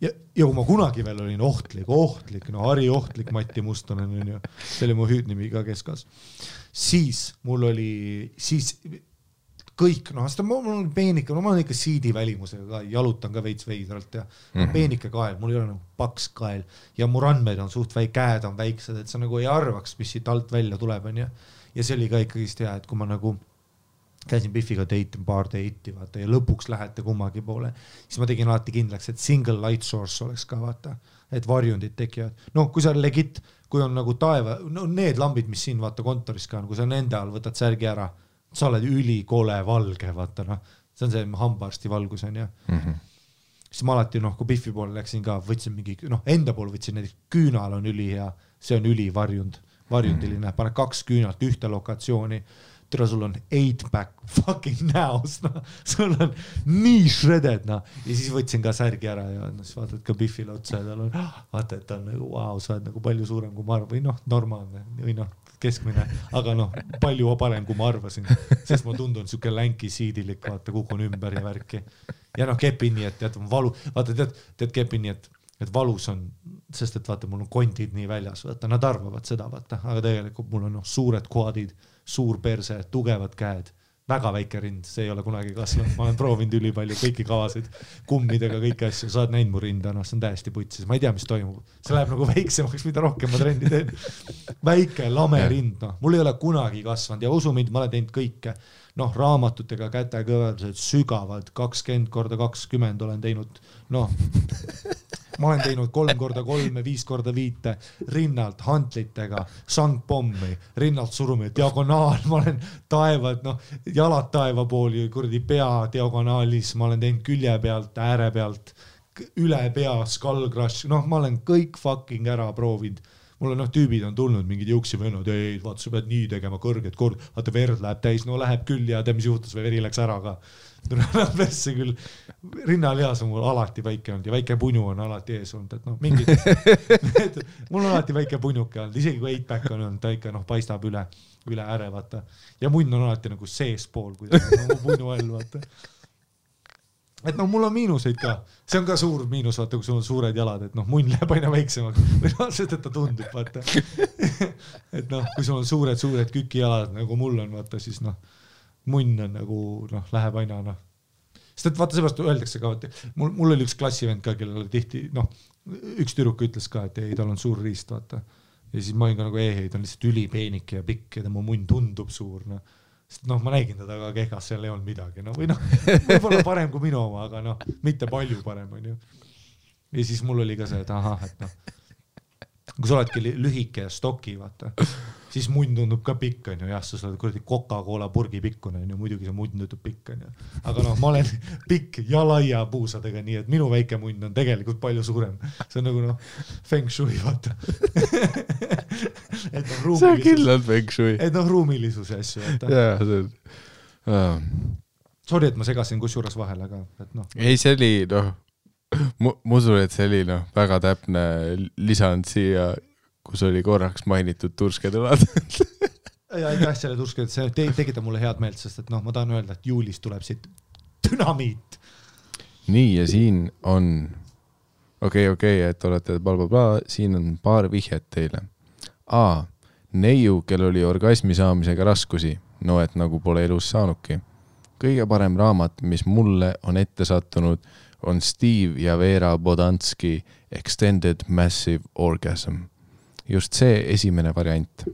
ja kui ma kunagi veel olin ohtlik, Harri ohtlik Matti Mustonen on ju, see oli mu hüüdnimi ka keskas, siis mul oli kõik, mul on peenike, ma olen ikka siidi välimusega ka, jalutan ka veits veidralt ja peenike kael, mul ei ole nagu paks kael ja mu randmed on suht käed on väiksed, et sa nagu ei arvaks, mis siit alt välja tuleb on ja see oli ka ikkagist hea, et kui ma nagu käisin Biffiga paar deiti vaata ja lõpuks lähete kummagi poole, siis ma tegin alati kindlaks, et single light source oleks ka vaata, et varjundid tekivad. Kui sa legit, kui on nagu taeva, need lambid, mis siin vaata kontoris ka on, kui sa nende all võtad särgi ära, sa oled ülikole valge, vaata see on see hambaarsti valgus on ja siis ma alati kui Biffi poole läksin ka, võtsin mingi, enda pool võtsin näiteks küünal on ülihea, see on varjundiline, pane 2 küünalt ühte lokatsiooni, tere sul on 8-pack fucking näos, sul on nii shredded ja siis võtsin ka särgi ära ja siis vaatad ka Biffile otsa ja tal on, vaata, et ta on nagu, wow, sa oled nagu palju suurem kui ma arvan, või normaalne, või keskmine, aga palju parem kui ma arvasin, sest ma tundun siuke länki siidilik, vaata, kukun ümber ja värki. Ja kepin nii, et tead, valu, vaata, tead kepin nii, et valus on, sest et vaata, mul on kondid nii väljas, vaata, nad arvavad seda, vaata, aga tegelikult mul on suured quadid, suur perse, tugevad käed, väga väike rind, see ei ole kunagi kasvanud, ma olen proovinud ülipalju kõiki kavasid, kummidega kõiki asju, sa oled näinud mu rinda, see on täiesti putsis, ma ei tea, mis toimub, see läheb nagu väiksemaks, mida rohkem ma trenni teen, väike lame rind, mul ei ole kunagi kasvanud ja usu mind, ma olen teinud kõike, raamatutega kätekõveldused sügavalt, 20x20 olen teinud, ma olen teinud 3x3, 5x5 rinnalt, hantlitega, sangpommi, rinnalt surumi, diagonaal, ma olen taevad, jalad taeva pooli, kurdi pea diagonaalis, ma olen teinud külje pealt, ääre pealt, üle pea, skull crush, ma olen kõik fucking ära proovinud. Mul on tüübid on tulnud, mingid juuksivennad, ei, vaata, sa pead nii tegema kõrget kord, vaata, verd läheb täis, läheb küll ja mis juhtus või veri läks ära ka. Vesse küll, rinnalihas on mul alati väike olnud ja väike punu on alati ees olnud, et mingid, mul on alati väike punuke olnud, isegi kui 8-pack on olnud, ta ikka paistab üle ääre, vaata. Ja munn on alati nagu sees pool, kui punu all, vaata. Et mul on miinuseid ka, see on ka suur miinus, vaata, kui sul on suured jalad, et munn läheb aina väiksemaks, või sest, et ta tundub, vaata. Et kui sul on suured kükijalad, nagu mul on, vaata, siis munn on nagu, läheb aina, sest et vaata, seepärast öeldakse ka, mul oli üks klassivend ka, kellel oli tihti, üks tüdruk ütles ka, et ei, tal on suur riist, vaata. Ja siis ma olin ka nagu, ei, ta on lihtsalt ülipeenike ja pikk ja tema munn tundub suur, sest ma nägin teda ka kehkas, seal ei olnud midagi, või võib-olla parem kui minu oma, aga mitte palju parem on ju. Ja siis mul oli ka see, et ahah, et kui sa oledki lühike ja stoki, vaata, siis munn tundub ka pikk on ju, jah, sa oled kuradi Coca-Cola purgi pikkune on ju, muidugi see munn tundub pikk on ju, aga ma olen pikk ja laia puusadega, nii et minu väike munn on tegelikult palju suurem, see on nagu feng shui, vaata. See on kindlalt feng shui. Et ruumilisuse asju, vaata. Jaa, see on. Sorry, et ma segasin kusjuures vahel, aga ei, see oli, ma usun, et see oli väga täpne lisand siia, kus oli korraks mainitud tursketulad. Ja aitäh selle tursked, see tekitab mulle head meelt, sest et ma tahan öelda, et juulis tuleb siit dünamiit. Nii, ja siin on okei, et olete blablabla, siin on paar vihjet teile. A. Neiu, kel oli orgasmi saamisega raskusi, et nagu pole elus saanudki. Kõige parem raamat, mis mulle on ette sattunud, on Steve ja Vera Bodanski Extended Massive Orgasm. Just see esimene variant.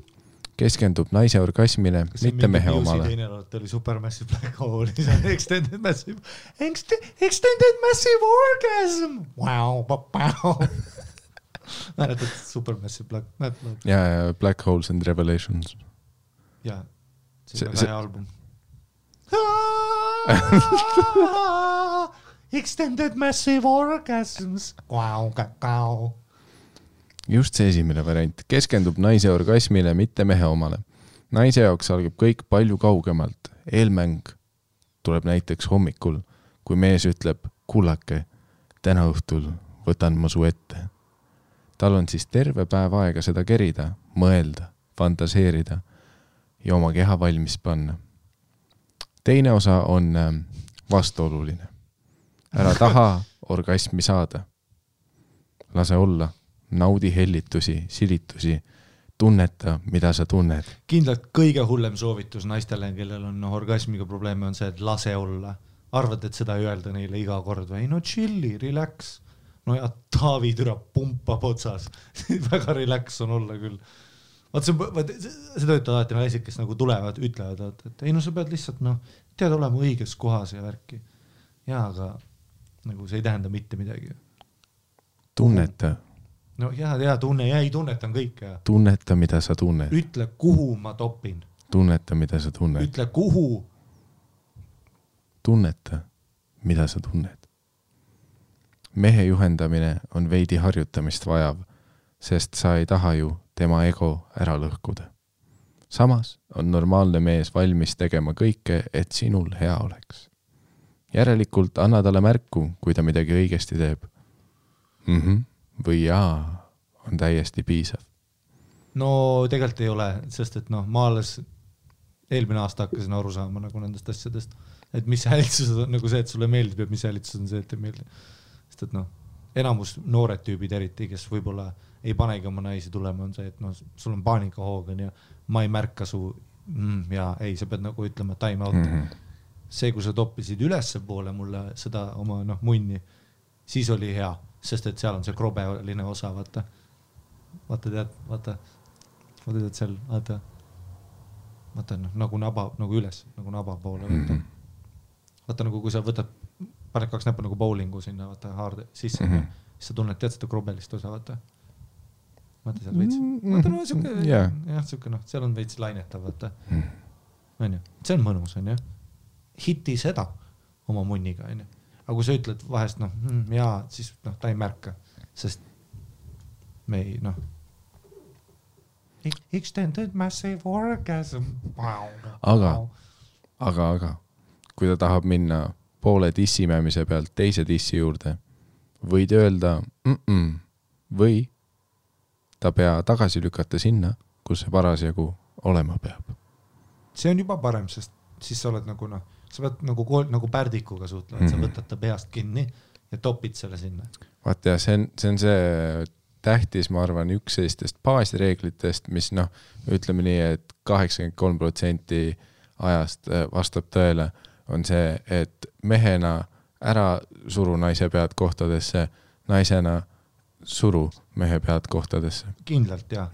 Keskendub naise orgasmile, mitte mehe omale. Teine oli Supermassive Black Hole, Extended Massive Orgasm. Wow. Mäletad Supermassive Black Hole? Ja Black Holes and Revelations. Ja, see on hea album. Extended Massive Orgasms. Wow. Just see esimene variant. Keskendub naise orgasmile, mitte mehe omale. Naise jaoks algab kõik palju kaugemalt. Eelmäng tuleb näiteks hommikul, kui mees ütleb, kullake, täna õhtul võtan ma su ette. Tal on siis terve päev aega seda kerida, mõelda, fantaseerida ja oma keha valmis panna. Teine osa on vastuoluline. Ära taha orgasmi saada. Lase olla. Naudi hellitusi, silitusi, tunneta, mida sa tunned. Kindlalt kõige hullem soovitus naistele, kellel on orgasmiga probleeme, on see, et lase olla. Arvad, et seda ei öelda neile iga kord või? No chilli, relax. No ja Taavi türa pumpab otsas. Väga relax on olla küll. See töötavad alati naised, kes nagu tulevad, ütlevad, et ei, no sa pead lihtsalt, tead olema õiges kohas ja värki. Ja, aga nagu see ei tähenda mitte midagi. Tunneta. No ja tunnetan kõike. Tunneta, mida sa tunned. Ütle, kuhu ma topin. Tunneta, mida sa tunned. Ütle, kuhu. Tunneta, mida sa tunned. Mehe juhendamine on veidi harjutamist vajav, sest sa ei taha ju tema ego ära lõhkuda. Samas on normaalne mees valmis tegema kõike, et sinul hea oleks. Järelikult anna talle märku, kui ta midagi õigesti teeb. Või jaa, on täiesti piisav. No tegelikult ei ole, sest et ma alles eelmine aasta hakkasin aru saama nagu nendest asjadest, et mis häälitsused on nagu see, et sulle meeldib ja mis häälitsused on see, et ei meeldi. Sest et enamus noored tüübid eriti, kes võib-olla ei panegi oma naisi tulema, on see, et sul on paanikahoogan ja ma ei märka su ja ei, sa pead nagu ütlema time out. See, kui sa toppisid ülesse poole mulle seda oma munni, siis oli hea. Sest et seal on see krobeline osa, vaata tead seal, vaata nagu naba, nagu üles, nagu naba poole, vaata nagu kui sa võtad, paned 2 näppu nagu bowlingu sinna, vaata haarde sisse, siis sa tunned, tead seda krobelist osa, vaata seal veits, seal on veits lainetav, vaata, see on mõnus, hiti seda oma munniga, aga kui sa ütled vahest, jaa, siis ta ei märka, sest me ei, Extended Massive Orgasm. Aga, kui ta tahab minna poole dissimämise pealt teise dissi juurde, võid öelda või ta pea tagasi lükata sinna, kus see parasjagu olema peab. See on juba parem, sest siis sa oled nagu sa pead nagu pärdikuga suhtlema, et sa võtad ta peast kinni ja topid selle sinna. Vaata ja see on see tähtis, ma arvan, üks sellistest baasreeglitest, mis ütleme nii, et 83% ajast vastab tõele, on see, et mehena ära suru naise pead kohtadesse, naisena suru mehe pead kohtadesse. Kindlalt, jah.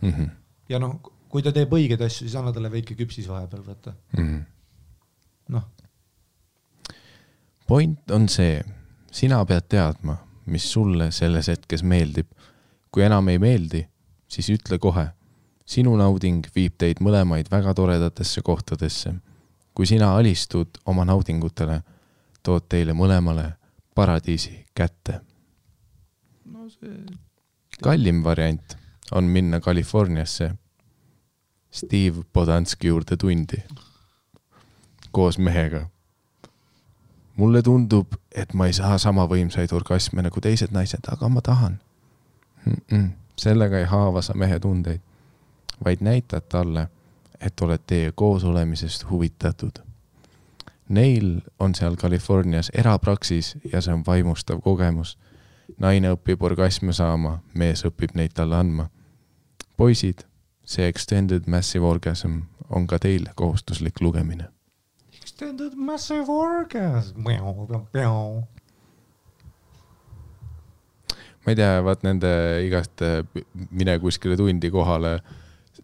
Ja kui ta teeb õigeid asju, siis anna talle veike küpsis vahepeal, võtta. Point on see, sina pead teadma, mis sulle selles hetkes meeldib. Kui enam ei meeldi, siis ütle kohe. Sinu nauding viib teid mõlemaid väga toredatesse kohtadesse. Kui sina alistud oma naudingutele, tood teile mõlemale paradiisi kätte. Kallim variant on minna Kaliforniasse Steve Bodanski juurde tundi koos mehega. Mulle tundub, et ma ei saa sama võimsaid orgasme nagu teised naised, aga ma tahan. Sellega ei haava sa mehe tundeid, vaid näitad talle, et oled teie koos olemisest huvitatud. Neil on seal Kalifornias erapraksis ja see on vaimustav kogemus. Naine õpib orgasme saama, mees õpib neid talle andma. Poisid, see Extended Massive Orgasm on ka teile kohustuslik lugemine. Extended Massive Orgasm. ma ei tea, vaat nende igast mine kuskile tundi kohale,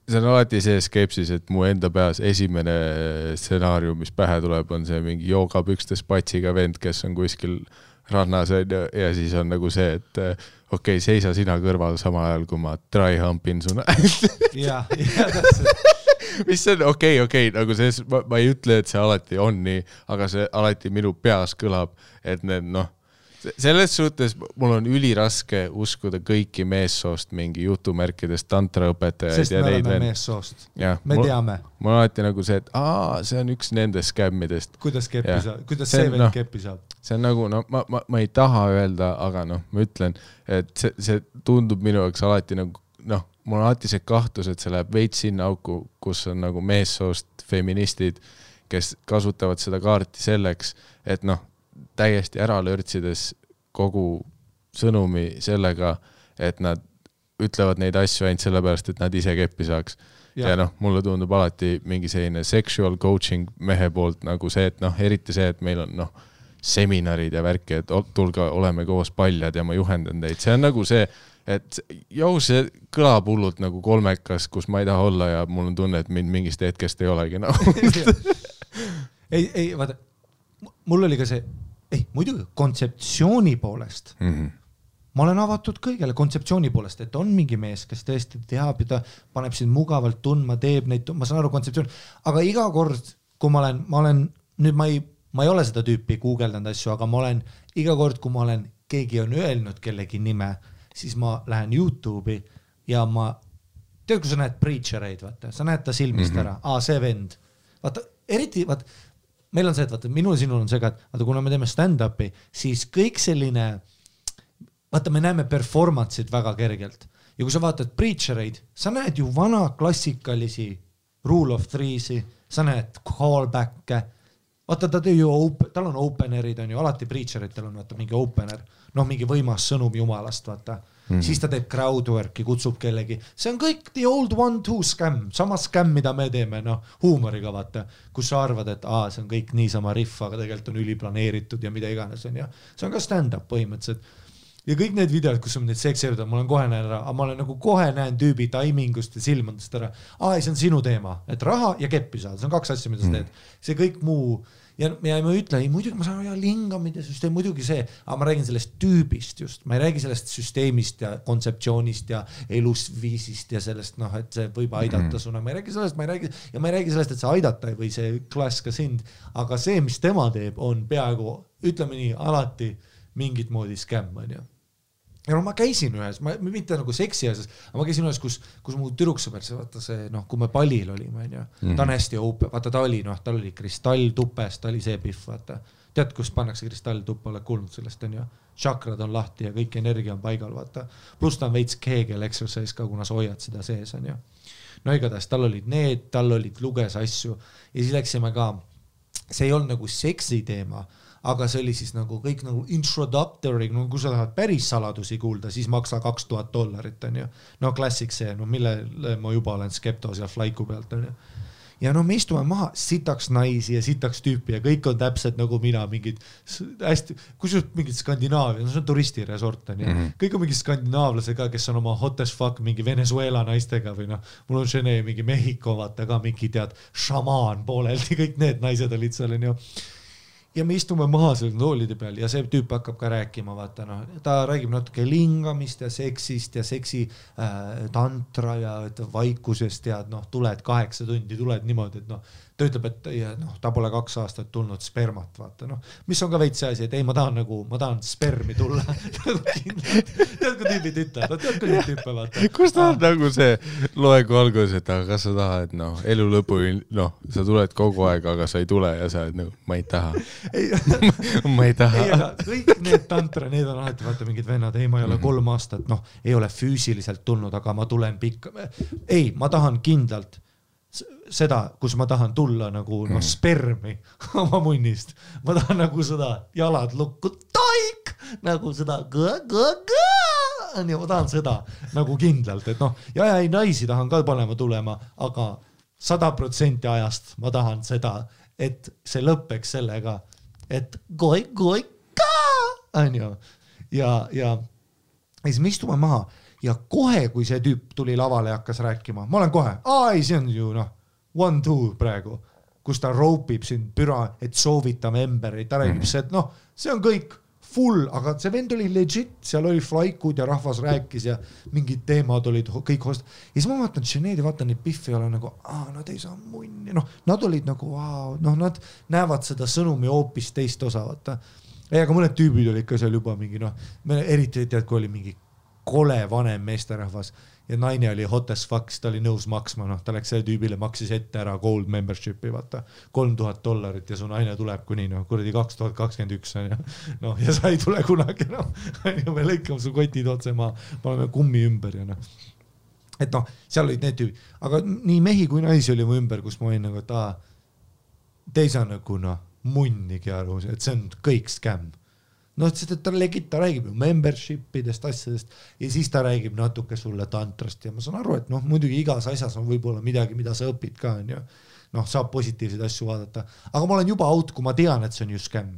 see on alati see skepsis, et mu enda peas esimene stsenaarium, mis pähe tuleb, on see mingi joogapükstes patsiga vend, kes on kuskil rannas ja siis on nagu see, et okei, seisa sina kõrval sama ajal, kui ma dry humpin su ja täpselt. Mis on okei, nagu see, ma ei ütle, et see alati on nii, aga see alati minu peas kõlab, et need selles suhtes mul on üliraske uskuda kõiki meessoost mingi jutumärkidest tantraõpetajaid. Sest me oleme meessoost. Me teame. Mul on alati nagu see, et see on üks nendest skämmidest. Kuidas see veel keppi saab? See on nagu, ma ei taha öelda, aga ma ütlen, et see tundub minu jaoks alati nagu, mul on alati see kahtlus, et see läheb veits sinna auku, kus on nagu meessoost feministid, kes kasutavad seda kaarti selleks, et täiesti ära lörtsides kogu sõnumi sellega, et nad ütlevad neid asju ainult sellepärast, et nad ise keppi saaks. Ja mulle tundub alati mingi selline sexual coaching mehe poolt nagu see, et eriti see, et meil on seminarid ja värki, et tulge, oleme koos paljad ja ma juhendan teid. See on nagu see, et see kõlab hullult nagu kolmekas, kus ma ei taha olla ja mul on tunne, et mind mingist hetkest ei olegi. Ei, vaata, mul oli ka see, muidugi kontseptsiooni poolest. Ma olen avatud kõigele kontseptsiooni poolest, et on mingi mees, kes tõesti teab ja ta paneb sind mugavalt tundma, teeb neid, ma saan aru kontseptsiooni, aga iga kord, kui ma olen, nüüd ma ei ole seda tüüpi guugeldanud asju, aga ma olen iga kord, kui keegi on öelnud kellegi nime, siis ma lähen YouTube'i ja tead, kui sa näed preachereid, vaata, sa näed ta silmist ära, see vend, vaata, eriti, vaata, meil on see, et vaata, minul ja sinul on see ka, et vaata, kuna me teeme stand-upi, siis kõik selline, vaata, me näeme performance'id väga kergelt. Ja kui sa vaatad preachereid, sa näed ju vana klassikalisi rule of three'si, sa näed callback'e, vaata, tal on openerid, on ju, alati preacheritel on vaata, mingi opener, mingi võimas sõnum jumalast, vaata. Siis ta teeb crowdwork'i, kutsub kellegi. See on kõik the old one-two scam, sama scam, mida me teeme, huumoriga vaata, kus sa arvad, et see on kõik niisama riff, aga tegelikult on üliplaneeritud ja mida iganes on ja see on ka stand-up põhimõtteliselt. Ja kõik need videod, kus on neid sekseritud, ma olen kohe näen ära, aga ma olen nagu kohe näen tüübi taimingust ja silmadest ära. See on sinu teema, et raha ja keppi saada, see on 2 asja, mida sa teed. See kõik muu ja ma ütlen, muidugi ma saan lingamid ja süsteem, muidugi see, aga ma räägin sellest tüübist just, ma ei räägi sellest süsteemist ja kontseptsioonist ja elusviisist ja sellest, et see võib aidata suna, ma ei räägi sellest, ma ei räägi sellest, et see aidata või see klass ka sind, aga see, mis tema teeb, on peaaegu, ütleme nii, alati mingit moodi skämm, on ju. Ja ma käisin ühes, mitte nagu seksi asjas, aga ma käisin ühes, kus mu tüdruksõber, vaata see, kui me pallil olime, ta on hästi open, vaata ta oli kristalltupes, ta oli see pihv, vaata. Tead, kus pannakse kristalltuppa, oled kuulnud sellest, on ju. Chakrad on lahti ja kõik energia on paigal, vaata. Plus ta on veits Kegel exercise ka, kuna sa hoiad seda sees, on ju. Igatahes, tal olid luges asju ja siis läksime ka, see ei olnud nagu seksi teema, aga see oli siis nagu kõik nagu introductory, kui sa tahad päris saladusi kuulda, siis maksa $2000, on ju. Klassik see, mille ma juba olen skeptos ja flaiku pealt, on ju. Ja me istume maha, sitaks naisi ja sitaks tüüpi ja kõik on täpselt nagu mina, mingid hästi, kusjuures mingid Skandinaavia, see on turistiresort, on ju. Kõik on mingid skandinaavlasega, kes on oma hot as fuck mingi Venezuela naistega või mul on Žene mingi Mehhiko, vaata ka mingi tead šamaan pooleldi, kõik need naised olid seal, on ju. Ja me istume maha seal toolide peal ja see tüüp hakkab ka rääkima, vaata, ta räägib natuke lingamist ja seksist ja seksi tantra ja vaikusest ja tuled 8 tundi, tuled niimoodi, et ta ütleb, et ta pole 2 aastat tulnud spermat, vaata, mis on ka veits see asi, et ei, ma tahan spermi tulla. Tead, kui tüübid ütlevad, tead, kui neid tüüpe, vaata. Kus ta on nagu see loegu algus, et kas sa tahad, elu lõpu, sa tuled kogu aeg, aga sa ei tule ja sa oled ma ei taha. Ma ei taha. Ei, aga kõik need tantra, need on alati, vaata, mingid vennad, ei, ma ei ole 3 aastat, ei ole füüsiliselt tulnud, aga ma tulen pikka. Ei, ma tahan kindlalt seda, kus ma tahan tulla nagu spermi oma munnist. Ma tahan nagu seda jalad lukku, taik, nagu seda ma tahan seda nagu kindlalt, et ja ei naisi tahan ka panema tulema, aga 100% ajast ma tahan seda, et see lõppeks sellega, et goi ka, on ju. Ja ja siis me istume maha ja kohe, kui see tüüp tuli lavale ja hakkas rääkima, ma olen kohe, ei, see on ju 1-2 praegu, kus ta roopib sind püra, et soovitame emberi, ta räägib see, et see on kõik full, aga see vend oli legit, seal oli flaikud ja rahvas rääkis ja mingid teemad olid kõik host. Ja siis ma vaatan Sinead ja vaatan neid Biffi ja olen nagu, nad ei saa munni, nad olid nagu, nad näevad seda sõnumi hoopis teist osa, vaata. Aga mõned tüübid olid ka seal juba mingi, eriti tead, kui oli mingi kole vanem meesterahvas ja naine oli hot as fuck, ta oli nõus maksma, ta läks selle tüübile, maksis ette ära gold membershipi, vaata, $3000 ja su naine tuleb kuni, kuradi 2021 ja sa ei tule kunagi, me lõikame su kotid otse maa, paneme kummi ümber ja et seal olid need tüübid, aga nii mehi kui naisi oli mu ümber, kus ma olin nagu, et te ei saa nagu munnigi aru, et see on kõik skämm. Ta räägib ju membershipidest, asjadest ja siis ta räägib natuke sulle tantrast ja ma saan aru, et muidugi igas asjas on võib-olla midagi, mida sa õpid ka, saab positiivseid asju vaadata, aga ma olen juba out, kui ma tean, et see on ju skämm.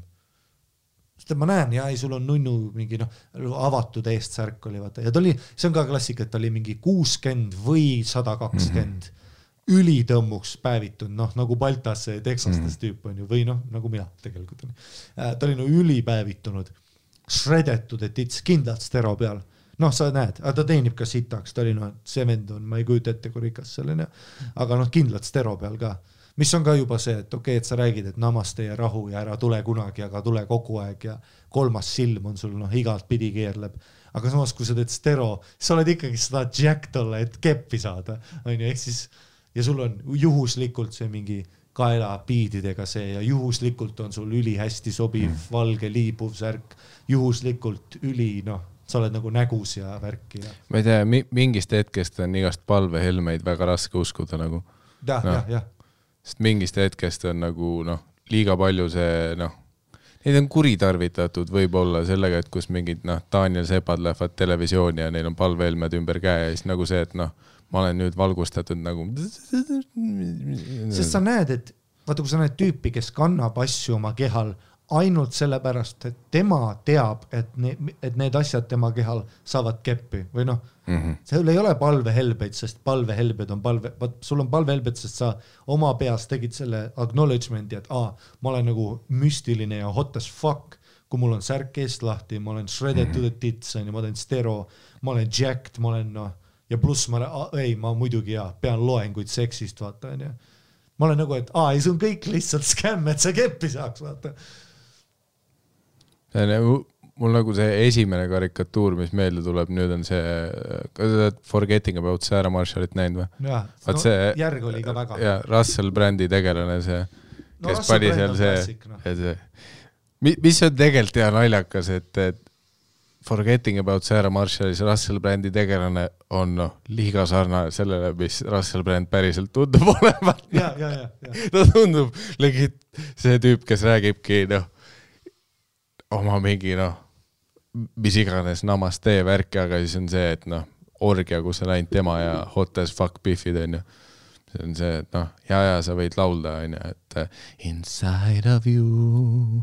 Sest ma näen, sul on nunnu mingi avatud eest särk oli, vaata, ja see on ka klassika, et ta oli mingi 60 või 120 ülitõmmuks päevitud, nagu Baltas see Texastes tüüp on ju, või nagu mina tegelikult on. Ta oli ülipäevitunud, shredetud, et it's kindlalt stero peal. Sa näed, ta teenib ka sitaks, ta oli see vend on, ma ei kujuta ette, kui rikas selline, aga kindlalt stero peal ka. Mis on ka juba see, et okei, et sa räägid, et namaste ja rahu ja ära tule kunagi, aga tule kogu aeg ja kolmas silm on sul igalt pidi keerleb. Aga samas, kui sa teed stero, sa oled ikkagi seda jack tolle, et keppi saada, on ju, ehk siis ja sul on juhuslikult see mingi kaela piididega see ja juhuslikult on sul üli hästi sobiv valge liibuv särk, juhuslikult sa oled nagu nägus ja värki. Ja. Ma ei tea, mingist hetkest on igast palvehelmeid väga raske uskuda nagu. Ja. Sest mingist hetkest on nagu liiga palju see, neid on kuritarvitatud võib-olla sellega, et kus mingid Daniel Sepad lähevad televisiooni ja neil on palvehelmed ümber käe ja siis nagu see, et ma olen nüüd valgustatud nagu. Sest sa näed, et vaata, kui sa näed tüüpi, kes kannab asju oma kehal ainult sellepärast, et tema teab, et need asjad tema kehal saavad keppi või seal ei ole palvehelbeid, sest palvehelbed on sul on palvehelbed, sest sa oma peas tegid selle acknowledgement'i, et ma olen nagu müstiline ja hot as fuck, kui mul on särk eest lahti, ma olen shredded to the tits, ma olen stero, ma olen jacked, ma olen ja pluss ma muidugi pean loenguid seksist, vaata, on ju. Ma olen nagu, et ei, see on kõik lihtsalt skämm, et see keppi saaks, vaata. Mul nagu see esimene karikatuur, mis meelde tuleb, nüüd on see Forgetting About Sarah Marshallit näinud või? Jaa, järg oli ka väga. Ja Russell Brandi tegelane see, kes pani seal see. Mis on tegelikult hea naljakas, et Forgetting About Sarah Marshallis Russell Brandi tegelane on liiga sarnane sellele, mis Russell Brand päriselt tundub olevat. Ja. Ta tundub legit see tüüp, kes räägibki oma mingi mis iganes namaste värki, aga siis on see, et orgia, kus on ainult tema ja hot as fuck biffid on ju. See on see, et ja sa võid laulda on ju, et inside of you.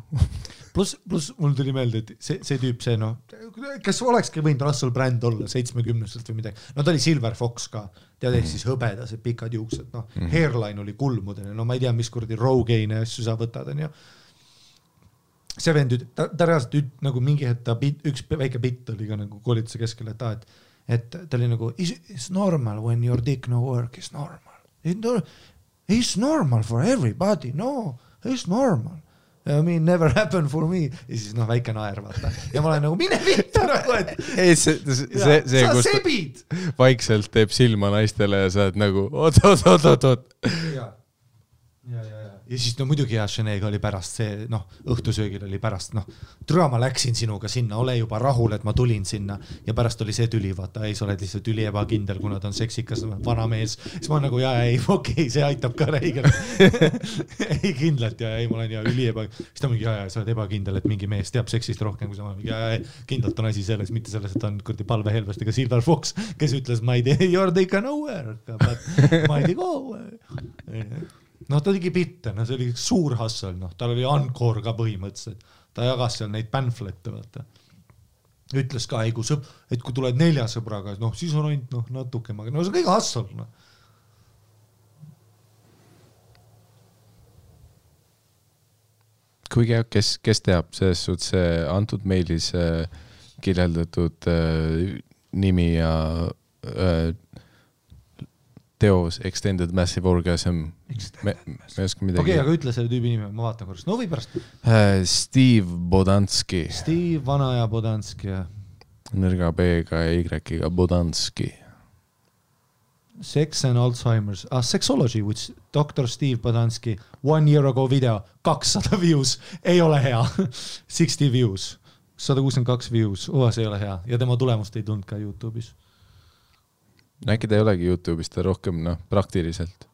Plus mul tuli meelde, et see tüüp, kes olekski võinud Russell Brand olla 70-selt või midagi. Ta oli Silver Fox ka, tead ehk siis hõbedased pikad juuksed, hairline oli kulmudene, ma ei tea, mis kuradi Rogaine asju sa võtad, on ju. See vend, ta reaalselt nagu mingi hetk, üks väike bitt oli ka nagu koolituse keskel, et ta oli nagu, it's normal when your dick no work is normal. It's normal for everybody, no, it's normal. I mean, never happened for me. Ja siis väike naer, vaata. Ja ma olen nagu, mine vittu nagu, et sa sebid. Vaikselt teeb silma naistele ja sa oled nagu, oot. Ja. Ja siis muidugi Sinead'ga oli pärast see, õhtusöögil oli pärast, türa ma läksin sinuga sinna, ole juba rahul, et ma tulin sinna ja pärast oli see tüli, vaata, ei, sa oled lihtsalt üli ebakindel, kuna ta on seksikas vana mees, siis ma nagu, okei, see aitab ka räigelt. ei kindlalt ei, ma olen üli ebakindel, siis ta mingi, sa oled ebakindel, et mingi mees teab seksist rohkem, kui sa mingi, kindlalt on asi selles, mitte selles, et ta on kurdi palvehelvestega Silver Fox, kes ütles, ma ei tea, you're taken nowhere, but ma ei tea go. Ta tegi bitte, see oli suur hassel, tal oli Encore ka põhimõtteliselt, ta jagas seal neid panflette, vaata. ütles ka, et kui tuled 4 sõbraga, noh, siis on ainult noh, natuke, no see on kõige hassal, noh. kuigi kes teab, selles suhtes antud meilis kirjeldatud nimi ja teos Extended Massive Orgasm. Me ei oska midagi. Okei, aga ütle selle tüübi nime, ma vaatan korras. No või pärast. Steve Bodanski. Steve Vanaja Bodanski, jah. Nõrga B-ga ja Y-ga Bodanski. Sex and Alzheimer's. Sexology, which Dr. Steve Bodanski 1 year ago video, 200 views, ei ole hea. 60 views, 162 views, see ei ole hea. Ja tema tulemust ei tundnud ka YouTube'is. Äkki ta ei olegi YouTube'is, ta rohkem praktiliselt.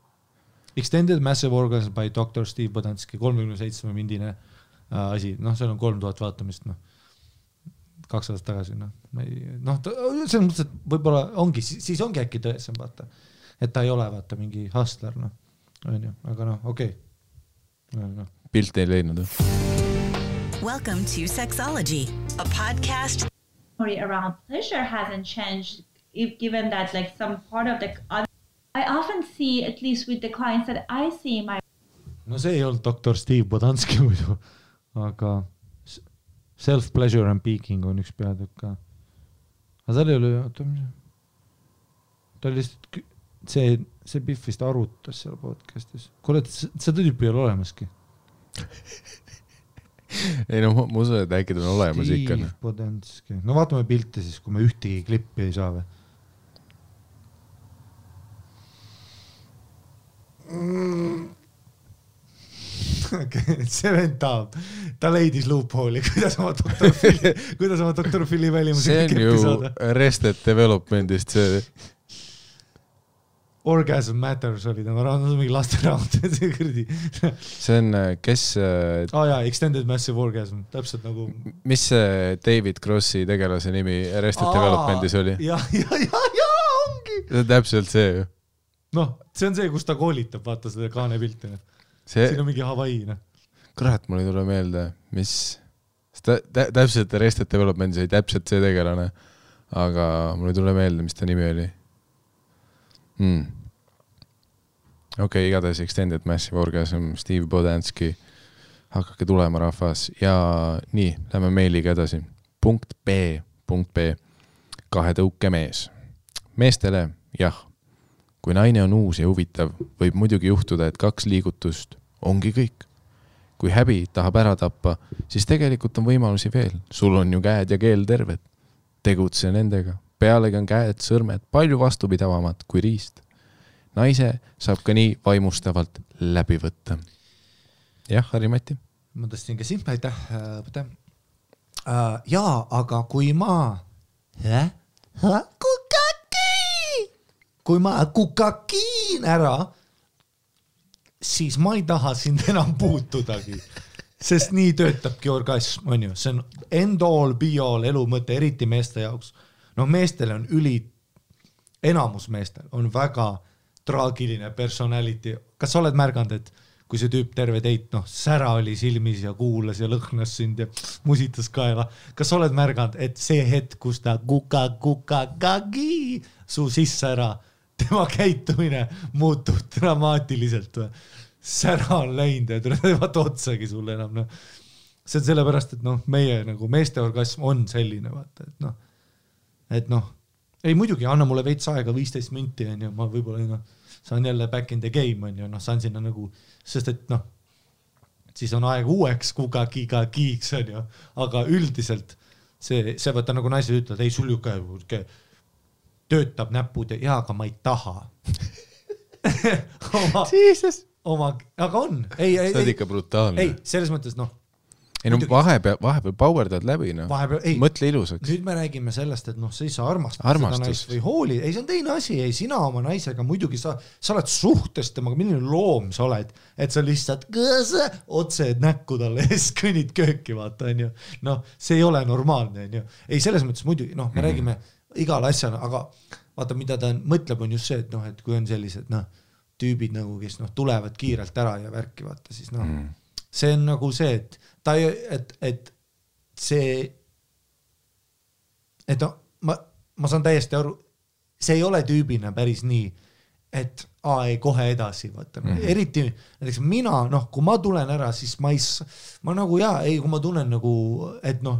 Extended Massive Orgasm by Dr. Steve Bodanski, 37 mindine asi. Noh, seal on 3000 vaatamist, 2 aastat tagasi, selles mõttes, et võib-olla ongi, siis ongi äkki tõesem, vaata, et ta ei ole, vaata, mingi hustler, aga okei. Pilt ei leidnud. Welcome to Sexology, a podcast around pleasure hasn't changed, given that like some part of the I often see, at least with the clients that I see no see ei olnud Dr. Steve Bodanski muidu, aga self-pleasure and peaking on üks peatükk ka. Aga tal ei ole, ta oli lihtsalt, see Biff vist arutas seal podcastis. Kuule, seda tüüpi ei ole olemaski. Ei ma usun, et äkki ta on olemas ikka. Steve Bodanski. No vaatame pilte siis, kui me ühtegi klippi ei saa või. Okay, see vend ta leidis loophole'i, kuidas oma Dr. Philly välimusega klippi saada. See on ju Arrested Developmentist see. Orgasm Matters oli tema raamat, mingi laste raamat. See on, kes... Extended Massive Orgasm, täpselt nagu... Mis see David Crossi tegelase nimi Arrested Developmentis oli? Ja, ongi! See on täpselt see ju. Noh, see on see, kus ta koolitab, vaata seda kaane pilti. Siin on mingi Hawaii. Kurat, mul ei tule meelde, mis... Täpselt Arrested Developmentis oli täpselt see tegelane, aga mul ei tule meelde, mis ta nimi oli. Okei, igatahes Extended Massive Orgasm, Steve Bodanski, hakake tulema rahvas ja nii, lähme meiliga edasi. Punkt B. 2 tõuke mees. Meestele, jah, kui naine on uus ja huvitav, võib muidugi juhtuda, et 2 liigutust ongi kõik. Kui häbi tahab ära tappa, siis tegelikult on võimalusi veel. Sul on ju käed ja keel terved. Tegutse nendega. Pealegi on käed, sõrmed palju vastupidavamad kui riist. Naise saab ka nii vaimustavalt läbi võtta. Jah, Harri-Mati? Ma tõstin ka siin, aitäh. Jaa, aga kui ma kukakiin ära, siis ma ei taha sind enam puutudagi. Sest nii töötabki orgasm, on ju. See on end all, be all elu mõte, eriti meeste jaoks. No meestele on enamus meestel on väga traagiline personality. Kas sa oled märganud, et kui see tüüp terve teit, sära oli silmis ja kuulas ja lõhnas sind ja musitas kaela. Kas sa oled märganud, et see hetk, kus ta kukakagi su sisse ära, tema käitumine muutub dramaatiliselt. Sära on läinud ja ei vaata otsagi sulle enam. See on sellepärast, et meie meeste orgasm on selline, vaata, et ei muidugi, anna mulle veits aega 15 minti, ma võib-olla saan jälle back in the game, saan sinna sest et siis on aeg uueks kukakiiks, aga üldiselt see võtta nagu naised ütlevad, ei sul ju töötab näpud ja aga ma ei taha. Aga on. See on ikka brutaalne. Ei, selles mõttes vahepeal powerdad läbi, mõtle ilusaks. Nüüd me räägime sellest, et sa ei saa armastada seda naist või hooli. Ei, see on teine asi. Ei, sina oma naisega muidugi sa oled suhtes temaga, milline loom sa oled, et sa lihtsalt otse näkku talle ja siis kõnnid kööki, vaata, on ju. See ei ole normaalne, on ju. Ei, selles mõttes muidugi, me räägime igal asjal, aga vaata, mida ta mõtleb, on just see, et kui on sellised tüübid, kes tulevad kiirelt ära ja värki, vaata, siis see on nagu see, et see et no, ma saan täiesti aru, see ei ole tüübina päris nii, et ei kohe edasi, vaata. Eriti näiteks mina, noh, kui ma tulen ära, siis ma nagu kui ma tunnen nagu, et noh,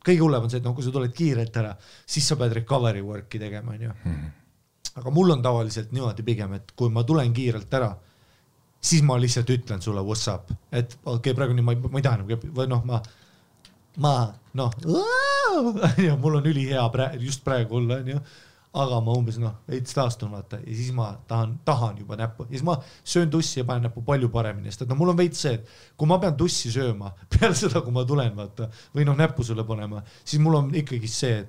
kõige hullem on see, et kui sa tuled kiirelt ära, siis sa pead recovery work'i tegema, on ju. Aga mul on tavaliselt niimoodi pigem, et kui ma tulen kiirelt ära, siis ma lihtsalt ütlen sulle what's up, et okei, praegu nii ma ei taha või noh, mul on ülihea just praegu olla, aga ma umbes veits taastun vaata ja siis ma tahan juba näppu ja siis ma söön tussi ja panen näppu palju paremini, sest et mul on veits see, et kui ma pean tussi sööma peale seda, kui ma tulen vaata või näppu sulle panema, siis mul on ikkagi see,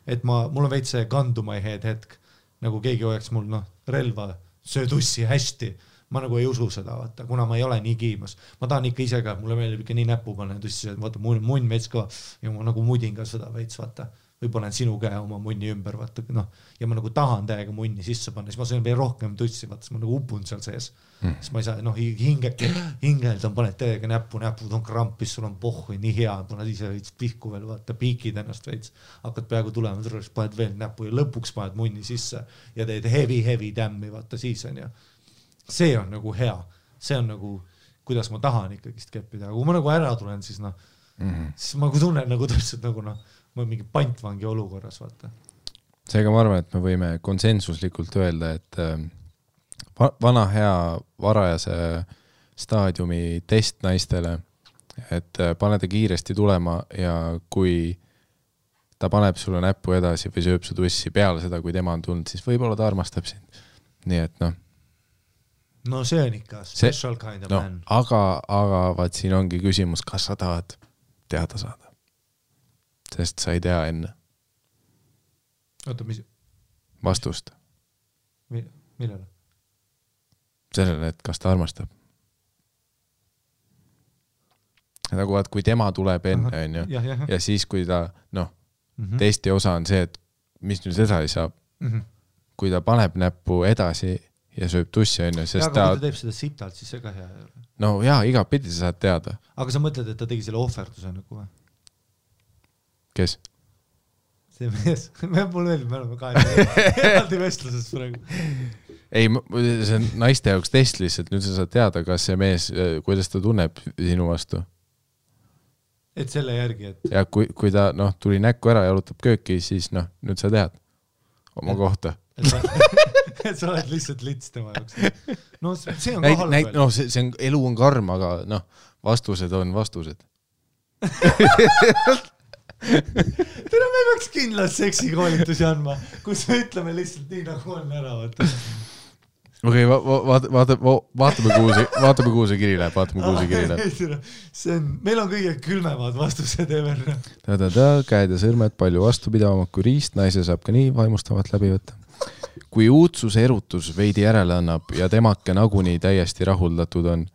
et mul on veits see gun to my head hetk, nagu keegi hoiaks mul relva, söö tussi hästi. Ma nagu ei usu seda, vaata, kuna ma ei ole nii kiimas. Ma tahan ikka ise ka, mulle meeldib ikka nii näppu panna tussi, et vaata, munn veits ka ja ma nagu mudin ka seda veits, vaata. Või panen sinu käe oma munni ümber, vaata, ja ma nagu tahan täiega munni sisse panna, siis ma söön veel rohkem tussi, vaata, siis ma nagu upun seal sees. Siis ma ei saa, hingeldan, paned täiega näpud on krampis, sul on pohhu, nii hea, paned ise veits pihku veel, vaata, piikid ennast veits, hakkad peaaegu tulema, paned veel näppu ja lõpuks paned munni sisse ja teed heavy tämmi, vaata, siis on ja see on nagu hea, see on nagu, kuidas ma tahan ikkagist keppida, aga kui ma nagu ära tulen, siis siis ma tunnen nagu täpselt nagu ma olen mingi pantvangi olukorras, vaata. Seega ma arvan, et me võime konsensuslikult öelda, et vana hea varajase staadiumi test naistele, et pane ta kiiresti tulema ja kui ta paneb sulle näppu edasi või sööb su tussi peale seda, kui tema on tulnud, siis võib-olla ta armastab sind. Nii et No see on ikka special kind of man. Aga vaat siin ongi küsimus, kas sa tahad teada saada. Sest sa ei tea enne. Oota, mis? Vastust. Millele? Sellele, et kas ta armastab. Nagu vaat, kui tema tuleb enne, on ju, ja siis kui ta, testi osa on see, et mis nüüd edasi saab, kui ta paneb näppu edasi ja sööb tussi, on ju, sest aga kui ta teeb seda sitalt, siis see ka hea ei ole. No jaa, iga pidi sa saad teada. Aga sa mõtled, et ta tegi selle ohverduse nagu või? Kes? See mees. Mul meeldib, me oleme eraldi vestluses praegu. Ei, see on naiste jaoks test lihtsalt, nüüd sa saad teada, kas see mees, kuidas ta tunneb sinu vastu. Et selle järgi, et... Ja kui ta tuli näkku ära ja jalutab kööki, siis nüüd sa tead oma kohta. Et sa oled lihtsalt lits tema jaoks. No see on ka halb veel. See on, elu on karm, aga vastused on vastused. Tere, me peaks kindlalt seksikoolitusi andma, kus me ütleme lihtsalt nii, nagu on ära. Okei, vaatame kuhu see kiri läheb, meil on kõige külmemad vastused ever. Käed ja sõrmed palju vastupidavamad kui riist, naise saab ka nii vaimustavat läbi võtta. Kui uudsuse erutus veidi järele annab ja temake nagunii täiesti rahuldatud on,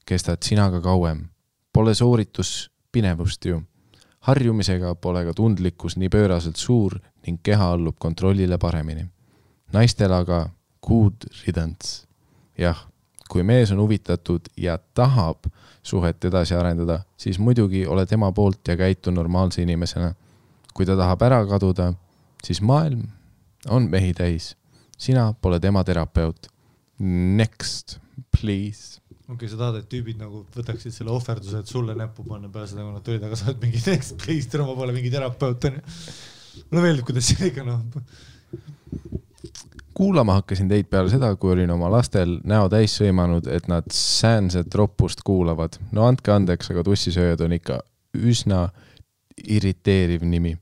kestad sinaga kauem. Pole sooritus pinevust ju. Harjumisega pole ka tundlikkus nii pööraselt suur ning keha allub kontrollile paremini. Naistel aga good riddance. Jah, kui mees on huvitatud ja tahab suhet edasi arendada, siis muidugi ole tema poolt ja käitu normaalse inimesena. Kui ta tahab ära kaduda, siis maailm on mehi täis. Sina pole tema terapeut. Next, please. Okei, sa tahad, et tüübid nagu võtaksid selle ohverduse, et sulle näppu panna peale seda, kui nad tulid, aga sa oled mingi next, please, tere, ma pole mingi terapeut. Mulle meeldib, kuidas see ikka Kuulama hakkasin teid peale seda, kui olin oma lastel näo täis sõimanud, et nad säänset roppust kuulavad. No andke andeks, aga tussisööjad on ikka üsna irriteeriv nimi.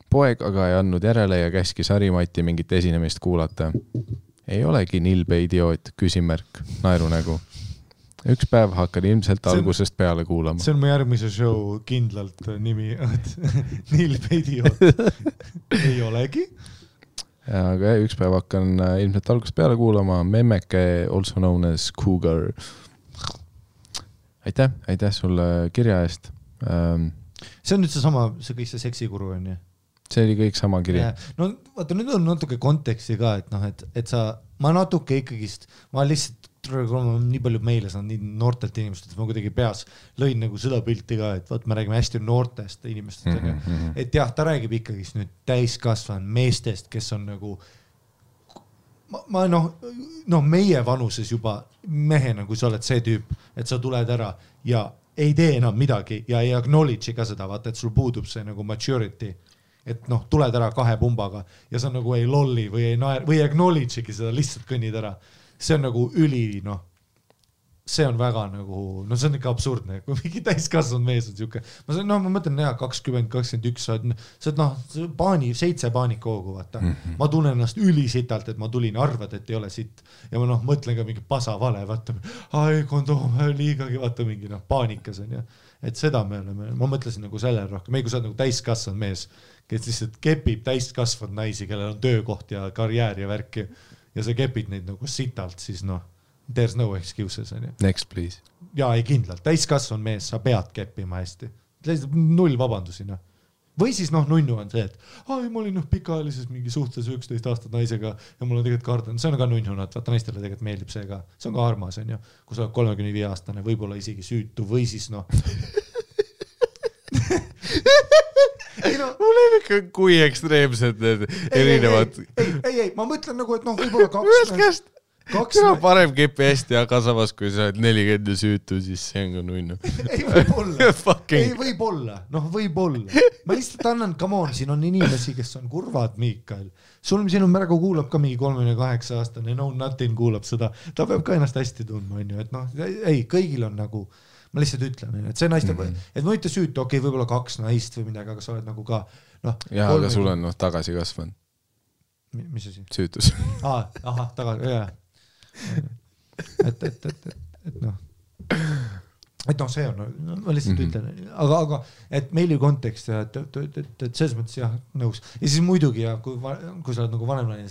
Poeg aga ei andnud järele ja käskis Harimati mingit esinemist kuulata. Ei olegi nilbe idioot, küsimärk, naerunägu. Üks päev hakkan ilmselt algusest peale kuulama. See on mu järgmise show kindlalt nimi, nilbe idioot. Ei olegi. Aga üks päev hakkan ilmselt algusest peale kuulama. Memmeke, also known as Cougar. Aitäh sulle kirja eest. See on nüüd see kõik see seksikuru on ju? See oli kõik sama kiri. No vaata, nüüd on natuke konteksti ka, et ma natuke ikkagist, ma lihtsalt nii palju meile saan nii noortelt inimestelt, ma kuidagi peas lõin nagu seda pilti ka, et vaat me räägime hästi noortest inimestest, et jah, ta räägib ikkagi nüüd täiskasvanud meestest, kes on nagu ma meie vanuses juba mehena, kui sa oled see tüüp, et sa tuled ära ja ei tee enam midagi ja ei acknowledge'i ka seda, vaata, et sul puudub see nagu maturity, et tuled ära 2 pumbaga ja sa nagu ei lolli või ei naer või acknowledge'igi seda, lihtsalt kõnnid ära. See on nagu see on väga nagu, see on ikka absurdne, kui mingi täiskasvanud mees on siuke, ma mõtlen 20, 21, sa oled 7 paanikoogu, vaata. Ma tunnen ennast ülisitalt, et ma tulin, arvad, et ei ole sitt ja ma mõtlen ka mingi pasa vale, vaata, kondoom, liigagi, vaata mingi paanikas on ja, et seda me oleme, ma mõtlesin nagu sellele rohkem, kui sa oled nagu täiskasvanud mees, kes lihtsalt kepib täiskasvanud naisi, kellel on töökoht ja karjäär ja värki ja sa kepid neid nagu sitalt, siis there's no excuses. Next, please. Jaa, ei kindlalt. Täiskasvanud mees, sa pead keppima hästi. 0 vabandusi. Või siis nunnu on see, et ma olin pikaajalises mingi suhtes 11 aastat naisega ja mul on tegelikult kardan. See on ka nunnu, vaata naistele tegelikult meeldib see ka. See on ka armas, on ju. Kui sa oled 35 aastane, võib-olla isegi süütu või siis mul ei ikka kui ekstreemsed need erinevad. Ei, ma mõtlen nagu, et võib-olla 2 parem kepi hästi, aga samas kui sa oled 40 ja süütu, siis see on ka nunnu. Ei, võib-olla. Võib-olla. Ma lihtsalt annan, come on, siin on inimesi, kes on kurvad, Miikael. Siin on märgu kuulab ka mingi 38-aastane, nothing kuulab seda. Ta peab ka ennast hästi tundma, on ju, et ei, kõigil on nagu, ma lihtsalt ütlen, et see naiste, et ma ütle süütu, okei, võib-olla 2 naist või midagi, aga sa oled nagu ka, Jaa, aga sul on tagasi kasvanud. Mis asi? Süütus. Tagasi, jah. et see on, ma lihtsalt ütlen, aga et meili kontekst ja et selles mõttes jah, nõus. Ja siis muidugi ja kui sa oled nagu vanem naine,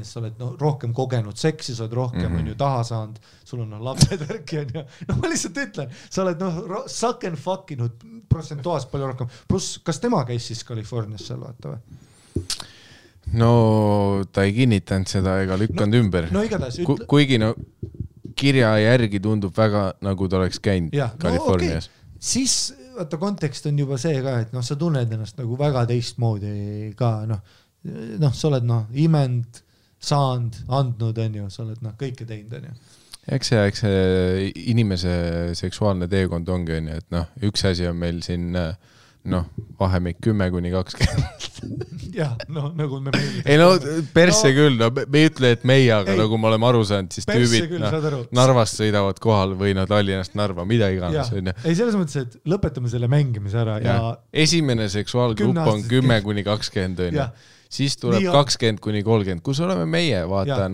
siis sa oled rohkem kogenud seksi, sa oled rohkem on ju taha saanud, sul on lapsed värki on ja ma lihtsalt ütlen, sa oled suck and fuckinud protsentuaalselt palju rohkem. Plus, kas tema käis siis Californias seal vaata või? No ta ei kinnitanud seda ega lükkanud ümber. Igatahes kuigi kirja järgi tundub väga nagu ta oleks käinud Californias. Okay. Siis vaata kontekst on juba see ka, et sa tunned ennast nagu väga teistmoodi ka, sa oled imend, saanud, andnud, on ju, sa oled kõike teinud, on ju. Eks see inimese seksuaalne teekond ongi, on ju, et üks asi on meil siin vahemik 10-20. Jah, nagu me meeldib. Ei persse küll, me ei ütle, et meie, aga nagu me oleme aru saanud, siis tüübid Narvast sõidavad kohal või Tallinnast Narva, mida iganes. Ei, selles mõttes, et lõpetame selle mängimise ära ja esimene seksuaalgrupp on 10-20, on ju. Siis tuleb 20-30, kus oleme meie, vaata,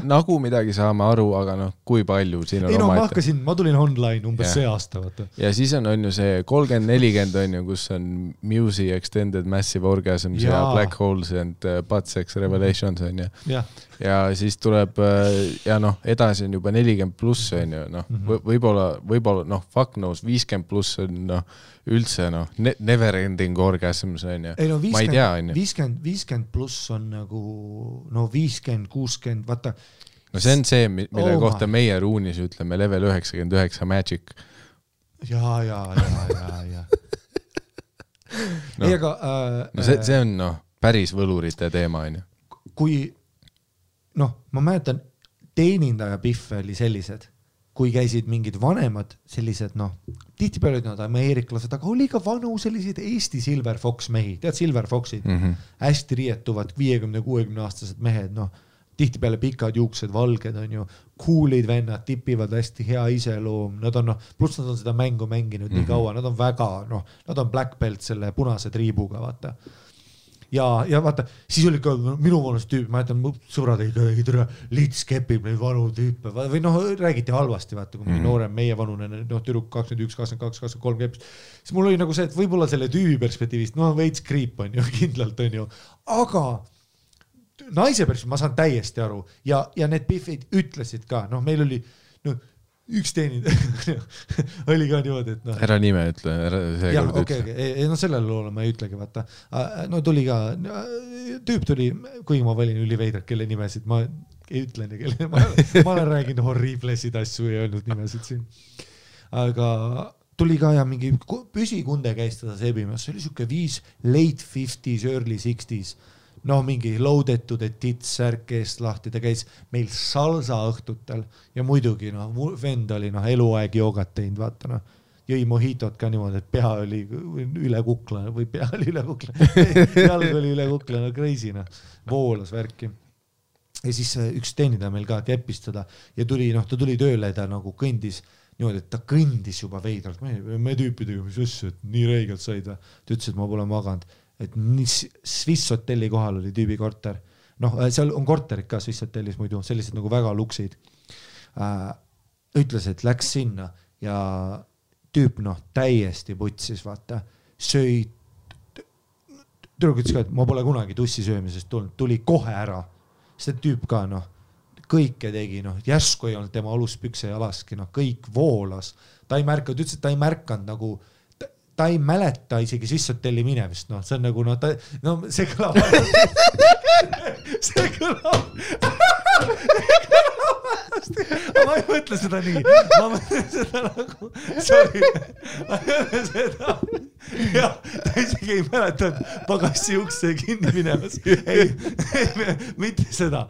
nagu midagi saame aru, aga kui palju siin on omaette. Ma tulin online umbes see aasta, vaata. Ja siis on ju see 30-40, on ju, kus on Musi, Extended Massive Orgasms ja Black Holes and Butt Sex Revelations, on ju. Ja siis tuleb, ja edasi on juba 40 pluss, on ju, võib-olla, fuck knows, 50 pluss on, üldse, never ending orgasms, on ju. Ma ei tea, on ju. 50 pluss on nagu, 50, 60, vaata. See on see, mille kohta meie ruunis ütleme level 99 magic. Ja. Ei, aga... see on, päris võlurite teema, on ju. Kui, ma mäletan, teenindaja piffe oli sellised, kui käisid mingid vanemad sellised, tihtipeale olid nad ameeriklased, aga oli ka vanu sellised Eesti Silver Fox mehi, tead Silver Foxid, hästi riietuvad 50-60 aastased mehed, tihtipeale pikad juuksed, valged on ju, coolid vennad, tipivad hästi hea iseloom, nad on, pluss nad on seda mängu mänginud nii kaua, nad on väga, nad on black belt selle punase triibuga, vaata. Ja vaata, siis oli ka minu vanus tüüp, ma jätan sõbrad ei tere, lits kepib neid vanu tüüpe või räägiti halvasti, vaata, kui mingi noorem meie vanune, tüdruk 21, 22, 23 kepis. Siis mul oli nagu see, et võib-olla selle tüübi perspektiivist, veits kriip on ju, kindlalt on ju, aga naise perspektiivist ma saan täiesti aru ja need piffid ütlesid ka, meil oli üks teenid oli ka niimoodi, et ära nime ütle, sellele loole ma ei ütlegi, vaata. Tuli ka, tüüp tuli, kuigi ma valin üliveidrat, kelle nimesid, ma ei ütle nii, ma olen rääginud horriblesid asju ja öelnud nimesid siin. Aga tuli ka ja mingi püsikunde käis teda sebimas, see oli siuke 5 late 50s, early 60s. No mingi loadetud, et tits särk eest lahti, ta käis meil salsa õhtutel ja muidugi vend oli eluaeg joogat teinud, vaata noh. Jõi mohitot ka niimoodi, et pea oli üle kukla või pea oli üle kukla, jalg oli üle kukla, crazy voolas värki. Ja siis üks teenida meil ka keppis teda ja ta tuli tööle, ta nagu kõndis niimoodi, et ta kõndis juba veidralt, me tüüpidega, mis asju, et nii reigelt said, ta ütles, et ma pole maganud, et Swiss hotelli kohal oli tüübi korter, seal on korterid ka Swiss hotellis muidu, sellised nagu väga luksid, ütles, et läks sinna ja tüüp täiesti putsis, vaata, söi, tüdruk ütles ka, et ma pole kunagi tussi söömisest tulnud, tuli kohe ära, see tüüp ka kõike tegi, järsku ei olnud tema aluspükse jalaski, kõik voolas, ta ei märka, ta ütles, et ta ei märkanud nagu, ta ei mäleta isegi Swissotelli minemist, see on nagu, see kõlab see kõlab ma ei mõtle seda nii, ma mõtlen seda nagu, sorry, ma mõtlen seda, jah, ta isegi ei mäleta, et pagassi ukse kinni minemas, ei, mitte seda,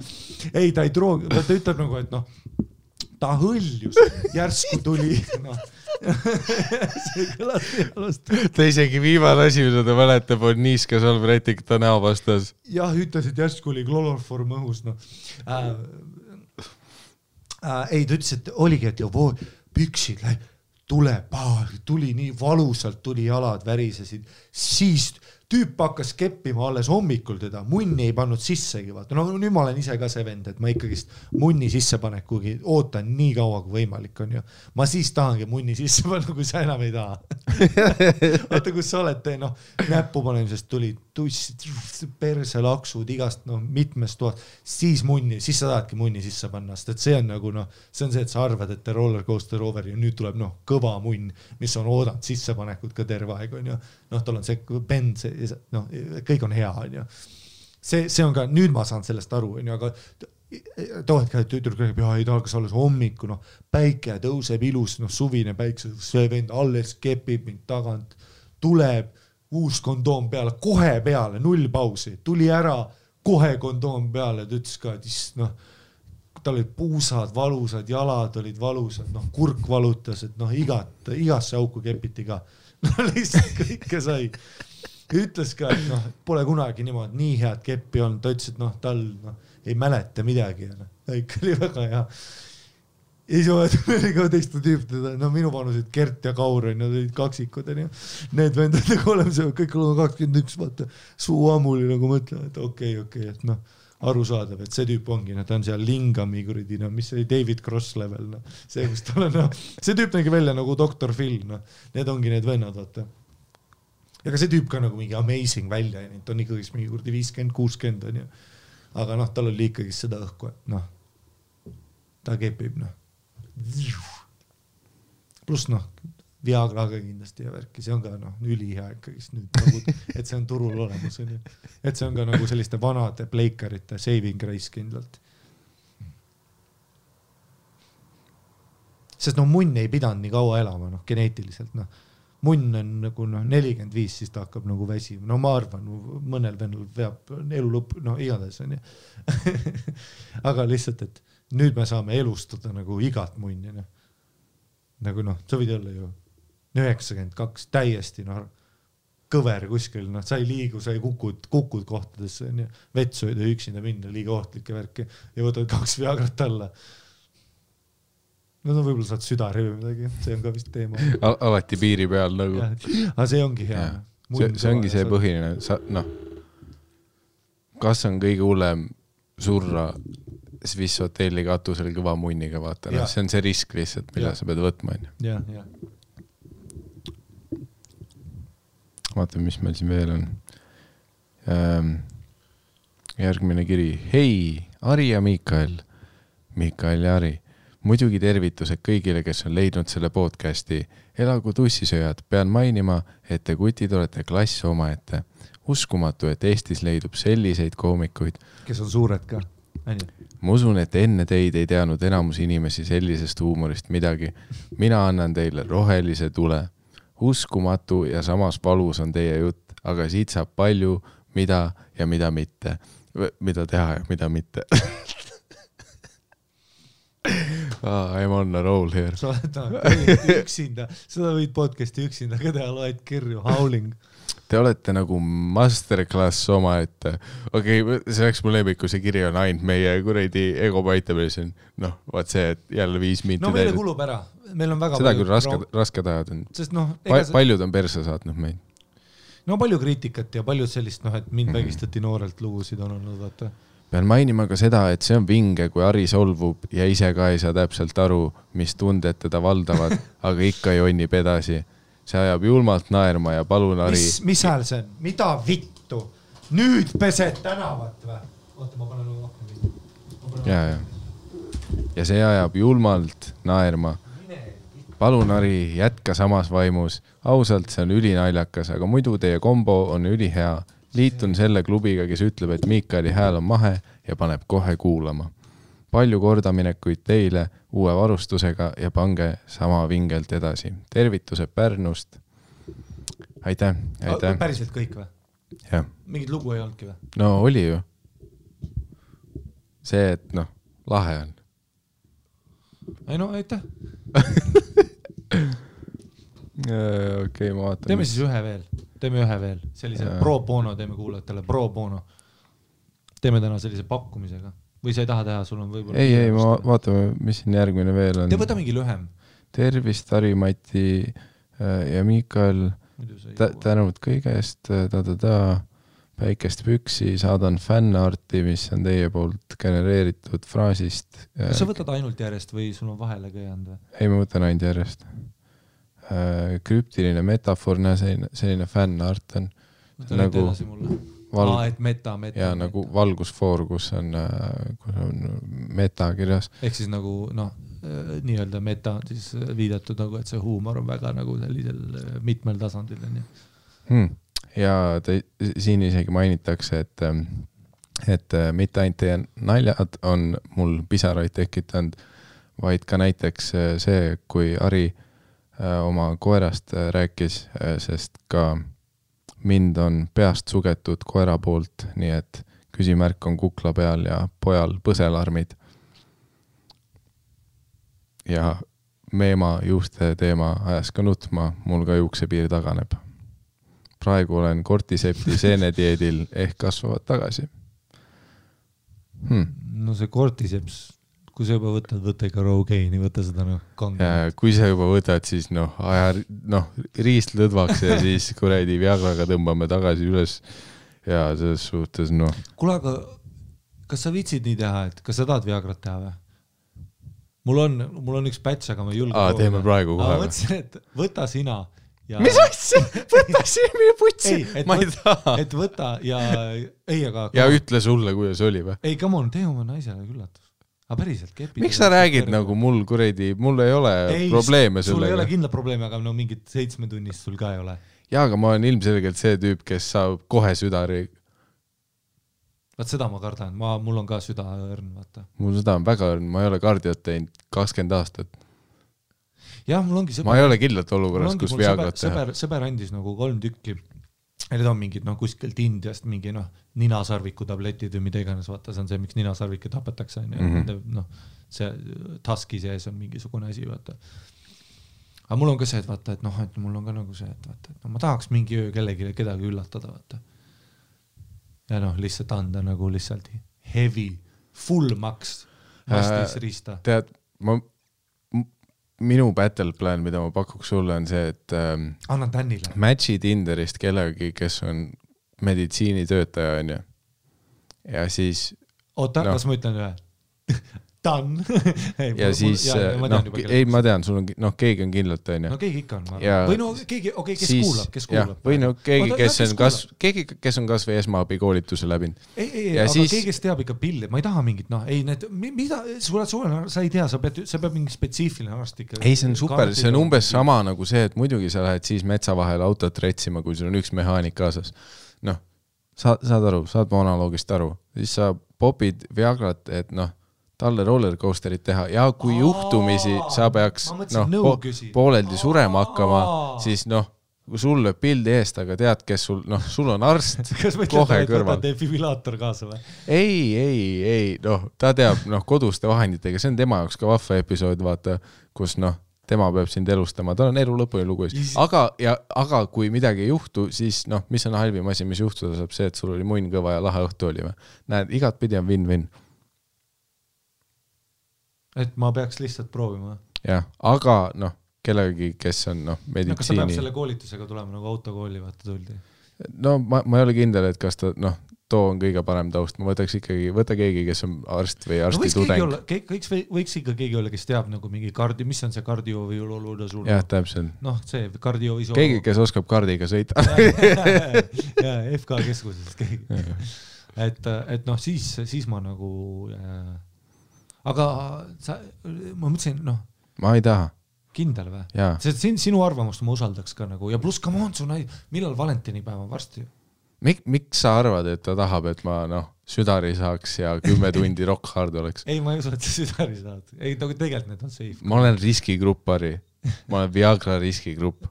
ei, ta ei troogi, ta ütleb nagu, et ta hõljus, järsku tuli, see kõlas pealust. Ta isegi viimane asi, mida ta mäletab, on niiskas Albertik ta näo vastas. Jah, ütles, et järsku oli kloroform õhus, ei, ta ütles, et oligi, et püksid tuli nii valusalt, tuli jalad värisesid, siis tüüp hakkas keppima alles hommikul teda, munni ei pannud sissegi, vaata, nüüd ma olen ise ka see vend, et ma ikkagist munni sisse panek, kuigi ootan nii kaua kui võimalik on ju, ma siis tahangi munni sisse panna, kui sa enam ei taha. Vaata, kus sa oled, näppu panemisest tuli tussid, perselaksud igast mitmest tuhat, siis sa tahadki munni sisse panna, sest et see on nagu see on see, et sa arvad, et roller coaster over ja nüüd tuleb kõva munn, mis on oodanud sissepanekut ka terve aeg on ju, tal on see bend, kõik on hea on ju. See on ka, nüüd ma saan sellest aru on ju, aga tohed ka, et tütruks räägib, ei tahaks alles hommiku, päike tõuseb ilus, suvine päikse, see vend alles kepib mind tagant, tuleb uus kondoom peale, kohe peale, 0 pausi, tuli ära, kohe kondoom peale, ta ütles ka, et tal olid puusad valusad, jalad olid valusad, kurk valutas, et igasse auku kepiti ka, lihtsalt kõike sai. Ütles ka, et pole kunagi niimoodi nii head keppi olnud, ta ütles, et tal ei mäleta midagi, ikka oli väga hea. Ei saa oli ka teiste tüüpidega, minu vanusid Gert ja Kaur on, nad olid kaksikud, need vendad nagu oleme see, kõik on 21, vaata, suu ammuli nagu mõtlen, et okei, et aru saadav, et see tüüp ongi, ta on seal Lingami kuridi, mis oli David Cross level, see, kus tal on, see tüüp nägi välja nagu Dr. Phil, need ongi need vennad, vaata. Ja ka see tüüp ka nagu mingi amazing välja, ta on ikkagi mingi kurdi 50-60 on ju, aga tal oli ikkagi seda õhku, et ta kepib, pluss Viagraga kindlasti ja värki, see on ka ülihea ikkagist nüüd, et see on turul olemas, et see on ka nagu selliste vanade pleikarite saving grace kindlalt. Sest munn ei pidanud nii kaua elama, geneetiliselt, munn on nagu 45, siis ta hakkab nagu väsima, ma arvan, mõnel vennal veab elu lõpp, igades on ju. Aga lihtsalt, et nüüd me saame elustada nagu igat munni, nagu sa võid olla ju 92, täiesti kõver kuskil, sa ei liigu, sa ei kukud kohtadesse, vetsuida üksinda minna, liiga ohtlike värki ja võtad 2 Viagrat alla. Võib-olla saad südari või midagi, see on ka vist teema. Alati piiri peal nagu. Aga see ongi hea. See ongi see põhiline, kas on kõige hullem surra Swiss hotelli katusel kõva munniga, vaata, see on see risk lihtsalt, mille sa pead võtma. Ja. Vaatame, mis meil siin veel on. Järgmine kiri. Hei, Ari ja Mikael ja Ari. Muidugi tervitused kõigile, kes on leidnud selle podcasti. Elagu tussisööjad, pean mainima, et te kutid olete klass omaette. Uskumatu, et Eestis leidub selliseid koomikuid. Kes on suured ka. Ma usun, et enne teid ei teadnud enamus inimesi sellisest huumorist midagi. Mina annan teile rohelise tule. Uskumatu ja samas valus on teie jutt, aga siit saab palju, mida ja mida mitte. Mida teha ja mida mitte. I'm on a roll here. Sa oled üksinda, seda võid podcasti üksinda, ka teha loed kirju, howling. Te olete nagu masterclass oma, et see oleks mu lemmiku, see kiri on ainult meie kuradi ego paitamisel. Noh, vaat see, et jälle 5 minti no meile kulub ära. Meil on väga seda küll raske tajad on. Sest noh, paljud on perse saatnud meid. No palju kriitikat ja paljud sellist, et mind vägistati noorelt lugusid on olnud, vaata. Pean mainima ka seda, et see on vinge, kui Ari solvub ja ise ka ei saa täpselt aru, mis tunded teda valdavad, aga ikka jonnib edasi. See ajab julmalt naerma ja palun Ari... Mis hääl see on? Mida vittu? Nüüd pesed tänavat või? Oota, ma panen rohkem. Ja see ajab julmalt naerma. Palun Ari, jätka samas vaimus. Ausalt, see on ülinaljakas, aga muidu teie kombo on ülihea. Liitun selle klubiga, kes ütleb, et Miikali hääl on mahe ja paneb kohe kuulama. Palju kordaminekuid teile uue varustusega ja pange sama vingelt edasi. Tervitused Pärnust. Aitäh. Päriselt kõik või? Jah. Mingid lugu ei olnudki või? No oli ju. See, et lahe on. Ei no, aitäh. Okei, ma vaatan. Teeme siis ühe veel. Sellise pro bono teeme kuulajatele. Pro bono. Teeme täna sellise pakkumisega. Või sa ei taha teha, sul on võib-olla... Ei, ma vaatame, mis siin järgmine veel on. Te võta mingi lühem. Tervist, Ari, Mati ja Miikal. Tänud kõigest. Päikest püksi. Saadan fännarti, mis on teie poolt genereeritud fraasist. Kas sa võtad ainult järjest või sul on vahele ka jäänud? Ei, ma võtan ainult järjest. Krüptiline metafoorne selline fännart on nagu et meta ja nagu valgusfoor, kus on meta kirjas. Ehk siis nagu nii-öelda meta on siis viidatud nagu, et see huumor on väga nagu sellisel mitmel tasandil. Ja siin isegi mainitakse, et mitte ainult teie naljad on mul pisaraid tekitanud, vaid ka näiteks see, kui Ari oma koerast rääkis, sest ka mind on peast sugetud koera poolt, nii et küsimärk on kukla peal ja pojal põselarmid. Ja meema juuste teema ajas ka nutma, mul ka juuksepiir taganeb. Praegu olen kortisepti seenedieedil ehk kasvavad tagasi. No see kortiseps... Kui sa juba võtad, võta ikka Rogaini, võta seda kange. Kui sa juba võtad, siis riist lõdvaks ja siis kuredi Viagraga tõmbame tagasi üles ja selles suhtes Kuule, aga kas sa viitsid nii teha, et kas sa tahad Viagrat teha või? Mul on üks päts, aga ma ei julge. Teeme praegu kohe. Ma mõtlesin, et võta sina. Ja... Mis asja? Võta sina putsi? Ma ei taha. Et võta ja... Ja ütle sulle, kuidas oli või? Ei, come on, tee oma naisele küllatus. Aga päriselt kepid. Miks sa räägid nagu mul kuredi, mul ei ole probleeme sellega? Sul ei ole kindla probleeme, aga mingid 7 tunnist sul ka ei ole. Jaa, aga ma olen ilmselgelt see tüüp, kes saab kohe südari. Vaat seda ma kardan, mul on ka süda õrn, vaata. Mul süda on väga õrn, ma ei ole kardiot teinud 20 aastat. Jah, mul ongi ma ei ole kindlalt olukorras, kus Viagrat teha. Sõber andis nagu 3 tükki. Need on mingid kuskilt Indiast mingi ninasarviku tabletid või mida iganes, vaata, see on see, miks ninasarvikke tapetakse. See taski sees on mingisugune asi, vaata. Aga mul on ka see, et vaata, et mul on ka nagu see, et vaata, et ma tahaks mingi öö kedagi üllatada, vaata. Ja lihtsalt anda nagu lihtsalt heavy, full max vastis riista. Tead, minu battle plan, mida ma pakuks sulle, on see, et annan Tänile. Matchi Tinderist kellegi, kes on meditsiinitöötaja, on ju. Ja siis... Oota, kas ma ütlen ühe? Dan. Ja siis... Ei, ma tean, sul on... keegi on kindlalt, on ju. No keegi ikka on. Või keegi, kes kuulab. Või keegi, kes on kas või esmaabi koolituse läbinud. Ei, aga keegi, kes teab ikka pilli. Ma ei taha mingit, mida... Sa ei tea, sa peab mingi spetsiifiline arst ikka... Ei, see on super, see on umbes sama nagu see, et muidugi sa lähed siis metsa vahel autot retsima, kui sul on üks mehaanik kaasas. Saad aru, saad mu analoogist aru. Siis sa popid Viagrat, et noh, talle rollercoasterit teha ja kui juhtumisi sa peaks pooleldi surema hakkama, siis noh, kui sul lööb pildi eest, aga tead, kes sul on arst kohe kõrval. Defibrillaator kaasa või? Ei, ta teab koduste vahenditega, see on tema jaoks ka vahva episood, vaata, kus tema peab sind elustama, ta on elu lõpuni lugu. Aga kui midagi ei juhtu, siis mis on halvim asi, mis juhtuda saab see, et sul oli munn kõva ja lahe õhtu oli. Näed, igat pidi on win-win. Et ma peaks lihtsalt proovima. Jah, aga kellegi, kes on meditsiini... Kas ta peab selle koolitusega tulema nagu autokooli vaata tuldi? No ma ei ole kindel, et kas ta, too on kõige parem taust. Ma võta keegi, kes on arst või arsti tudeng. Võiks ikka keegi olla, kes teab nagu mingi mis on see kardio või oluda sul? Jah, täpselt. See kardio või keegi, kes oskab kardiga sõita. Ja, FK keskuses keegi. Et siis ma nagu... Aga ma mõtlesin, ma ei taha. Kindel või? See sinu arvamust ma usaldaks ka nagu ja pluss come on, millal valentinipäev on varsti? Miks sa arvad, et ta tahab, et ma südari saaks ja 10 tundi rock hard oleks? Ei, ma ei usu, et sa südari saad. Ei, tegelikult need on safe. Ma olen riskigrupp, Harri. Ma olen Viagra riskigrupp.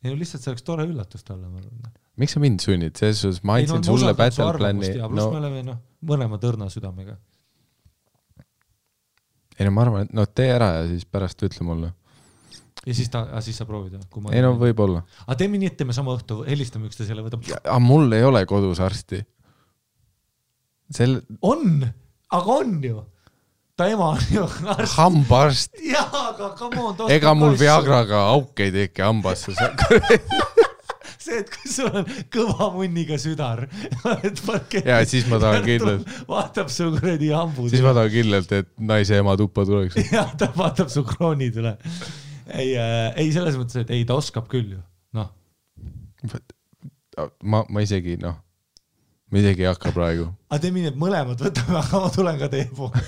Ei, lihtsalt see oleks tore üllatus talle. Miks sa mind sunnid? Selles ma andsin sulle battle plan'i. Pluss me oleme mõlema tõrna südamega. Ei, ma arvan, et tee ära ja siis pärast ütle mulle. Ja siis sa proovid? Ei, võib olla. Aga teeme nii, et teeme sama õhtu, helistame ükste selle võtab. Aga mul ei ole kodus arsti. On, aga on ju. Ta ema on ju arst. Hambaarst. Jaa, aga come on. Ega mul Viagraga auk ei teki hambasse. See, et kui sul on kõva munniga südar, ja siis ma tahan kindlalt vaatab su kuradi hambud. Siis ma tahan kindlalt, et naise ema tuppa tuleks. Ja ta vaatab su kroonid üle. Ei selles mõttes, et ei, ta oskab küll ju. Ma isegi ei hakka praegu. Aga teeme nii, et mõlemad võtame, aga ma tulen ka teie poole.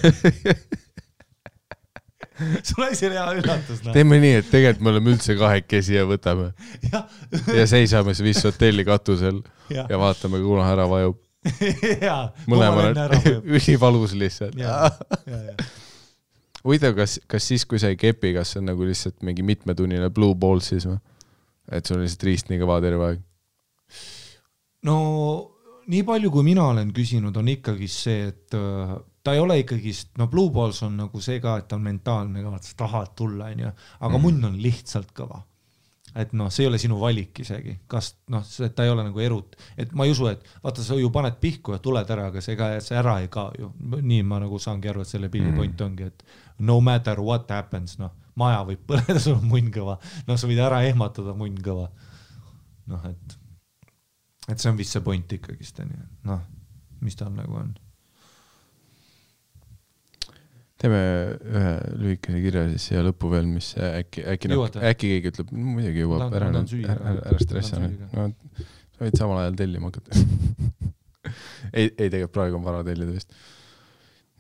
Sul on see hea üllatus. Teeme nii, et tegelikult me oleme üldse kahekesi ja võtame. Ja seisame see vist hotelli katusel ja vaatame, kuna ära vajub. Mõlemal on ülivalus lihtsalt. Huvitav, kas siis, kui sa ei kepi, kas see on nagu lihtsalt mingi mitmetunnine blue ball siis või? Et sul on lihtsalt riist nii kõva terve aeg? No nii palju, kui mina olen küsinud, on ikkagi see, et ta ei ole ikkagi, Blue Balls on nagu see ka, et ta on mentaalne ka, et sa tahad tulla, aga munn on lihtsalt kõva. Et see ei ole sinu valik isegi. Kas, ta ei ole nagu erut. Et ma ei usu, et vaata, sa ju paned pihku ja tuled ära, aga see ära ei ka ju. Nii ma nagu saangi aru, et selle pilli point ongi, et no matter what happens, maja võib põleda, sul on munn kõva. Sa võid ära ehmatada munn kõva. Et see on vist see point ikkagist. Mis tal nagu on? Teeme ühe lühikese kirja siis siia lõppu veel, mis äkki keegi ütleb, muidugi jõuab, ära stressi. Sa võid samal ajal tellima hakata. Ei, tegelikult praegu on vara tellida vist.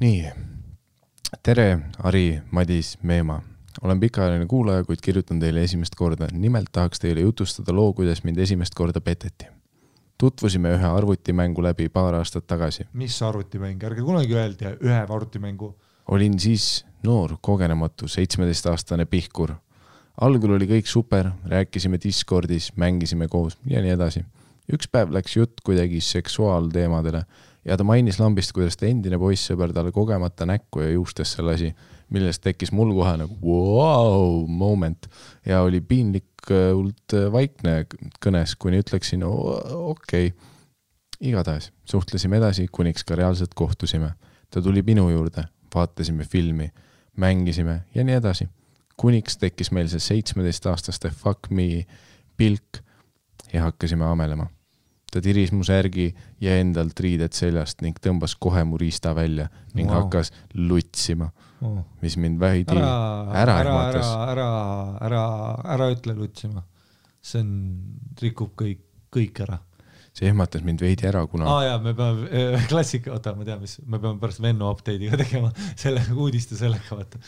Nii, tere, Ari, Madis, Meema. Olen pikaajaline kuulaja, kuid kirjutan teile esimest korda. Nimelt tahaks teile jutustada loo, kuidas mind esimest korda peteti. Tutvusime ühe arvutimängu läbi paar aastat tagasi. Mis arvutimäng? Ärge kunagi öeldi ühe arvutimängu. Olin siis noor, kogenematu, 17-aastane pihkur. Algul oli kõik super, rääkisime Discordis, mängisime koos ja nii edasi. Üks päev läks jutt kuidagi seksuaalteemadele ja ta mainis lambist, kuidas ta endine poissõber talle kogemata näkku ja juustesse lasi, millest tekkis mul kohe nagu wow moment ja oli piinlikult vaikne kõnes, kuni ütleksin okei. Igatahes suhtlesime edasi, kuniks ka reaalselt kohtusime. Ta tuli minu juurde. Vaatasime filmi, mängisime ja nii edasi. Kuniks tekkis meil see 17-aastaste fuck me pilk ja hakkasime amelema. Ta tiris mu särgi ja endalt riided seljast ning tõmbas kohe mu riista välja ning hakkas lutsima, mis mind vähidi ära ehmatas. Ära ütle lutsima. See rikub kõik ära. See ehmatas mind veidi ära, kuna... me peame klassika, ma tean, me peame pärast Venno update'iga tegema selle uudiste sellega, vaata.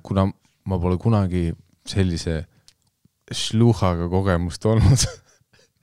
Kuna ma pole kunagi sellise šluhaga kogemust olnud.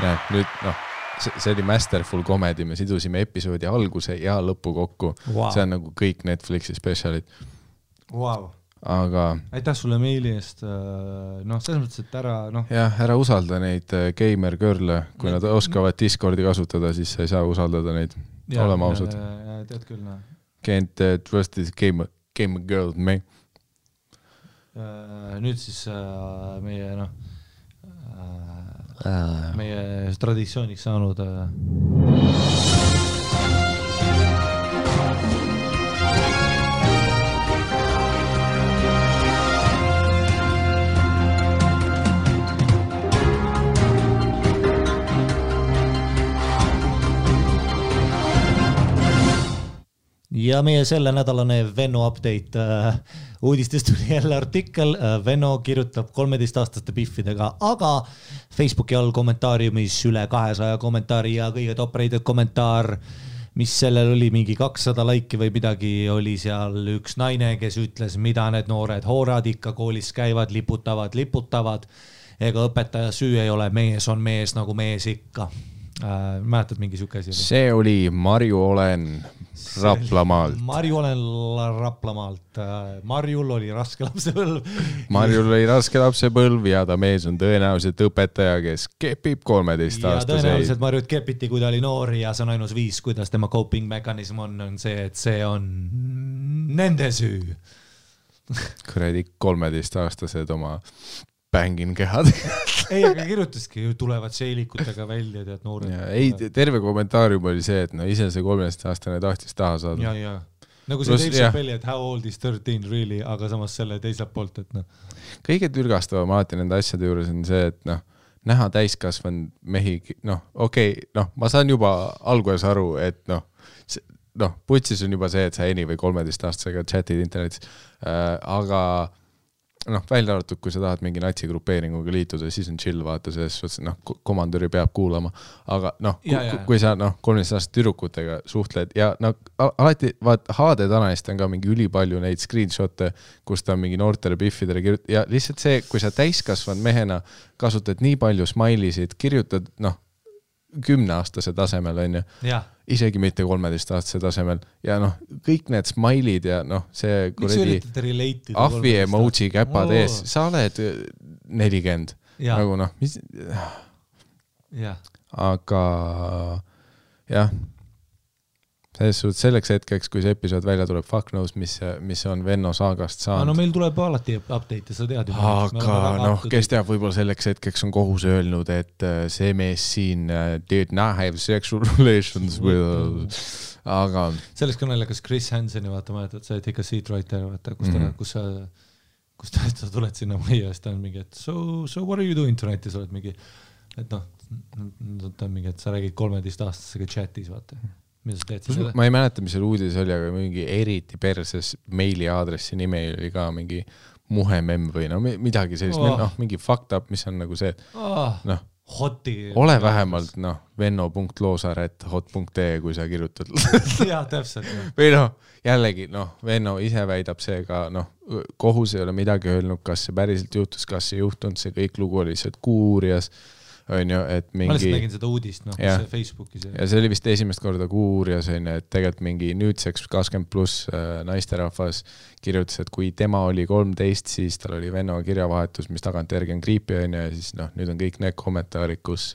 nüüd see oli masterful comedy, me sidusime episoodi alguse ja lõpu kokku. See on nagu kõik Netflixi spetsialid. Wow. Aga aitäh sulle meili eest, selles mõttes, et ära usalda neid gamer girl'e, kui nad oskavad Discordi kasutada, siis sa ei saa usaldada neid, olema ausad. Tead küll, Can't trust this gamer girl, me. Nüüd siis meie traditsiooniks saanud ja meie selle nädalane Venno update uudistest tuli jälle artikkel. Venno kirjutab 13-aastaste biffidega, aga Facebooki all kommentaariumis üle 200 kommentaari ja kõige top-rated kommentaar, mis sellel oli mingi 200 laiki või midagi, oli seal üks naine, kes ütles, mida need noored hoorad ikka koolis käivad, liputavad. Ega õpetaja süü ei ole, mees on mees nagu mees ikka. Mäletad mingi siuke asi? See oli Marju Olen Raplamaalt. Marju Olen Raplamaalt. Marjul oli raske lapsepõlv ja ta mees on tõenäoliselt õpetaja, kes kepib 13-aastaseid. Ja tõenäoliselt Marjut kepiti, kui ta oli noori ja see on ainus viis, kuidas tema coping mekanism on see, et see on nende süü. Kuradi 13-aastased oma bängin kehad. Ei, aga kirjutaski, tulevad seilikutega välja, tead noored. Ei, terve kommentaarium oli see, et ise see 13-aastane tahtis taha saada. Ja. Nagu see Dave Chappelle, et how old is 13 really, aga samas selle teiselt poolt, et Kõige türgastavam alati nende asjade juures on see, et näha täiskasvanud mehi, ma saan juba alguses aru, et putsis on juba see, et sa eni või 13-aastasega chatid internetis, aga välja arvatud, kui sa tahad mingi natsigrupeeringuga liituda, siis on chill vaata, selles komandöri peab kuulama, aga kui sa 13-aastaste tüdrukutega suhtled ja alati HD Tananist on ka mingi ülipalju neid screenshotte, kus ta on mingi noortele biffidele kirjutab ja lihtsalt see, kui sa täiskasvanud mehena kasutad nii palju smile'isid, kirjutad 10-aastase tasemel on ju, isegi mitte 13-aastase tasemel ja kõik need smile'id ja see kuradi ahvi emoji käpad ees, sa oled 40 nagu mis aga jah, selleks hetkeks, kui see episood välja tuleb, fuck knows, mis on Venno saagast saanud. Meil tuleb alati update, sa tead ju. Aga kes teab, võib-olla selleks hetkeks on kohus öelnud, et see mees siin did not have sexual relations with... Aga... Selleks kõnelekas Chris Hanseni, vaata, mäletad, sa oled ikka seatwriter, vaata, kus sa tuled sinna majja, siis ta on mingi, et so what are you doing tonight, ja sa oled mingi, et ta on mingi, et sa räägid 13-aastasega chatis, vaata. Ma ei mäleta, mis seal uudis oli, aga mingi eriti perses meili aadressi nime oli ka mingi muhemem või midagi sellist, mingi fucked up, mis on nagu see, ole vähemalt venno.loosaret.hot.ee, kui sa kirjutad. Jaa, täpselt. Või jällegi, Venno ise väidab see ka, kohus ei ole midagi öelnud, kas see päriselt juhtus, kas see juhtunud, see kõik lugu oli lihtsalt kuurias. On ju, et mingi... Ma lihtsalt nägin seda uudist, see Facebookis. Ja see oli vist esimest korda kuurias, on ju, et tegelikult mingi nüüdseks 20+ naisterahvas kirjutas, et kui tema oli 13, siis tal oli Venno kirjavahetus, mis tagantjärgi on creepy, on ju, ja siis nüüd on kõik need kommentaarid, kus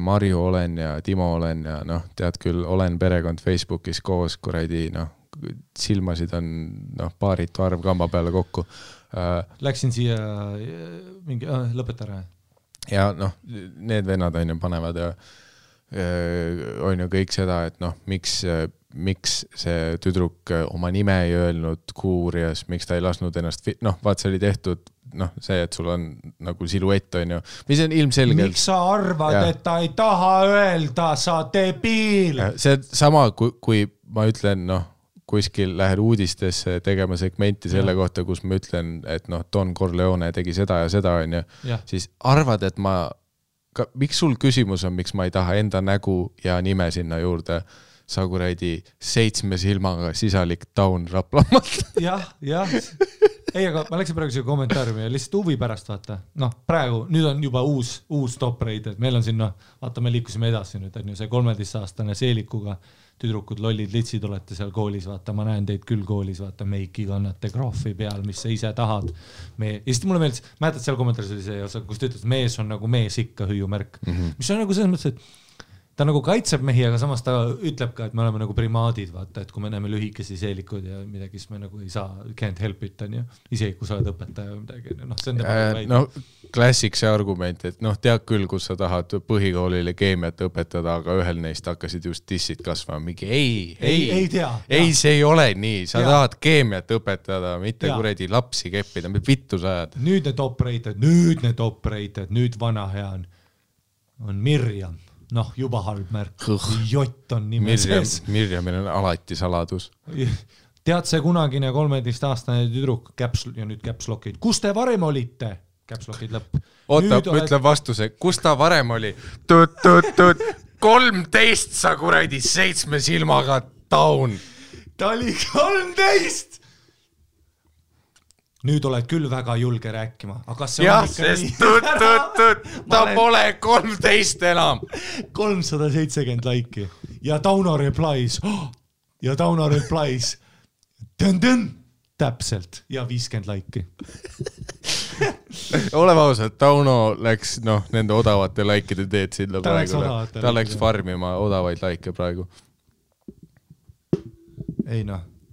Marju Olen ja Timo Olen ja tead küll, Olen perekond Facebookis koos, kuradi, silmasid on paaritu arv kamba peale kokku. Läksin siia mingi, lõpeta ära. Ja need vennad on ju panevad ja on ju kõik seda, et miks see tüdruk oma nime ei öelnud kuurias, miks ta ei lasnud ennast, vaat see oli tehtud, see, et sul on nagu siluett on ju, mis on ilmselgelt. Miks sa arvad, et ta ei taha öelda, sa debiil? See sama, kui ma ütlen, kuskil lähed uudistesse tegema segmenti selle kohta, kus ma ütlen, et Don Corleone tegi seda ja seda, on ju, siis arvad, et miks sul küsimus on, miks ma ei taha enda nägu ja nime sinna juurde, sa kuradi 7 silmaga sisalik Taun Raplamaalt. Jah. ei, aga ma läksin praegu siia kommentaariumi ja lihtsalt huvi pärast vaata. Noh, praegu, nüüd on juba uus top rate, et meil on siin, vaata, me liikusime edasi nüüd, on ju see 13-aastane Seelikuga tüdrukud, lollid, litsid olete seal koolis, vaata, ma näen teid küll koolis, vaata, meiki kannate graafi peal, mis sa ise tahad. Ja siis mulle meeldis, mäletad seal kommentaaris oli see osa, kus ta ütles, mees on nagu mees ikka hüüumärk, mis on nagu selles mõttes, et ta nagu kaitseb mehi, aga samas ta ütleb ka, et me oleme nagu primaadid, vaata, et kui me näeme lühikesi seelikud ja midagi, siis me nagu ei saa, can't help it, on ju, isegi kui sa oled õpetaja või midagi, noh, see on no, klassik see argument, et noh, tead küll, kus sa tahad põhikoolile keemiat õpetada, aga ühel neist hakkasid just dissid kasvama, mingi ei tea. Ei, see ei ole nii, sa tahad keemiat õpetada, mitte kuredi lapsi keppida, vittu sa ajad. Nüüd need operated, nüüd vana hea on Mirjam. Noh, juba halb märk. Jott on nime sees. Mirjamil on alati saladus. Tead see kunagine 13-aastane tüdruk ja nüüd capslockid. Kus te varem olite? Capslockid lõpp. Oota, ütle vastuse. Kus ta varem oli? 13 sa kuradi 7 silmaga down. Ta oli 13! Nüüd oled küll väga julge rääkima, aga see on ikka nii. Ta pole 13 enam. 370 laiki. Ja Tauno replies. Täpselt. Ja 50 laiki. Oleme ausad, Tauno läks nende odavate laikide teed sinna praegu. Ta läks farmima odavaid laike praegu. Ei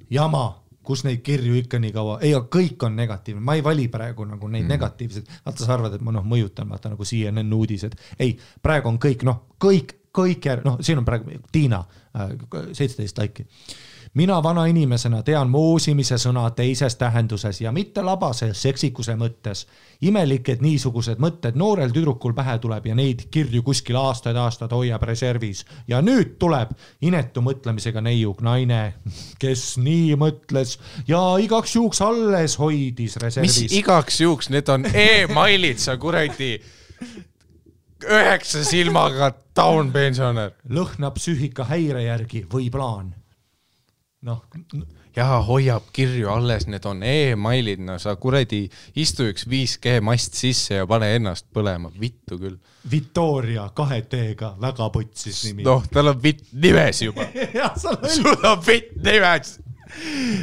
jama. Kus neid kirju ikka nii kaua, ei, kõik on negatiivne, ma ei vali praegu nagu neid negatiivsed, vaata sa arvad, et ma mõjutan, vaata nagu CNN uudised, ei, praegu on kõik, siin on praegu Tiina, 17 laiki. Mina vana inimesena tean moosimise sõna teises tähenduses ja mitte labase seksikuse mõttes. Imelik, et niisugused mõtted noorel tüdrukul pähe tuleb ja neid kirju kuskil aastad hoiab reservis. Ja nüüd tuleb inetu mõtlemisega neiuk naine, kes nii mõtles ja igaks juuks alles hoidis reservis. Mis igaks juuks? Need on e-mailid, sa kuradi 9 silmaga down pensionär. Lõhna psüühika häire järgi või plaan. Ja hoiab kirju alles, need on e-mailid, sa kuradi istu üks 5G mast sisse ja pane ennast põlema, vittu küll. Victoria 2 T-ga, väga putsis nimi. Tal on vitt nimes juba. Sul on vitt nimes.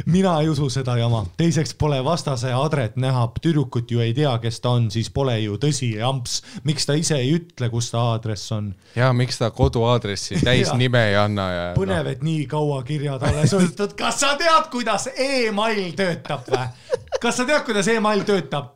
Mina ei usu seda jama. Teiseks pole vastase adret näha, tüdrukut ju ei tea, kes ta on, siis pole ju tõsi amps. Miks ta ise ei ütle, kus ta aadress on? Ja miks ta koduaadressi täis nime ei anna? Ja, põnev, et nii kaua kirjad alles võttud. Kas sa tead, kuidas e-mail töötab või? Kas sa tead, kuidas e-mail töötab?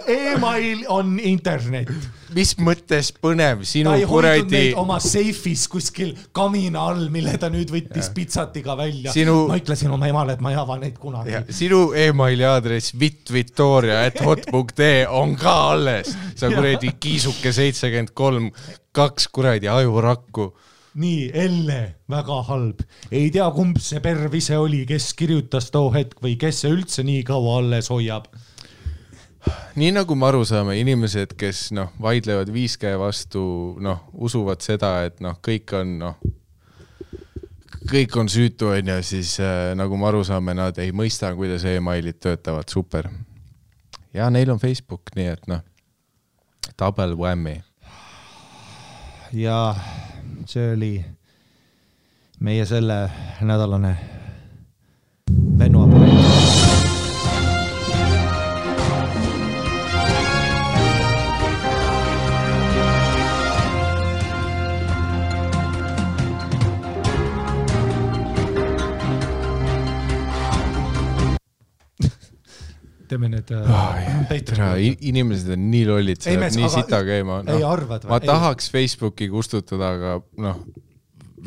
E-mail on internet. Mis mõttes põnev? Ta ei hoidnud neid oma seifis kuskil kamina all, mille ta nüüd võttis pitsatiga välja. Ma ütlesin oma emale, et ma ei ava neid kunagi. Ja, sinu e-maili aadress vitvitoria@hot.ee on ka alles. Sa kuradi kiisuke 73, 2 kuradi ajurakku. Nii, Elle, väga halb. Ei tea, kumb see perv ise oli, kes kirjutas too hetk või kes see üldse nii kaua alles hoiab. Nii nagu me aru saame, inimesed, kes vaidlevad 5G vastu, usuvad seda, et kõik on süütu, ja siis nagu me aru saame, nad ei mõista, kuidas e-mailid töötavad, super. Ja neil on Facebook, nii et double whammy. Ja see oli meie selle nädalane Vennoapoleet. Teeme need inimesed on nii lollid, nii sita käima. Ei arvad või? Ma tahaks Facebooki kustutada, aga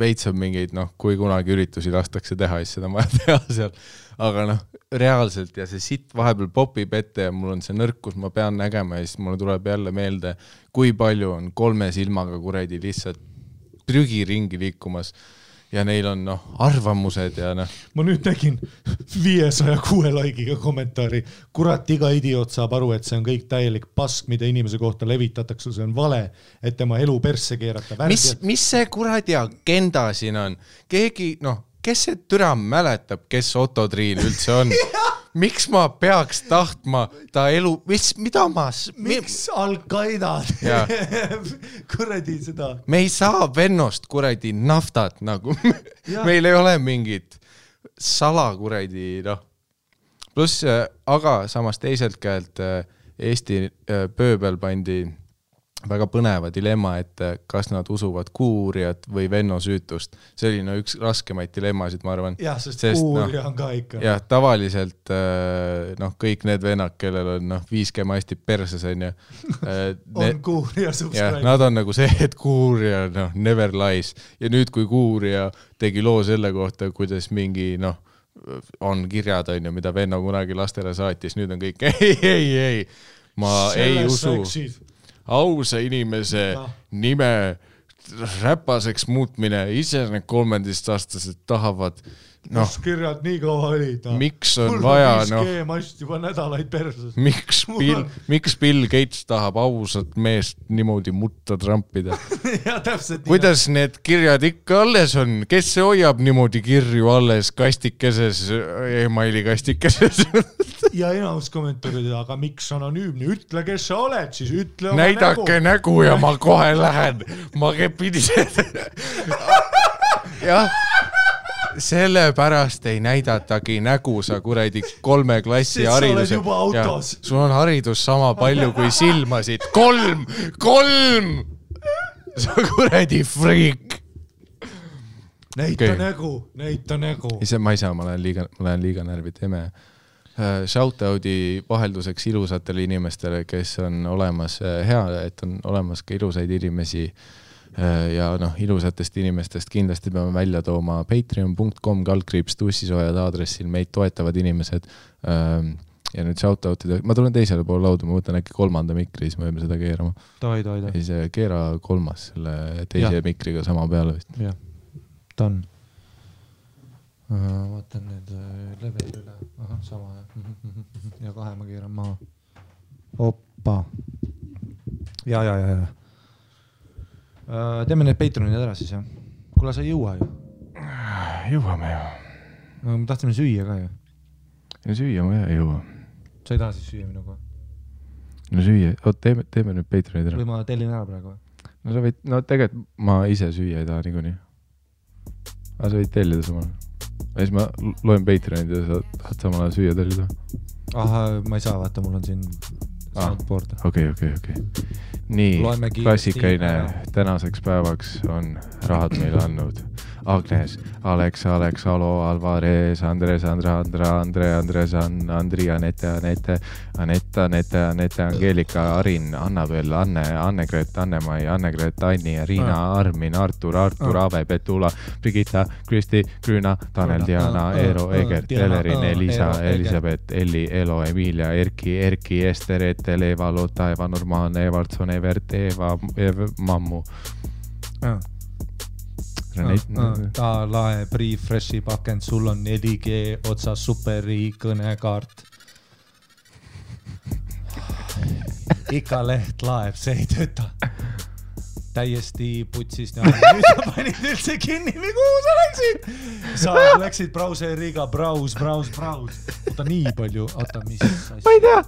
veits on mingeid, kui kunagi üritusi lastakse teha, siis seda ma teha seal. Aga reaalselt ja see sitt vahepeal popib ette ja mul on see nõrkus, ma pean nägema ja siis mulle tuleb jälle meelde, kui palju on 3 silmaga kuredi lihtsalt prügi ringi liikumas. Ja neil on arvamused ja Ma nüüd nägin 506 laikiga kommentaari. Kurat, iga idioot saab aru, et see on kõik täielik pask, mida inimese kohta levitatakse, see on vale, et tema elu persse keerata. Mis see kuradi agenda siin on? Keegi, kes see türa mäletab, kes Otto Triin üldse on? miks ma peaks tahtma ta elu, mida ma... Miks Al-Qaeda kuradi seda? Me ei saa vennost kuradi naftat nagu. Meil ei ole mingit salakuradi, noh. Plus, aga samas teiselt käelt Eesti pööbel pandi väga põneva dilemma, et kas nad usuvad kuurijat või venno süütust. See oli üks raskemaid dilemmasid, ma arvan. Jah, sest kuurija on ka ikka. Jah, tavaliselt kõik need vennad, kellel on 5G masti perses on on kuurija subscribe. Nad on nagu see, et kuurija never lies. Ja nüüd, kui kuurija tegi loo selle kohta, kuidas mingi on kirjad, mida venno kunagi lastele saatis, nüüd on kõik ei. Ma ei usu. Ausa inimese nime räpaseks muutmine, ise need 13-aastased tahavad kus kirjad nii kaua olid? Miks on vaja? Mul on 5G mast juba nädalaid perses. Miks Bill Gates tahab ausat meest niimoodi mutta trampida? Ja täpselt. Kuidas need kirjad ikka alles on? Kes see hoiab niimoodi kirju alles kastikeses, emaili kastikeses? Ja enamus kommentaarid, aga miks anonüümne? Ütle, kes sa oled, siis ütle oma näidake nägu ja ma kohe lähen. Ma pidin jah. Sellepärast ei näidatagi nägu sa kuradi 3 klassi hariduse. Sa oled juba autos. Sul on haridus sama palju kui silmasid. 3! Sa kuradi freak. Näita nägu. Ma ei saa, ma olen liiga närvid eme. Shoutout'i vahelduseks ilusatele inimestele, kes on olemas hea, et on olemas ka ilusaid inimesi. Ja ilusatest inimestest kindlasti peame välja tooma patreon.com/tussisojad aadressil meid toetavad inimesed ja nüüd shoutout'ida. Ma tulen teisele poole lauda, ma võtan äkki 3. mikri, siis me võime seda keerama. Tohi. Siis keera 3. selle teise mikriga sama peale vist. Jah, ta on. Vaatan nüüd level üle. Aha, sama. Ja 2 ma keeran maha. Oppa. Ja. Teeme need Patreonid ära siis, jah? Kuule, sa ei jõua ju. Jõuame ju. No, me tahtsime süüa ka ju. Ja süüa ma ei jõua. Sa ei taha siis süüa minuga? No süüa, teeme nüüd Patreonid ära. Või ma tellin ära praegu? No sa võid, tegelikult ma ise süüa ei taha niikuinii. Aga sa võid tellida samal. Ja siis ma loen Patreonid ja sa tahad samal ajal süüa tellida. Aha, ma ei saa, vaata, mul on siin soundboard. Okei. Nii, klassikaine tänaseks päevaks on rahad meile andnud Agnes, Alex, Alo, Alvarez, Andres, Andres, Andri, Anette, Angelika, Arin, Annabel, Anne-Gret, Anne-Mai, Anne-Gret, Anni, Riina, Armin, Artur, Ave, Petula, Brigitta, Kristi, Grüna, Tanel, Diana, Eero, Egert, Elerin, Elisa, Elisabeth, Elli, Elo, Emilia, Erki, Ester, Etel, Eva, Lotta, Eva, Norman, Evaldson, Evert, Eva, Mammu. Ta lae Pre-Freshi pakend, sul on 4G otsa superi kõnekaart. Ikka leht laeb, see ei tööta. Täiesti putsis. Nüüd sa panid üldse kinni, või kuhu sa läksid? Sa läksid brauseriga, braus. Oota nii palju, mis asja? Ma ei tea.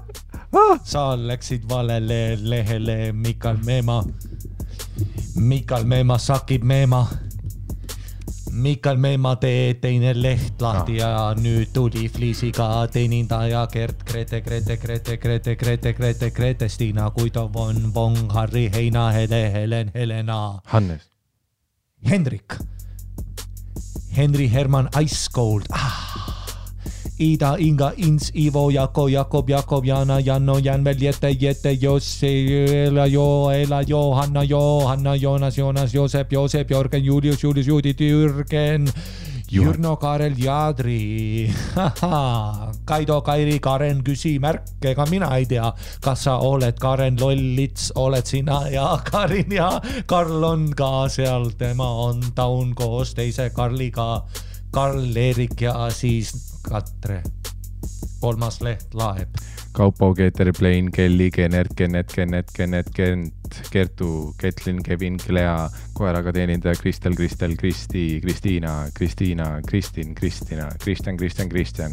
Sa läksid valele lehele Mikal Meema sakib Meema. Mikal Meema teine leht lahti ja nüüd tuli Fliisiga teenindaja Gert, Grete, Stina, Kuidov on Vong, Harri, Heina, Helen, Helena. Hannes. Hendrik. Henri, Herman, Ice Cold. Ida, Inga, Ins, Ivo, Jakob, Jana, Janno, Janvel, Jette, Jossi, Ela, Johanna, Jonas, Joosep, Jörgen, Julius, Judith, Jürgen, Jürno, Karel, Jadri, Kaido, Kairi, Karen, küsimärk, ega mina ei tea, kas sa oled Karen, Lollits, oled sina ja Karin ja Karl on ka seal, tema on taun koos teise Karliga, Karl, Erik ja siis Katre. 3. leht laeb. Kaupo, Keeter, Plain, Kelly, Kenert, Kertu, Ketlin, Kevin, Klea, koeraga teenindaja Kristel, Kristi, Kristiina, Kristin, Kristina, Kristjan,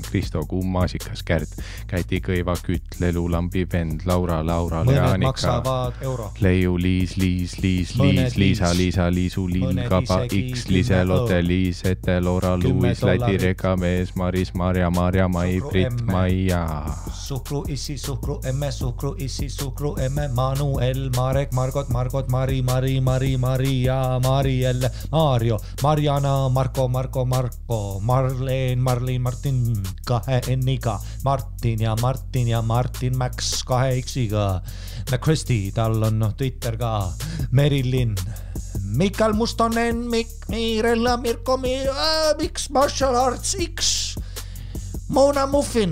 Kristo, Kumm, Maasikas, Kärt, Käti, Kõiva, Kütt, Lelu, Lambi, Vend, Laura, mõned Leanika, maksavad euro. Leiu, Liis, Liisa, Liisu, Liin, Kaba, X, Lise, Lotte, Liis, Ete, Loora, Luis, Läti, Reka, Mees, Maris, Marja, Mai, Brit, Maia. Suhkru, issi, suhkru, emme, suhkru, issi, suhkru, emme, Manuel, Marek, Margot, Mari, Maria, Mariel, Mario, Mariana, Marko, Marleen, Martin, 2 N-iga, Martin ja Martin Max 2 X-iga, Kristi, tal on Twitter ka, Merilin, Mikael Mustonen, Mirella, Mirko, X, Martial Arts X, Mona Muffin,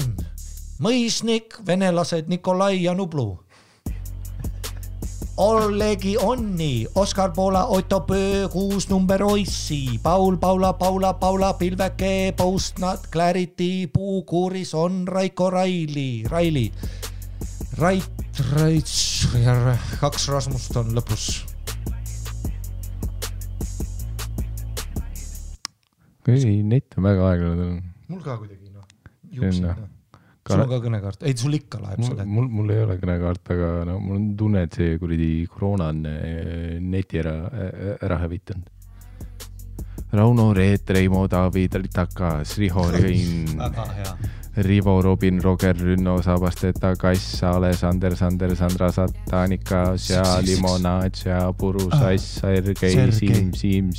Mõisnik, venelased Nikolai ja Nublu, Ollegi Onni, Oskar Poola, Otto Pöö, 6 number Oissi, Paula, Pilveke, Postnat, Clarity, Puukuuris on Raiko Raili, Rait, 2 Rasmust on lõpus. Kui net on väga aeglane. Mul ka kuidagi, juuksin. Sul on ka kõnekaart? Ei, sul ikka laeb selle. Mul ei ole kõnekaart, aga mul on tunne, et see kuridi koroona on neti ära hävitanud. Rauno, Reet, Reimo, David, Takas, Riho, Rein, Rivo, Robin, Roger, Rünno, Sabasteta, Kass, Alessander, Sandra, Satanika, Sea, Limonad, Sea, Puru, Sass, Sergei, Siim,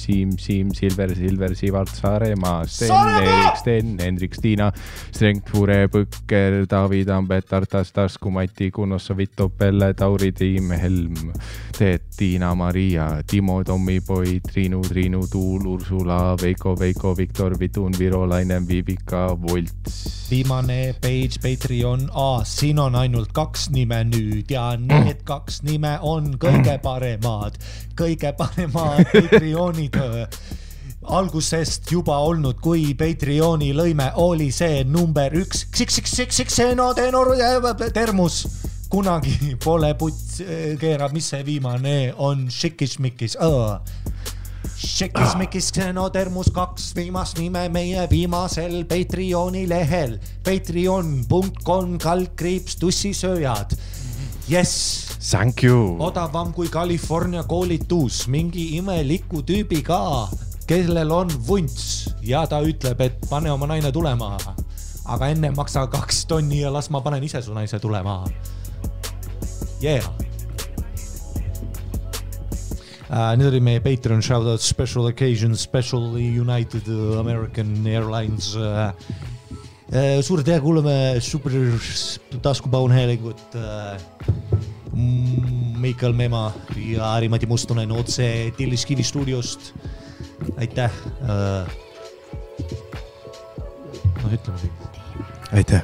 Silver, Sivart, Saaremaa, Sten, Hendrik, Stiina, Strengt, Fure, Põkker, David, Ambet, Tartas, Tasku, Mati, Kunossa, Vitto, Pelle, Tauri, Tiim, Helm, Teet, Tiina, Maria, Timo, Tommi, Poi, Triinu, Tuul, Ursula, Veiko, Viktor, Vitun, Viro, Lainen, Vivika, Volts. Viimane page, Patreon, siin on ainult 2 nime nüüd ja need 2 nime on kõige paremad Patreonid algusest juba olnud, kui Patreoni lõime oli see number 1 termus. Kunagi pole puts keerab, mis see viimane on Šikis-Mikis. Šekis-Mikis Xenotermus 2 viimast nime meie viimasel Patreoni lehel. Patreon.com/tussisööjad. Yes! Thank you! Odavam kui California koolitus. Mingi imeliku tüübi ka, kellel on vunts. Ja ta ütleb, et pane oma naine tulema. Aga enne maksa 2 tonni ja las ma panen ise su naise tulema. Yeah! Nüüd oli meie Patreon shoutout Special Occasion, Special United American Airlines. Suure tea kuuleme super taskupaunhäälingut Mikael Mema ja Ari-Mati Mustonen otse Tilliskivi stuudiost. Aitäh. Ütleme siin. Aitäh.